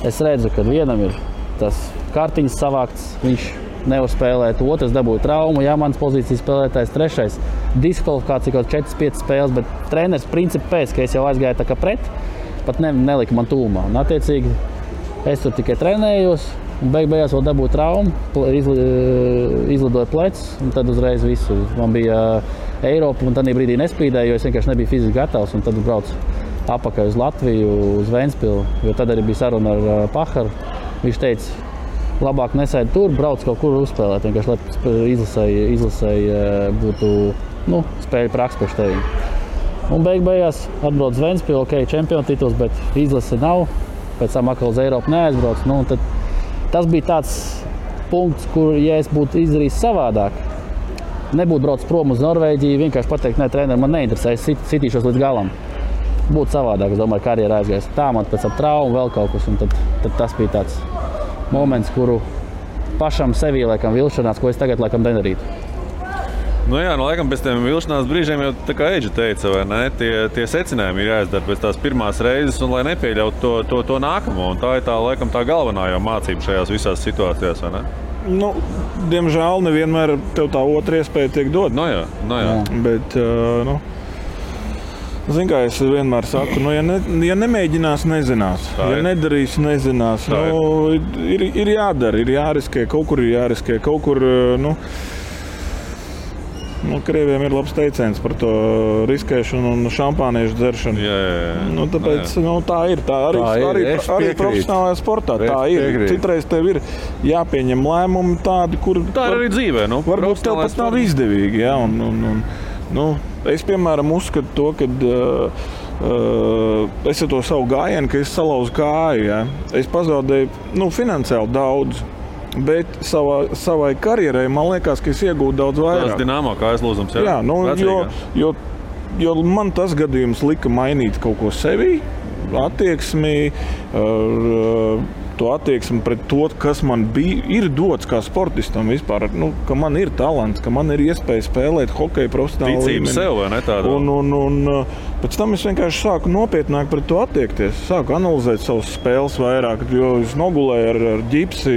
es redzu, ka vienam ir tas kartiņas savākts, viņš nevar spēlēt, otrs dabūja traumu, jā, mans pozīcijas spēlētājs, trešais diskvalifikācija kaut 4-5 spēles, bet treneris principi pēc, ka es jau aizgāju tā kā pret, pat nelika man tūmā. Un attiecīgi es tur tikai trenējos, un beigās vēl dabūju traumu, izlidoju plecs, un tad uzreiz visu. Man bija Eiropa, un tad brīdī nespīdēju, jo es vienkārši nebiju fiziski gatavs, un tad braucu apakaļ uz Latviju, uz Ventspilu, jo tad arī bija saruna ar Paharu. Viņš teica, labāk nesēdi tur, brauc kaut kur uzspēlēt, vienkārši, lai izlasēji būtu spēļu praksa priekš tevi. Un beigās atbrauc uz Ventspilu, ok, čempionu tituls, bet izlase nav, pēc tam atkal uz Eiropu neaizbrauc. Tad tas bija tāds punkts, kur, ja es būtu izdarījis savādāk, nebūtu braucis prom uz Norvēģiju, vienkārši pateikt, nē, treneri, man neinteresē, es sitīšos līdz galam. Būtu savādāk, es domāju, karjera aizgājis. Tā man pēc tam traumu vēl kaut kas, un tad tas bija tāds moments, kuru pašam sevī laikam vilšanās, ko es tagad laikam nedarītu. Nu jā, laikam pēc tiem vilšanās brīžiem jau tā kā Eidža teica, vai ne? Tie secinājumi ir jāizdara pēc tās pirmās reizes, un lai nepieļautu to nākamo. Un tā ir laikam tā galvenā jau mācība šajās visās situācijās, vai ne? Diemžēl nevienmēr tev tā otra iespēja tiek dot. No jā. Bet, zini, kā es vienmēr saku, ja nemēģinās, nezinās. Ja nedarīs, nezinās. Ir jādara, ir jāriskē, kaut kur ir jāriskē, kaut kur, Krieviem ir labs teiciens par to riskēšanu un šampāniešu dzeršanu. Jā. Tāpēc tā ir. Tā arī profesionālajā sportā. Tā ir. Citreiz tev ir jāpieņem lēmumi tādi, kur... Tā ir arī dzīvē, varbūt tev pat nav izdevīgi, jā. Es, piemēram, uzskatu to, ka es ar to savu gājienu, ka es salauzu kāju, jā. Es pazaudēju, finansiāli daudz. Bet savai karjerai, man liekas, ka es iegūtu daudz vairāk. Tas Dinamo kā aizlūzums, jā? Jā, jo man tas gadījums lika mainīt kaut ko sevī, attieksmi, to attieksmi pret to, kas man ir dots kā sportistam vispār, ka man ir talants, ka man ir iespēja spēlēt hokeju profesionāli līmenī. Ticība sev, vai ne tāda? Un pēc tam es vienkārši sāku nopietnāk pret to attiekties, sāku analizēt savas spēles vairāk, jo es nogulēju ar ģipsi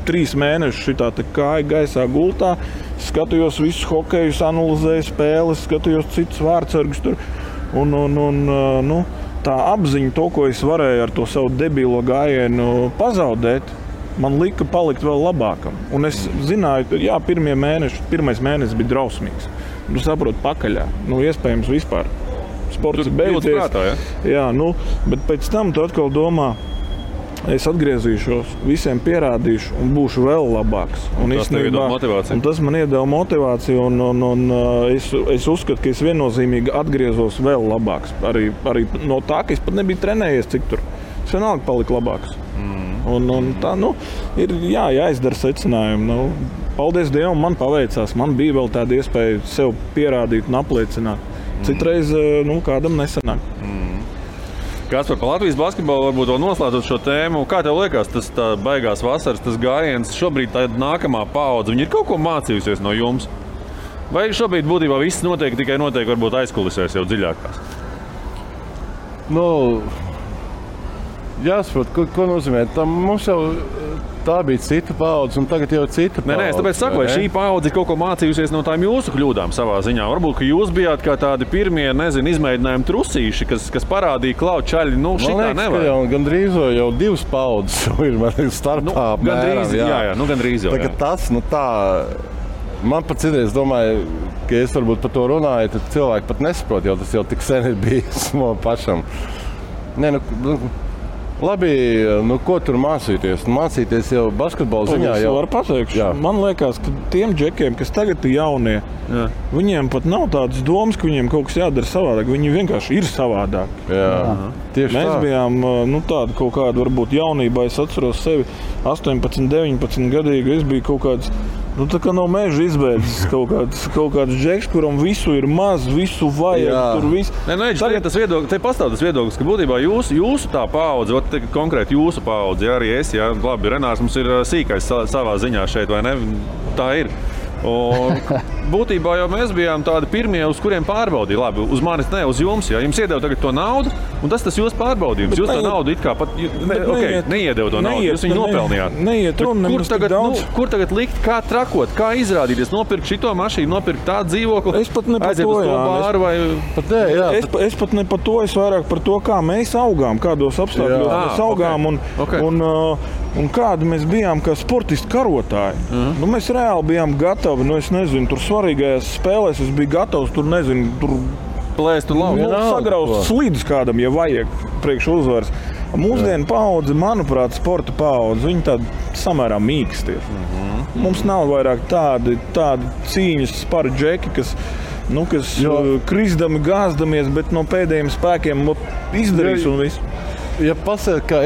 3 mēnešus šitā kāja gaisā gultā, skatījos visus hokejus, analizēju spēles, skatījos citus vārdsargus tur. Tā apziņa, to, ko es varēju ar to savu debilo gājienu pazaudēt, man lika palikt vēl labākam. Un es zināju, jā, pirmais mēnesis bija drausmīgs. Tu saproti pakaļā, iespējams vispār. Sports ir beidzies. Jā, bet pēc tam tu atkal domā, es atgriezīšos, visiem pierādīšu un būšu vēl labāks. Un tas tev iedod motivāciju. Un tas man iedeva motivāciju un es uzskatu, ka es viennozīmīgi atgriezos vēl labāks. Arī no tā, ka es pat nebiju trenējies cik tur. Es vienalga paliku labāks. Un tā, ir jāizdara secinājumi. Paldies Dievam, man paveicās. Man bija vēl tāda iespēja sev pierādīt un apliecināt. Citreiz, kādam nesanāk. Kaspar, par Latvijas basketbolu varbūt vēl noslēdzot šo tēmu. Kā tev liekas, tas tā baigās vasaras, tas gājiens, šobrīd tā nākamā paudze, viņi ir kaut ko mācījusies no jums? Vai šobrīd būtībā viss notiek varbūt aizkulisēs jau dziļākās? Jāsaprot, ko nozīmē. Mums jau tā bija cita paudze, un tagad jau cita paudze. Nē, es tāpēc saku, vai šī paudze kaut ko mācījusies no tām jūsu kļūdām savā ziņā. Varbūt, ka jūs bijāt kā tādi pirmie, izmēģinājumi trusīši, kas parādīja klau čaļi, šitā nevar. Jau gandrīz jau 2 paudzes ir starpā. Gandrīz jau. Tagad tas, tā, man pat citreiz domāju, ka es varbūt par to runāju, tad cilvēki pat nesaprot, jo tas jau tik sen ir bijis man pašam. Labi, nu ko tur mācīties? Mācīties jau basketbola ziņā. Es varu pateikt, man liekas, ka tiem džekiem, kas tagad ir jaunie, viņiem pat nav tādas domas, ka viņiem kaut kas jādara savādāk. Viņi vienkārši ir savādāk. Mēs bijām tādi kaut kādi, varbūt jaunībā, es atceros sevi 18, 19 gadīgi, es biju kaut kāds, tā kā no meža izbēdzis kaut kāds džeks, kuram visu ir maz, visu vajag, tur viss. Te pastāv tas viedoklis, ka būtībā jūsu tā paudze, konkrēti jūsu paudze, arī es, labi, Renārs mums ir sīkais savā ziņā šeit, vai ne? Tā ir. Un būtībā jau mēs bijām tādi pirmie, uz kuriem pārbaudīja. Labi, uz manis ne, uz jums. Ja jums iedeva tagad to naudu, un tas jūsu pārbaudījums. Jūs to naudu it kā pat neiedeva to naudu, jūs viņu nopelnījāt. Kur tagad likt, kā trakot, kā izrādīties, nopirkt šito mašīnu, nopirkt tādu dzīvokli, aiziet uz to bāru vai... Es pat ne par to, es vairāk par to, kā mēs augām, kādos apstākļos mēs augām un kādi mēs bijām kā sportisti karotāji. Mēs reāli bijām gatavi, es nezinu, tur svarīgajās spēlēs es biju gatavs, tur plēst un laukt. Sagraust slidus kādam, ja vajag priekš uzvaras. Mūsdienu paudze, manuprāt, sporta paudze, viņi tādi samērā mīksti ir. Mums nav vairāk tādi cīņas spari džeki, kas krisdami, gāzdamies, bet no pēdējiem spēkiem izdarīs un viss. Ja pasaka, ka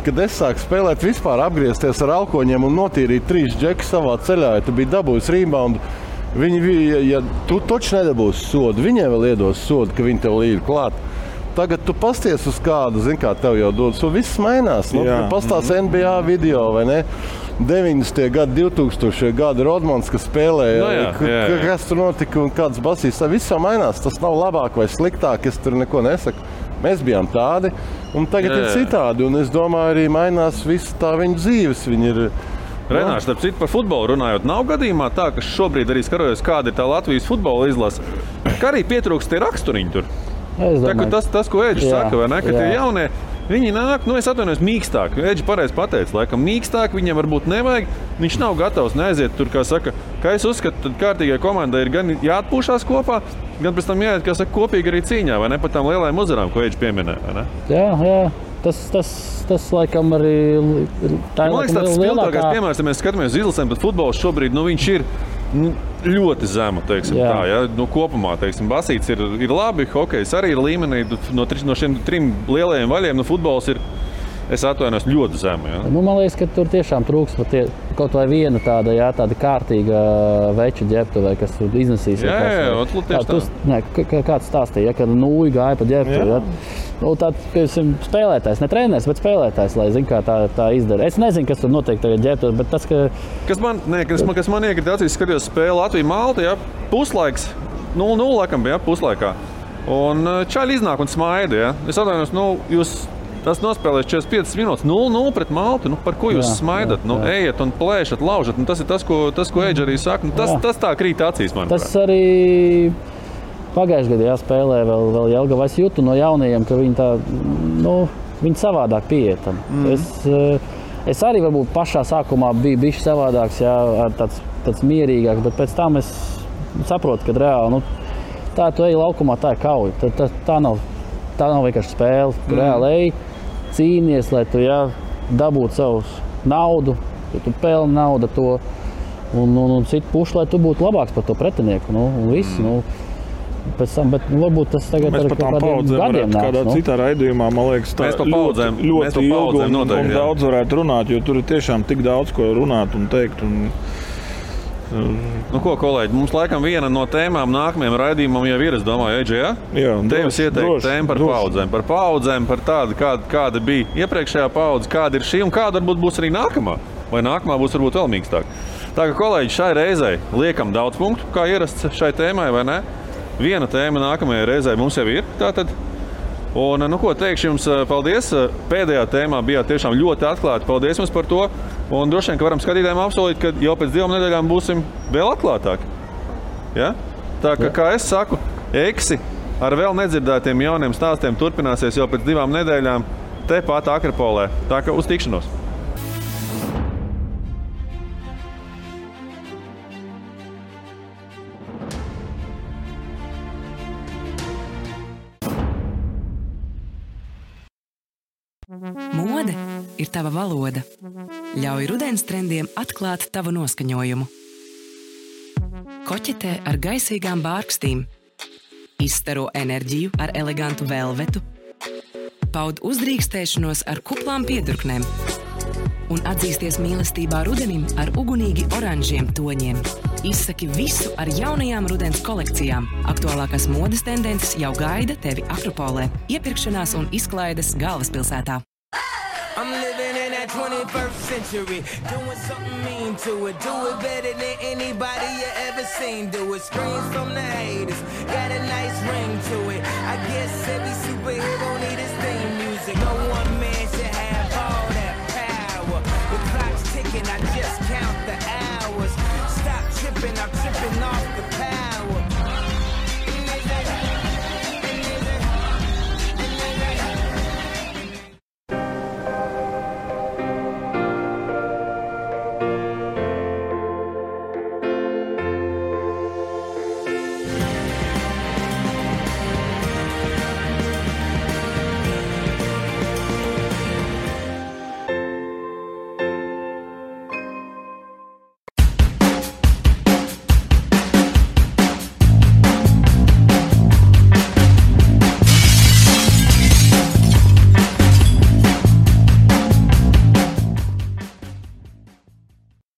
kad es sāku spēlēt, vispār apgriezties ar alkoņiem un notīrīt 3 džekus savā ceļā, ja tu biji dabūjis reboundu, tu taču nedabūsi sodu, viņiem vēl iedos sodu, ka viņi tev līd klāt. Tagad tu pasties uz kādu, kā tev jau dodas, un viss mainās. Pastās NBA video, vai ne? 90. gadi, 2000. gadi Rodmans, kas spēlēja, kas tur notika un kāds basīs, viss jau mainās. Tas nav labāk vai sliktāk, es tur neko nesaku. Mēs bijām tādi, un tagad ir citādi, un es domāju, arī mainās visu tā viņu dzīves. Viņi ir... Renārs, starp citu par futbolu runājot, nav gadījumā tā, ka šobrīd arī skarojos, kāda ir tā Latvijas futbola izlase, ka arī pietrūkst tie raksturiņi tur. Tas, ko Eģis saka, vai ne, ka tie jaunie, viņi nāk, es atvainojos, mīkstāk. Eģi pareizi pateica, laikam mīkstāk viņiem varbūt nevajag. Viņš nav gatavs neaiziet tur, kā saka, ka es uzskatu, tad kārtīgai komandai ir gan jāatpūšās kopā, gan pēc tam jāiet, kā saka, kopīgi arī cīņā, vai ne, par tām lielajām uzvarām, ko Eģi pieminēja, vai ne? Jā. Tas laikam arī tā ir man liekas, tāds spilgtākais piemērs, ja mēs skatāmies uz izlasēm, tad futbols šobrīd, viņš ir ļoti zema, teiksim tā, ja? Kopumā, teiksim, basīts ir labi, hokejs arī ir līmenī, no šiem 3 lielajiem vaļiem, futbols ir, es atvainojos, ļoti zema. Ja? Man liekas, ka tur tiešām trūks kaut vai viena tāda kārtīga veča ģērbtuvē, kas iznesīs. Kāds stāstīja, ka nūji gāja pa ģērbtuvi. Spēlētājs, ne treneris, bet spēlētājs, lai zin, kā tā izdara. Es nezinu, kas tur notiek tagad ģērbtuvē, bet tas, ka... Kas man iekrita acīs, skatījos spēli Latvija-Malta, puslaiks, 0-0 laikam bija, puslaikā. Un čaļi iznāk un smaida, ja. Es atvainojos, jūs... Tas nospēlēs 45 minūtes, 0-0 pret Maltu. Par ko jūs smaidat? Ejiet un plēšat, laužat. Tas ir tas, ko Eģi arī saka. Tas tā krīt acīs, manuprāt. Tas arī pagājušajā gadā spēlē vēl Jelgava. Es jūtu no jaunajiem, ka viņi tā, viņi savādāk pieiet. Es arī varbūt pašā sākumā biju bišķi savādāks, tāds mierīgāks, bet pēc tam es saprotu, ka reāli, tā tu ej laukumā, tā ir kauja. Tā nav vienkārši spēle. Tu reāli ej, cīnies, lai tu dabūtu savu naudu, ja tu pelni naudu to un citu pušu, lai tu būtu labāks par to pretinieku. Un viss. Pēc tam, bet varbūt tas tagad ar kādiem gadiem nāks. Kādā citā raidījumā, man liekas, tā ļoti ilgi un daudz varētu runāt, jo tur ir tiešām tik daudz, ko runāt un teikt. Ko, kolēģi, mums laikam viena no tēmām nākamajam raidījumam jau ir, es domāju, Eģi, ja? Jā, Tevis ieteikt tēmu par paudzēm, par tādu, kāda bija iepriekšējā paudze, kāda ir šī un kāda varbūt būs arī nākamā. Vai nākamā būs varbūt vēl mīkstāk. Tā kā, kolēģi, šai reizei liekam daudz punktu, kā ierasts šai tēmai, vai ne? Viena tēma nākamajai reizei mums jau ir, tātad. Un, teikšu jums paldies. Pēdējā tēmā bijāt tiešām ļoti atklāti. Paldies jums par to. Un droši vien, ka varam skatītājiem apsolīt, ka jau pēc 2 nedēļām būsim vēl atklātāki. Ja? Tā kā es saku, Eksi ar vēl nedzirdētiem jauniem stāstiem turpināsies jau pēc 2 nedēļām tepat Akropolē. Tā kā uz tikšanos! Mode ir tava valoda. Ļauj rudens trendiem atklāt tavu noskaņojumu. Koķetē ar gaisīgām bārkstīm. Izstaro enerģiju ar elegantu velvetu. Paud uzdrīkstēšanos ar kuplām piedurknēm. Un atzīsties mīlestībā rudenim ar ugunīgi oranžiem toņiem. Izsaki visu ar jaunajām rudens kolekcijām. Aktuālākās modes tendences jau gaida tevi Akropolē, iepirkšanās un izklaides galvaspilsētā. I'm living in that 21st century, doing something mean to it. Do it better than anybody you ever seen. Do it, screams from the haters, got a nice ring to it. I guess every superhero need his theme music. No one man should have all that power. The clock's ticking, I just count the hours.